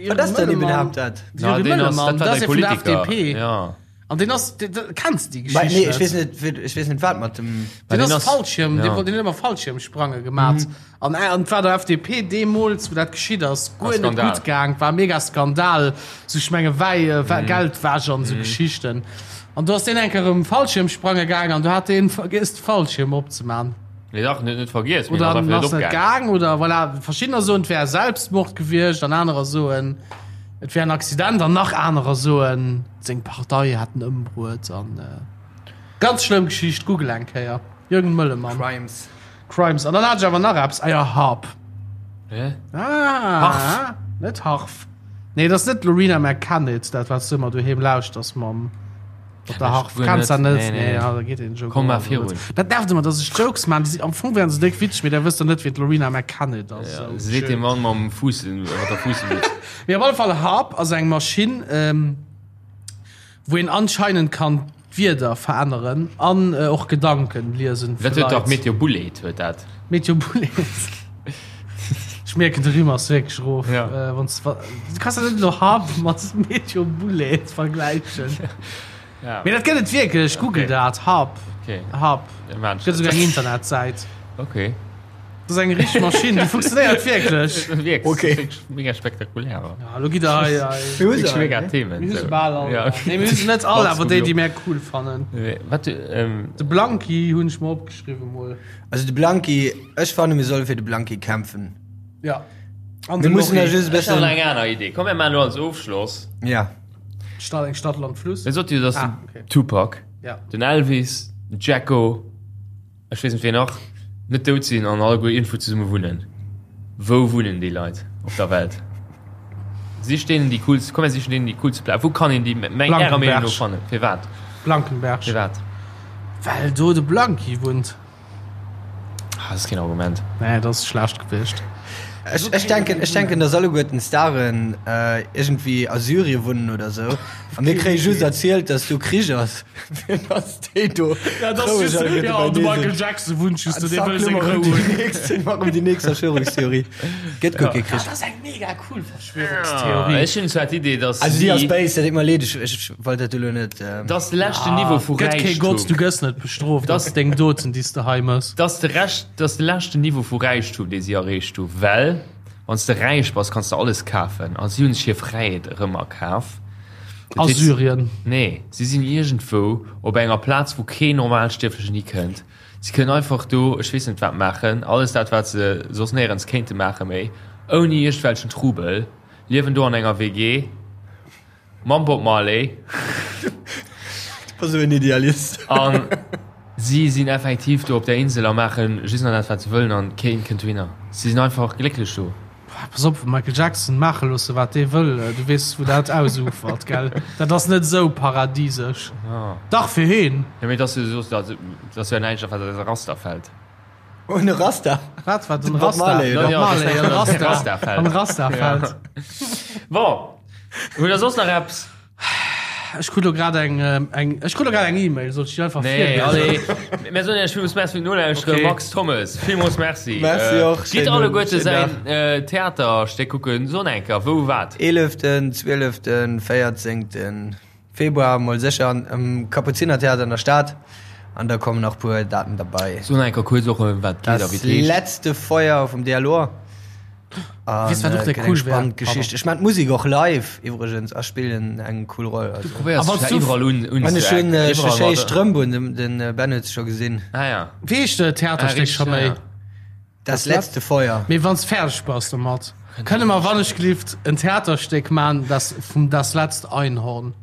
Wat ass denn iwwerhaapt dat? Na, Jürgen deen ass, Möllemann, dat war dat ass däi ee vun der Politiker. FDP. Ja. An deen ass, deen, deen, kenns de déi Bei, Geschicht nee, ech net? weess net, wéi- ech weess net wat mat dem. Deen deen ass ass- Fallschirm, deen ja. wollt, deen huet ëmmer Fallschirmsprange gemat. An, äh, an et war der FDP deemools, wou dat geschitt ass, guer net Skandal. gutt gaang, war mega Skandal, sou ech menge Wäi, äh, Geldwäsch an esou Geschichten. An do ass deen eng Kéier erëm Fallschirmsprange gaang an do hat deen vergiess de Fallschirm opzeman. Nee, dach, net, net vergiess, mee Oder ass einfach ass net net opgaang. gaang oder voilà, verschiddener soen, et wär Selbstmord gewiescht an anerer soen, et wär en Accident an nach anerer soen, seng Partei hätt en ëmbruet an ganz schlëmm Geschicht, google eng Kéier, Jürgen Möllemann. Crimes. Crimes. An dann hat ech awer nach eppes, ah jo, Harp. Hä? Ah, Harf. Net Harf. Nee, dat ass net d'Lorena McKennitt, dat wat s du ëmmer doheem lauschters mam. Op der Harf guer kenns dat net. net? Nee, Nee, nee. ja, da geet een Joke Komm och mar virun. Dat nervt ëmmer, dass ech Jokes man, déi si am Fong wären se déck witzeg, mee da wësst der net, wien d'Lorena McKennitt ass. Ja, Sou se seet schön. dem Mann mam Fuuss, mat der Fuussmütz. Mee op alle Fall, Harp ass eng Maschinn, ähm, wou een anscheinend kann d'Wierder veränneren an äh, och Gedanken liesen vu Dat huet dach Leit. Meteo Bullet huet dat. Meteo Bullet. Ech mierken, de Rimm ass wierklech erof. Ja. Äh, wanns, wa, du kanns dat net elo Harp mat Meteo Bullet vergläichen. Ja. Mee dat gëtt et wierklech, google Okay. dat, Harp. Okay. Harp. Ja, man, Gëtt esouguer eng Internetsäit. Okay. Dat ass eng richteg Maschinn, déi funktionéiert wierklech. Wierklech, Okay. wierklech mega spektakulär. wa. Ja, elo gitt der hei, hei. Mir hu se Wierklech all, mega ne? Themen. Mir hu se so. bal all. Ja, okay. Nee, mir hu se net all, Platz awer déi, geblockt. déi mär cool fannen. Nee, Wat, ähm, De Blanki hunn ech mer opgeschriwwen mol. Also de Blanki, ech fanne mir solle fir de Blanki kämpfen. Ja. An Mir de mussen da Lorry. just e Ech hat bëssen. eng aner Idee. Komm, mir maachen elo als Ofschloss. Ja. Stadt, eng Stadt, Land, Fluss. Mir sot jo, dass Ah, den okay. Tupac, Ja. den Elvis, den Jacko, ech weess net wien nach, net dout sinn an alleguer iergendwou zesumme wunnen. Wou wunnen déi Leit op der Welt? Sich deenen déi coolst, komm mir sichen deenen déi coolste Plaz. Wou kann een déi meng ärer Meenung no Blankenberg. fannen? Firwat? Blankenberg. Firwat? Well do de Blanki wunnt. Ah, dat ass keen Argument. Nee, dat ass schlecht gewiescht. Ech, ech denken, ech denken, dass alleguerten d'Staren äh, irgendwie a Syrien wunnen oder sou. A mir kréie just erzielt, dass do Krich ass. Fir dass déi do Ja, das roueg just, alleguerte ja, de beinee Michael sinn. Jackson wunnt just do, An dee zack, wëll lo seng mar Rou ëm déi hunn. nächst, mar ëm déi nächst Verschwörungstheorie. Gëtt guer kee Krich. Dat ass eng mega cool Verschwörungstheorie. Ech hunn zwar d'Idee, dass Also déi ass si, béis, dat deet mer leed, ech, ech wollt dat elo net. Ähm, dass de leschten Niveau vu Gëtt kee Gott, du Räichtum, gëss net bestrooft, Das- das deng Doten, déi s de hei mëss. dass de Rescht, dass de leschten Niveau vu Räichtum, dee si erreecht hu, well wann s de räich bass, kanns de alles kafen a si hunn sech hir Fräiheet erëm erkaf. Dat A heescht- Syrien. Nee, si sinn iergendwou op enger Plaz, wou keen Normalstierflechen hikënnt. Si kënnen einfach do, ech weess net wat maachen, alles dat wat se soss néierens kéinte maache méi, ouni iergendwelchen Trubel, liewen do an enger WG mam Bob Marley. Du bass esou en Idealist. An si sinn effektiv do op der Insel a maache just nach dat wat se wëllen an keen kënnt dohinner. Si sinn einfach glécklech do. Pass op, Michael Jackson maache loosse wat dee wëll, du weess wou dat ausufert, gell? Dat ass net esou paradisesch. Dach fir heen. Jo mee et ass jo soss, dat ass jo näischt wat eis Raster fält. Oh en Rasta. Wat wat en Bob Rasta? Marley, oder? Bob Marley, en Rasta. Rasta fält. En Rasta fält. Bon, hutt der soss nach eppes? Ech krut lo grad eng, eng, ech krut lo grad eng E-Mail, soll ech déi einfach Nee, virliesen? allez. Mir soen Iech villmools Merci fir d'Nolauschteren. Okay. Max Thommes, villmools Merci. Merci Äh, och. Gitt Schéinen- alleguerte schéinen säin Dag. äh, Theaterstéck kucken. Son eng Kéier, wou, wat? 11., 12., 14. Februar mol sécher an am Kapuzinertheater an der Stad. An da kommen nach puer Daten derbei. Son eng Kéier kuerz och, ëm wat geet a Das wéi et heescht. letzte Feuer vum Dialor. An, Weess, wat och äh, der gëtt eng cool wär? spannend Geschicht. Ech man d'Musik och live iwwregens a spillen eng cool Roll. Du Also. probéiers A wann dech du- iwwerall un, un An ech hunn äh, iwwerall schéi mat- Strëmp un, den, den äh, Ben huet se scho gesinn. Ah ja. Wéi heescht de Ah, Theaterstéck richtig, scho méi? ja. Das letzte Feuer. Mee wann s fäerdeg bass domat, kënne mer wannechgelift en Theaterstéck man, das vum Das letzte Einhorn.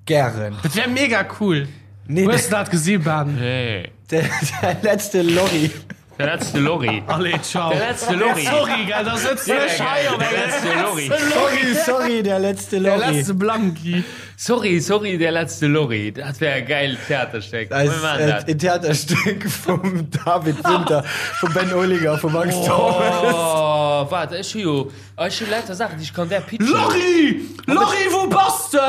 Gären. Dat wär mega cool. Nee, Hues du dat gesi, Ben? Nee. Der, der letzte Lorry. Der letzte Lorry. Allez, ciao. Der letzte Lorry. Sorry, gell, da sëtzt ech hei op Der engem letzte Lorry. Sorry, sorry, der letzte Der Lorry. letzte Blanki. Sorry, sorry, der letzte Lorry. Dat wär e gäilt Theaterstéck. Das Mir maachen ist dat. äh, en Theaterstück vum David Winter, vum Ben Olinger, vum Max Thomas. Oh, waart, ech hu jo Ech hu lauter Saachen, déi ech kann där pitchen. Lorry! Lorry, wou bass de?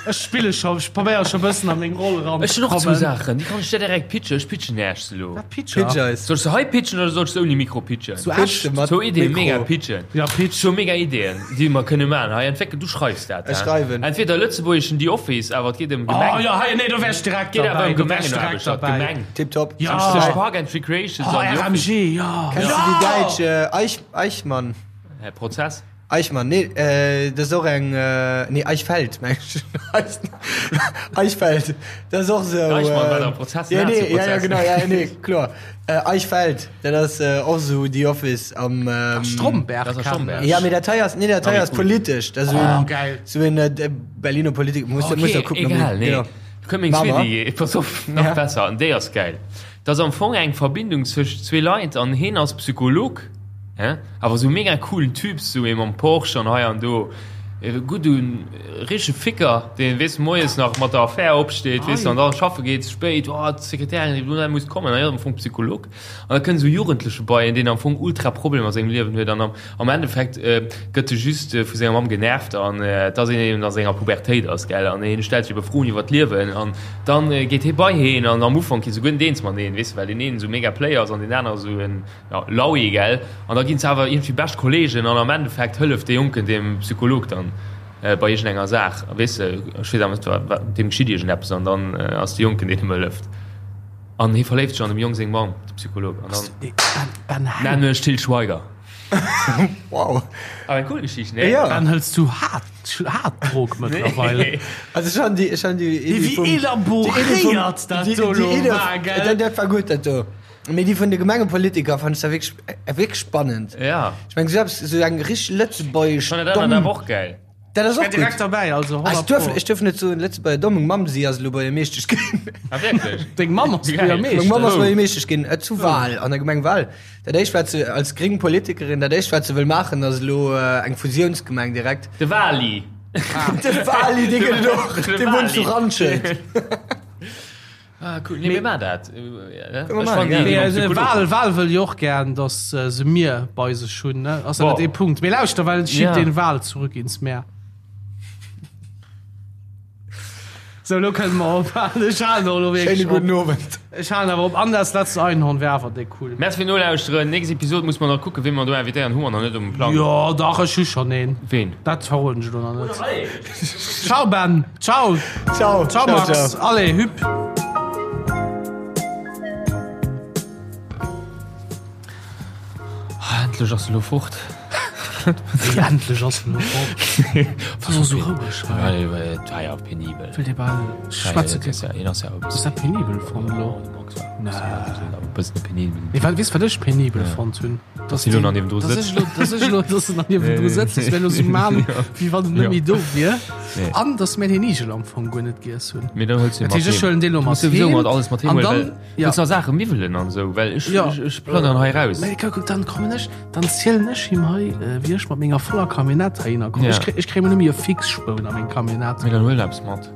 Ech spille scho, ech probéiere scho bëssen a meng Roll eran Ech ze hunn och zwou kommen. Saachen, déi kann ech der direkt pitchen. Ech pitchen Äech se elo. Wat pitch Pitch er? eis. Soll ech se hei pitchen oder soll ech se ouni Mikro pitchen? Zu Pitch Esch? se mat Zwou Ideeën, Mikro. mega pitchen. Ja, pitch. Zwou mega Ideeën, déi mer kënne maachen. Hei, entwéckel, du schreifs dat, Ech hä? schreiwen. Entweder lëtzebuergeschen The Office, awer et geet ëm Gemeng. Oh ja, hei, nee, do wär ech direkt Geet awer derbäi. ëm Do wär ech direkt Gemengenaarbecht, derbäi. Gemeng. Tipptopp. Ja. Zwëscht Park and Recreations Oh, an The Office. RMG, ja. Kennst du déi däitsch äh, Eich, Eichmann? Hä, Prozess? Eichmann, nee, äh, dat ass och eng, äh, nee, Eichfeld, meng ech. Eichfeld, dat ass och sou. Eichmann war äh, der Prozess, Ja, nee, ja, ja, Nazi-Prozess. genau, ja, nee, kloer. Äh, Eichfeld, dat ass äh, och sou The Office am. Ähm, Stromberg. Das ass kenn Stromberg. ech. Ja, mee dat hei ass, nee, dat hei Ah, ass cool. politesch. Dat ass sou Oh, en, geil. sou en äh, Berliner Politiker. Muss, muss da kucken, ob egal, ich- nee. Genau. Kënnt meng Mach zweet mal. Idee, pass op, nach Ja. besser, an déi ass geil. Dat ass am Fong eng Verbindung zwëscht zwee Leit an heen ass Psycholog. Hä? Awer sou mega coolen Typ, sou ee mam Porsche an hei an do. E gudden, richtege Ficker, deen, weess, moies nach mat der Affär opsteet, weess, an dann schaffe geet, spéit, oh, d'Sekretärin seet, oh, muss kommen, an hien ass am Fong Psycholog. An da kënnt sou e Jugendleche bei en, deen am Fong ultra Problemer a sengem Liewen huet an am, am Endeffekt gëtt e just vu senger Mamm genervt an dass een eben a senger Pubertéit ass, gell, an hien stellt sech ebe Froen iwwer d'Liewen an dann geet hie bei heen an am Ufank gi se guer net eens mateneen, weess, well deen een esou mega Player ass an deen anere sou en. Ja, Laui, gell? An da ginn se awer iergendwéi bescht Kollegen an am Endeffekt hëlleft dee Jonken dem Psycholog dann bei iergendenger Saach. Weess de, ech weess awer net, wat, wat, deem geschitt iergendeppes an dann ass de Jonken, deen him hëlleft. An hie verléift sech an dem Jong seng Mamm, de Psycholog. An dann nennen ech Til Schweiger. Wow. Awer eng cool Geschicht, nee? Ja. Ben, hëls du haart, haart Drog mëttlerweil? Also ech han déi, ech han déi Iddi Wéi vum- elaboréiert dat déi- do déi lo Iddi- war, gell? Dat, dat war gutt, dat do. Mee déi vun de Gemengepolitiker fand ech da wierklech, wierklech spannend. Ja. Ech meng, sou eppes, sou eng richteg lëtzebuergesch Ech fannen dat domm. awer och geil. Dat ass Ech och wär direkt gutt. derbäi, also Ah, ech 100 duerf, Pro. ech duerf net soen Lëtzebuerger domm. Meng Mamm, si ass elo Buergermeeschtesch ginn. Ah, wierklech? Deng Mamm ass Geil. Buergermeeschtesch? Meng Mamm ass Oh. Buergermeeschtesch ginn, äh, zu Wal, an der Gemeng Wal. Dat éischt, wat se als gréng Politikerin, dat éischt, wat se wëll maachen, ass elo äh, eng Fusiounsgemeng direkt. De Wali. De Wali, dee gëtt et och. De Dee wunnt zu Wali. Randschelt. Ah, cool. Nee, mir maachen dat. Wal Wal wëll jo och gern, datt se Mier bei sech hunn, ne? Ass dat net ee Punkt? Mee lauschter, well schiebt den Wal zurück ins Meer. Sou, lo kënne mer ophalen. Ech halen och elo wierklech Schéine gudden Owend. Ech halen awer op. An das letzte Einhorn wär awer déck cool. Merci fir Nolauschteren. Nächst Episode muss mer nach kucken, ween mer do invitéieren. Hu mer nach net um Plang. Jo, dach, ech hu schonn een. Ween? Dat verroden ech elo nach net. Ciao Ben. Ciao. Ciao. Ciao Max. Allez, hüpp. Ah, endlech ass se lo fort. Wéi endlech ass se lo fort? Wat ass esou roueg hei? Et war jo penibel. Wëllt Dir bal schwätze ginn? Hien ass ja e Ass dat penibel fonnt elo? Nee. E bëssen penibel. Mee wat, weess wat ech penibel fonnt hunn? Dass hien elo nach niewendru sëtzt. Dass ech elo, dass ech elo, dass en nach niewendru sëtzt, dass mir elo sou man, wéi wann en net méi do wier. An dass mir den Igel am Fong guer net giess hunn. Mee dann huels du Dat heescht, ech huelen dee lo mat heem. Mat alles mat heem An huelen, dann, well ja. Willst nach Saache miwwelen an esou, well ech, Ja. ech, ech plënnern hei raus. Mee kuck, dann kommen ech, dann zielen ech him hei, äh, wéi ech mat menger voller Camionnette heihinner kommen. Ja. Ech kréi, ech kréi mol nëmme e Fixspoun a meng Camionnette. Mee dann huel eppes mat.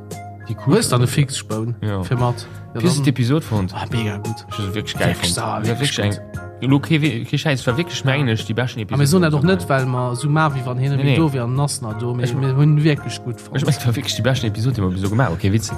Déi cool. Hues dann e Fixspoun Ja. fir mat? Ja, Wéi hues du dann, d'Episod fonnt? ah, mega gutt. Ech hu se wierklech geil Wierklech, fonnt. ah, War wierklech wierklech eng, elo kee, kee Schäiss, war wierklech mengen ech déi beschten Episod. A mir soen dat och net, well mer esou man, wéi wann hien net Nee, méi nee. do wier an en ass nach do. Mee mir hunn wierklech gutt fonnt. Ech mengen, et war wierklech déi beschten Episod, déi mer bis elo gemaach hunn. Kee Witz.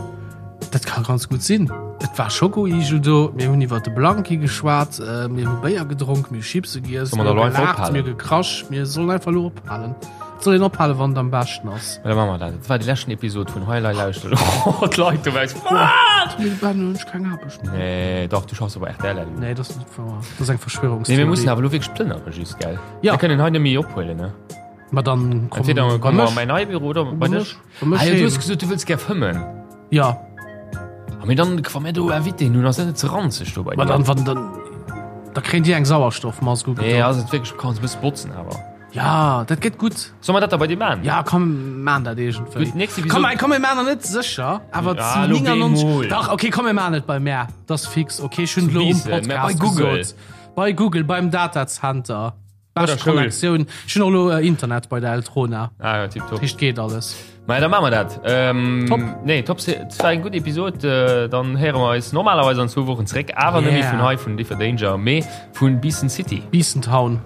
Dat ka ganz gutt sinn. Et war Schokoigel do, mir hunn iwwer de Blanki geschwat, mir hu Béier gedronk, mir hu Chipse giess, Soll mer mir da hu elo einfach gelaacht, ophalen? mir hu gekrasch. Mir sollen einfach elo ophalen. Et soll een ophalen, wann et am beschten ass. Da maache mer dat. Dat war déi leschten Episod vun Hei Lei Lauschter. Oh, d'Leit dobaussen. Wat? Mee Ben, hunn ech keng Aarbecht méi. Nee, dach, du schaffs op rtl elo. Nee, dat ass net wouer. Dat ass eng Nee, Verschwörungstheorie. mir mussen awer elo wierklech plënnere just, gell? Ja. Mir kënnen hei net méi ophuelen, ne? Ma dann komm Entweder bei komme mer mech. an mäin neie Büro oder bei dech. Bei mech Ah jo, du heem. hues gesot, du wëlls gär fëmmen. Ja. A mee dann, wa mir do Invitéen hunn, ass dat net ze ranzeg do bei Ma dir? dann, wann dann, da kréien déi eng Sauerstoffmask Nee, ugedoen. ass et wierklech, kanns e bësse botzen awer. Ja, dat gëtt gutt. Solle mer dat da bei dir maan? Ja, komm, maan dat iergendwéi. Gutt, nächst Episode. Komm, komm, mir maan der net sécher, awer Ja, zu elo 99. bemol. Dach, okay, komm, mir maan et bei mär. Dat ass fix. Okay, ech hunn Zu elo um Biissen, mä Podcast bei Google. gesot. Bei Google, beim Datacenter. Bei der Bescht Schoul. Connectioun. Ech hunn och elo Internet bei der Eltrona. Ah ja, tipptopp. Dat heescht, geet alles. Maja, da maache mer dat. Ähm, Top. Nee, top. Et war eng gutt Episod. Äh, dann héiere mer eis normalerweis an zwou Wochen zeréck, awer net méi Yeah. vun hei vun Differ Danger, mee vun Biissen City. Biissen Town.